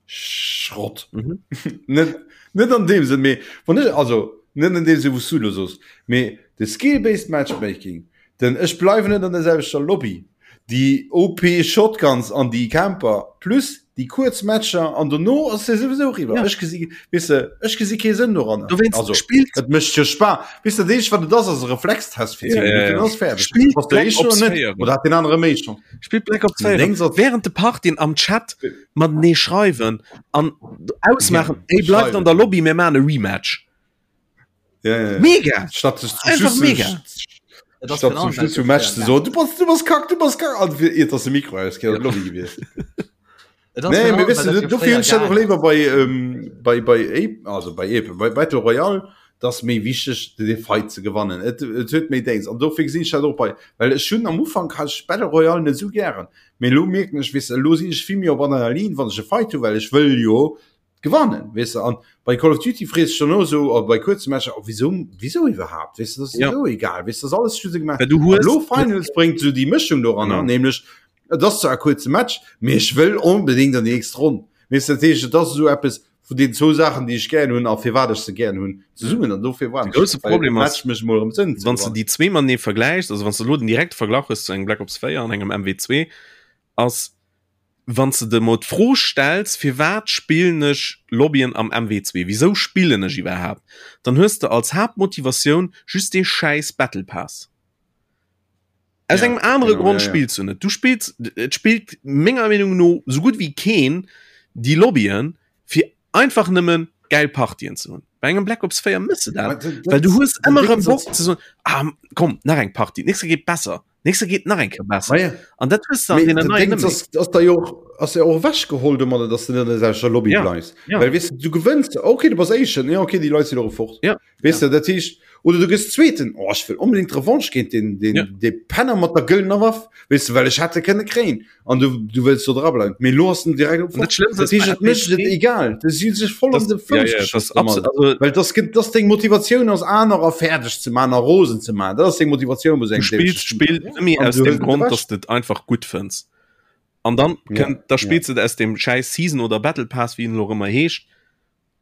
Speaker 1: Schrott.
Speaker 2: Mhm.
Speaker 1: Net, net an deem Sënn, mee wann ech, also net an deem Sënn, wou s du elo soos, mee de Skill-based Matchmaking, den ech bleiwen net an der selwechter Lobby, déi OP Shotguns an déi Camper plus déi kuerz Matcher an dono ass se souwisou eriwwer.
Speaker 2: Ja.
Speaker 1: Ech gesi, weess de, ech gesi kee Sënn doranner.
Speaker 2: Dowéinst
Speaker 1: Also,
Speaker 2: spillt
Speaker 1: et mécht jo Spa. Weess de, dat eenzegt wat et ass, ass e Reflextest fir 10
Speaker 2: Ja, ja,
Speaker 1: Minutten,
Speaker 2: ja.
Speaker 1: ass fäerdeg.
Speaker 2: Spillt
Speaker 1: Bass du
Speaker 2: Black
Speaker 1: éischter
Speaker 2: Ops
Speaker 1: oder net?
Speaker 2: 4.
Speaker 1: Oder hat deen anere méi Chance?
Speaker 2: Spillt Black Ops 4
Speaker 1: Deng soll-
Speaker 2: während de Partien am Chat matenee schreiwen an ausmaachen,
Speaker 1: Ja,
Speaker 2: ey bleift an der
Speaker 1: schreiwen.
Speaker 2: Lobby, mir maachen e Rematch.
Speaker 1: Ja, ja, ja.
Speaker 2: Mega!
Speaker 1: Statt sech zum
Speaker 2: Einfach
Speaker 1: Schluss
Speaker 2: mega.
Speaker 3: Et ass
Speaker 1: Statt
Speaker 3: genau
Speaker 1: zum Schluss
Speaker 3: dat
Speaker 1: vum Match ze
Speaker 3: fréier
Speaker 1: soen, du bass, du bass kack, du bass kack, an fir iert dass de Mikro ausgeet, an d'Lobby gewiesst.
Speaker 3: Et ass
Speaker 1: Nee,
Speaker 3: genau,
Speaker 1: mee weess
Speaker 3: well
Speaker 1: du,
Speaker 3: dat jo
Speaker 1: dofir
Speaker 3: fréier
Speaker 1: hunn ech dat och
Speaker 3: gaang
Speaker 1: léiwer bei, ähm, bei, bei Ape, also bei Ape, bei Battle Royale, dat ass méi wichteg, de Fight ze gewannen. Et, et huet méi Déngs. An dofir gesinn ech dat och bei, well ech hunn am Ufank hat ech Battle Royale net esou gären. Mee elo mierken ech, weess de, elo sinn ech vill méi op Adrenalin, wann ech e Fight hunn, well ech wëll jo gewannen, weess de. An bei Call of Duty frees de dech dann och esou, oder bei kuerze Matcher, oh, wisou, wisou iwwerhaapt, weess de, dat ass
Speaker 2: Ja.
Speaker 1: esou egal, weess de, dat ass alles just gemaach.
Speaker 2: Well du
Speaker 1: An
Speaker 2: hues
Speaker 1: elo Finals bréngt esou déi Mëschung doranner,
Speaker 2: Genau.
Speaker 1: nämlech et ass zwar e kuerze Match, mee ech wëll onbedéngt an déi nächst Ronn, weess de. Dat heescht, et ass esou eppes vun deenen zwou Saachen, déi ech gären hunn a firwat ech se gären hunn, zesummen. An dofir
Speaker 2: De grousse Problem ass,
Speaker 1: Match mécht mol erëm Sënn ze
Speaker 2: wann s de
Speaker 1: gewannen.
Speaker 2: déi zwee matenee vergläichs, also wann s de elo den direkte Verglach hues zu engem Black Ops 4 an engem MW2, ass, wann s de der mol d'Fro stells, firwat spillen ech Lobbyen am MW2, wisou spillen ech iwwerhaapt, dann hues de als Haaptmotivatioun just dee schäiss Battle Pass. Aus
Speaker 1: Ja,
Speaker 2: engem anere
Speaker 1: genau,
Speaker 2: Grond
Speaker 1: ja, ja.
Speaker 2: spills du net. Du spills, et spillt menger Meenung no sou gutt wéi keen déi Lobbyen, fir einfach nëmmen gäil Partien ze hunn. Bei engem Black Ops 4 mëss de dat, well du hues ëmmer erëm Bock ze soen, ah komm, nach eng Partie, d'nächst Kéier geet besser, d'nächst Kéier geet nach eng Kéier besser.
Speaker 1: Ma ja.
Speaker 2: An dat hues de an
Speaker 1: Mee
Speaker 2: deenen
Speaker 1: den
Speaker 2: neien
Speaker 1: Ding
Speaker 2: net méi.
Speaker 1: ass, ass da jo och, ass ja och ewechgeholl domadder, dass du net an der selwechter Lobby
Speaker 2: Ja,
Speaker 1: bleifs.
Speaker 2: ja.
Speaker 1: Well weess de, du gewënns, okay, du bass Éischten, ja okay, déi Leit sinn och fort.
Speaker 2: Ja.
Speaker 1: Weess de, dat heescht, oder du gëss Zweeten, oh, ech wëll onbedéngt d'Revanche géint den, den,
Speaker 2: Ja.
Speaker 1: dee Penner mat der gëllener Waff, weess de, well ech hätt e kënne kréien. An du, du wëlls do dra bleiwen. Mee elo ass en direkt op
Speaker 2: An dat
Speaker 1: fort.
Speaker 2: Schlëmmste
Speaker 1: Dat
Speaker 2: ass bei
Speaker 1: heescht, et mécht et
Speaker 2: MW2,
Speaker 1: egal. Du si sech voll
Speaker 2: das,
Speaker 1: an de
Speaker 2: ja,
Speaker 1: Fouss
Speaker 2: ja, das
Speaker 1: geschoss domadder.
Speaker 2: absolut, also,
Speaker 1: Well das, gëtt- das deng Motivatioun ass, anerer fäerdeg ze man a rosen ze man. Dat ass deng Motivatioun bei
Speaker 2: du
Speaker 1: engem
Speaker 2: spills
Speaker 1: dämleche Spill.
Speaker 2: d'Spill nëmme
Speaker 1: An
Speaker 2: aus
Speaker 1: du
Speaker 2: dem
Speaker 1: hëls et
Speaker 2: Grond,
Speaker 1: ewech.
Speaker 2: dass de et einfach gutt fënns. An dann
Speaker 1: Ja,
Speaker 2: kënnt, da
Speaker 1: ja.
Speaker 2: spills de et aus dem schäiss Season oder Battle Pass, wéi en elo och ëmmer heescht,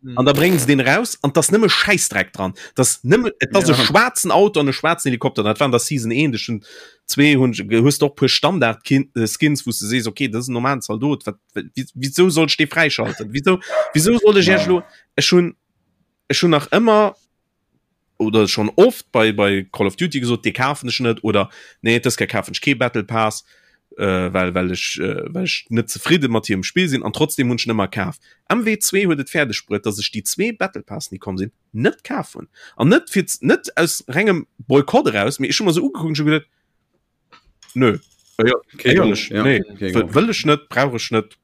Speaker 3: Mhm.
Speaker 2: An da bréngen se deen raus an 't ass nëmme Schäissdreck dran. 't ass nëmme, et ass e
Speaker 1: Ja.
Speaker 2: schwaarzen Auto an e schwaarzen Helikopter. Dat war an der Season 1, ech hunn zwee hunn ech, hues de och puer Standard Kin äh, Skins, wou s de sees, okay, dat ass en normalen Zaldot, wat, wi- wisou soll ech dee fräischalten? Wisou, wisou soll ech iech
Speaker 1: Ja.
Speaker 2: elo, ech hunn, ech hunn nach ëmmer. Oder schonn oft bei bei Call of Duty gesot, dee kafen ech net oder nee dës Kéier kafen ech kee Battle Pass, äh, well well ech äh, well ech net zefridde mat hirem Spill sinn an trotzdem hunn ech en ëmmer kaf. MW2 huet et fäerdeg bruet, datt ech déi zwee Battle Passen déi komm sinn net kaf hunn an net fir net aus rengem Boykott eraus, mee ech hu mer se ugekuckt an ech hu geduet, nö, äh, ja, éierlech, ja, nee, wëll ech net, brauch ech net.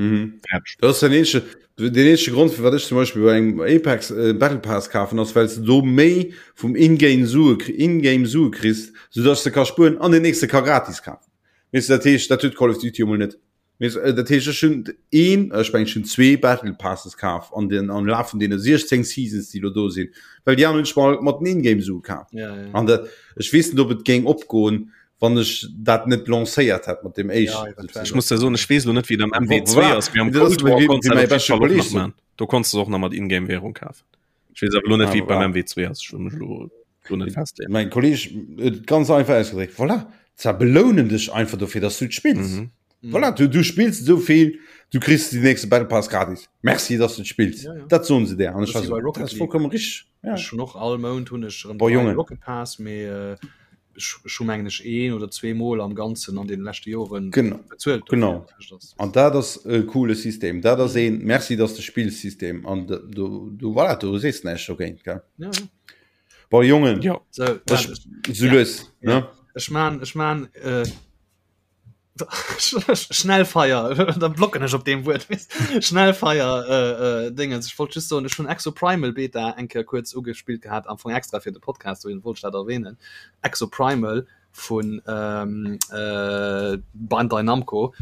Speaker 1: Mhm. Dat ass den eenzege, den eenzege Grond, firwat ech zum Beispill bei engem Apex äh, Battle Pass kafen, ass well s du do méi vum Ingame Sue, Ingame Sue kriss, soudass du ka spueren an den nächste ka gratis kafen. Weess du, dat heescht, dat huet Call of Duty emol net. Weess, äh, dat heescht, ech hunn een, ech mengen, ech hunn zwee Battle Passes kaf an den, am Laf vun deene 16 Seasons, déi lo do sinn, well déi aner hunn ech mal mat den Ingame Sue kaf.
Speaker 3: Ja, ja.
Speaker 1: An dat, ech weess net, ob et géing opgoen, wann ech dat net lancéiert hätt mat dem éischten.
Speaker 2: Ja, ech muss der soen, ech weess lo net wéi et am MW2 ass, mee am Cold War konntest du dat op jidde Fall och nach man. Do konntest du och nach mat Ingame Währung kafen. Ech weess awer lo net wéi et beim MW2 ass, ech wëll mech lo do net
Speaker 1: festleeën. Mäin Kolleg huet et ganz einfach ausgedréckt, voilà, se belounen dech einfach dofir, dass du et spills. Mhm. Voilà, du, du spills esou vill, du kriss den nächste Battle Pass gratis. Merci, dass du et spills.
Speaker 3: Ja, ja.
Speaker 1: Dat soen se der. An ech
Speaker 3: Das
Speaker 1: war
Speaker 3: ist wie bei
Speaker 1: so,
Speaker 3: Rocket
Speaker 1: dat ass
Speaker 3: League.
Speaker 1: vollkommen richtig.
Speaker 3: Ja. Ech hunn och all Mount hunn ech erëm
Speaker 1: Boah,
Speaker 3: dräi
Speaker 1: Jongen.
Speaker 3: Rocket Pass, mee äh, ech hu mengen ech een oder zwee Mol am Ganzen an den leschte Joren
Speaker 1: genau.
Speaker 3: bezuelt.
Speaker 1: Genau. An dat ass e coole System. Dat ass een Merci, dass de spills System an du, du voilà, du sees näischt dogéint gell.
Speaker 3: Ja, ja.
Speaker 1: Boah, Jongen.
Speaker 2: Ja.
Speaker 3: So,
Speaker 1: ech, so
Speaker 3: ja.
Speaker 1: lues,
Speaker 3: ja.
Speaker 1: ne?
Speaker 3: Ech man, ech man äh, Schnellfeier da blocken ech op deem Wuert Schnellfeier äh, äh, Dingens. Ech wollt just soen, ech hunn Exoprimal Beta eng Kéier kuerz ugespillt gehat, am Fong extra fir de Podcast, dohin wollt ech dat erwähnen. Exoprimal vun ähm, äh, Bandai Namco,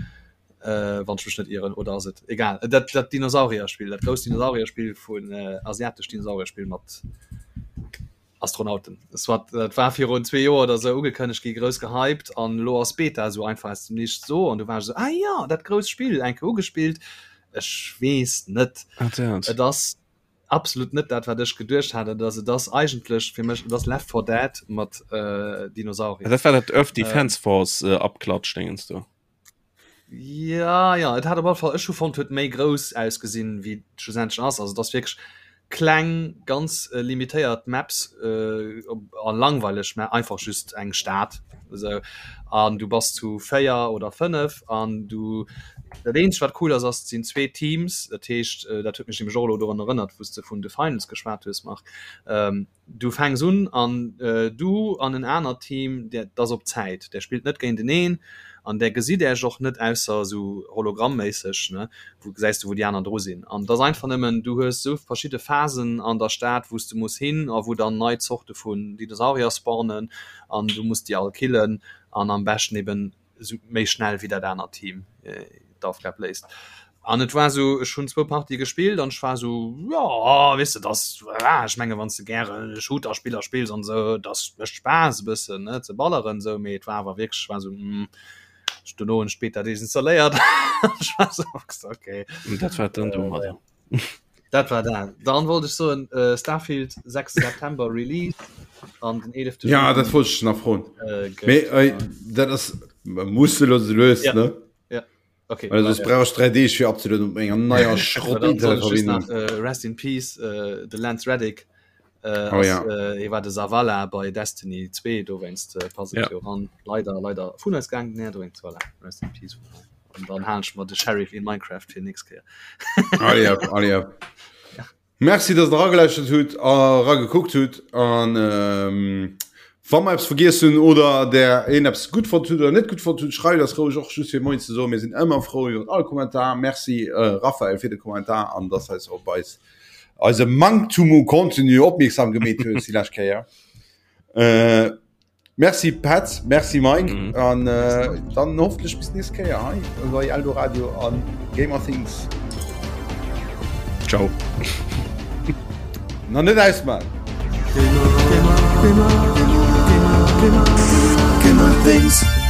Speaker 3: äh, wann ech mech net ieren, oder ass et egal. Dat, dat Dinosaurierspill, dat grousst Dinosaurierspill vun äh, asiatesch Dinosaurierspill mat Astronauten. Soit, dat war virun zwee Joer oder sou ugekënnegt gi, grouss gehypt an elo ass Beta esou einfach aus dem Nichts do an du waars esou, ah jo, dat grousst Spill, eng Kéier ugespillt. Ech weess net, et ass absolut net dat wat ech geduecht hat et ass. Et ass eigentlech fir mech, et ass Left 4 Dead mat Dinosaurier.
Speaker 2: Dat war dat Earth Defense Force Abklatsch-Dingens do.
Speaker 3: Ja ja et hat op alle Fall ech hu fonnt huet méi grouss ausgesinn wéi et schlussendlech ass. Also et ass wierklech kleng ganz äh, limitéiert Maps äh, a langweileg mä einfach just eng Stad esou an du bass zu 4 oder 5 an du dat eenzegt wat cool ass ass et sinn zwee Teams dat heescht äh, dat huet mech nämlech och elo dorun erënnert wou s de vun The Finals geschwat hues Marc ähm, Du fänks un an du an en anert Team, dat ass op Zäit, där spillt net géinteneen an där gesitt Äech och net, ausser esou hologrammméisseg, ne, wou gesäis du wou déi aner dru sinn. An et ass einfach nëmmen, du hues esou verschidde Phasen an der Stad, wou s du muss hin a wou dann nei Zorte vun Dinosaurier spawnen an du muss déi all killen an am beschten eben esou méi schnell wéi dat anert Team d'Aufgab léist. An et war esou, ech hunn zwou Partie gespillt an ech war esou, jo, weess de, dass, voilà, ech menge wann s de gäre Shooter-Spiller spills an esou, dass mécht Spaass e bëssen, ne, ze balleren esou, mee et war awer wierklech, ech war esou, hm, ech dono hunn ech d'Beta desinstalléiert. Ech war esou, okay.
Speaker 2: Dat war dann domadder.
Speaker 3: Dat war dat. Dann wollt ech soen äh, Starfield 6. September Release an den 11.
Speaker 1: Ja, dat wollt ech nach froen.
Speaker 3: Äh, gëtt,
Speaker 1: Mee äh, dat ass muss lo lues
Speaker 3: Ja.
Speaker 1: ne?
Speaker 3: Ja. Okay.
Speaker 1: Well soss brauch ech 3 Deeg fir abzelueden op menger neier Schrott
Speaker 3: Dann soll ech just
Speaker 1: Internetverbindung.
Speaker 3: nach, äh, Rest in Peace äh, de Lance Reddick. Äh,
Speaker 1: Oh
Speaker 3: ass,
Speaker 1: ja.
Speaker 3: äh, hie war de Zavala bei Destiny 2, dowéinst äh, passt et
Speaker 2: Ja.
Speaker 3: jo ran. Leider, leider vun eis gaang, nee, dowéinst, voilà, Rest in Peace. An dann halen ech mer de Sheriff in Minecraft fir nächst Kéier.
Speaker 1: Allez hop, allez hop. Merci, dass der eragelauschtert hutt a eragekuckt hutt. An ähm, wa mer eppes vergiess hunn oder der een eppes gutt fonnt hutt oder net gutt fonnt hutt, schreift eis roueg och just fir Moien ze soen. Mir sinn ëmmer frou iwwer all Kommentar. Merci äh, Raphael fir de Kommentar an dass eis op eis eise Manktum u Contenu opmierksam gemeet hues déi lescht Kéier. Äh, merci Petz, merci Mike mhm. an äh, dann hoffentlich bis nächste Kéier hei bei Eldoradio an Gamer Things.
Speaker 2: Ciao.
Speaker 1: Na net ausmachen.
Speaker 4: Gamer, Gamer, Gamer, Gamer, Gamer, Gamer Things.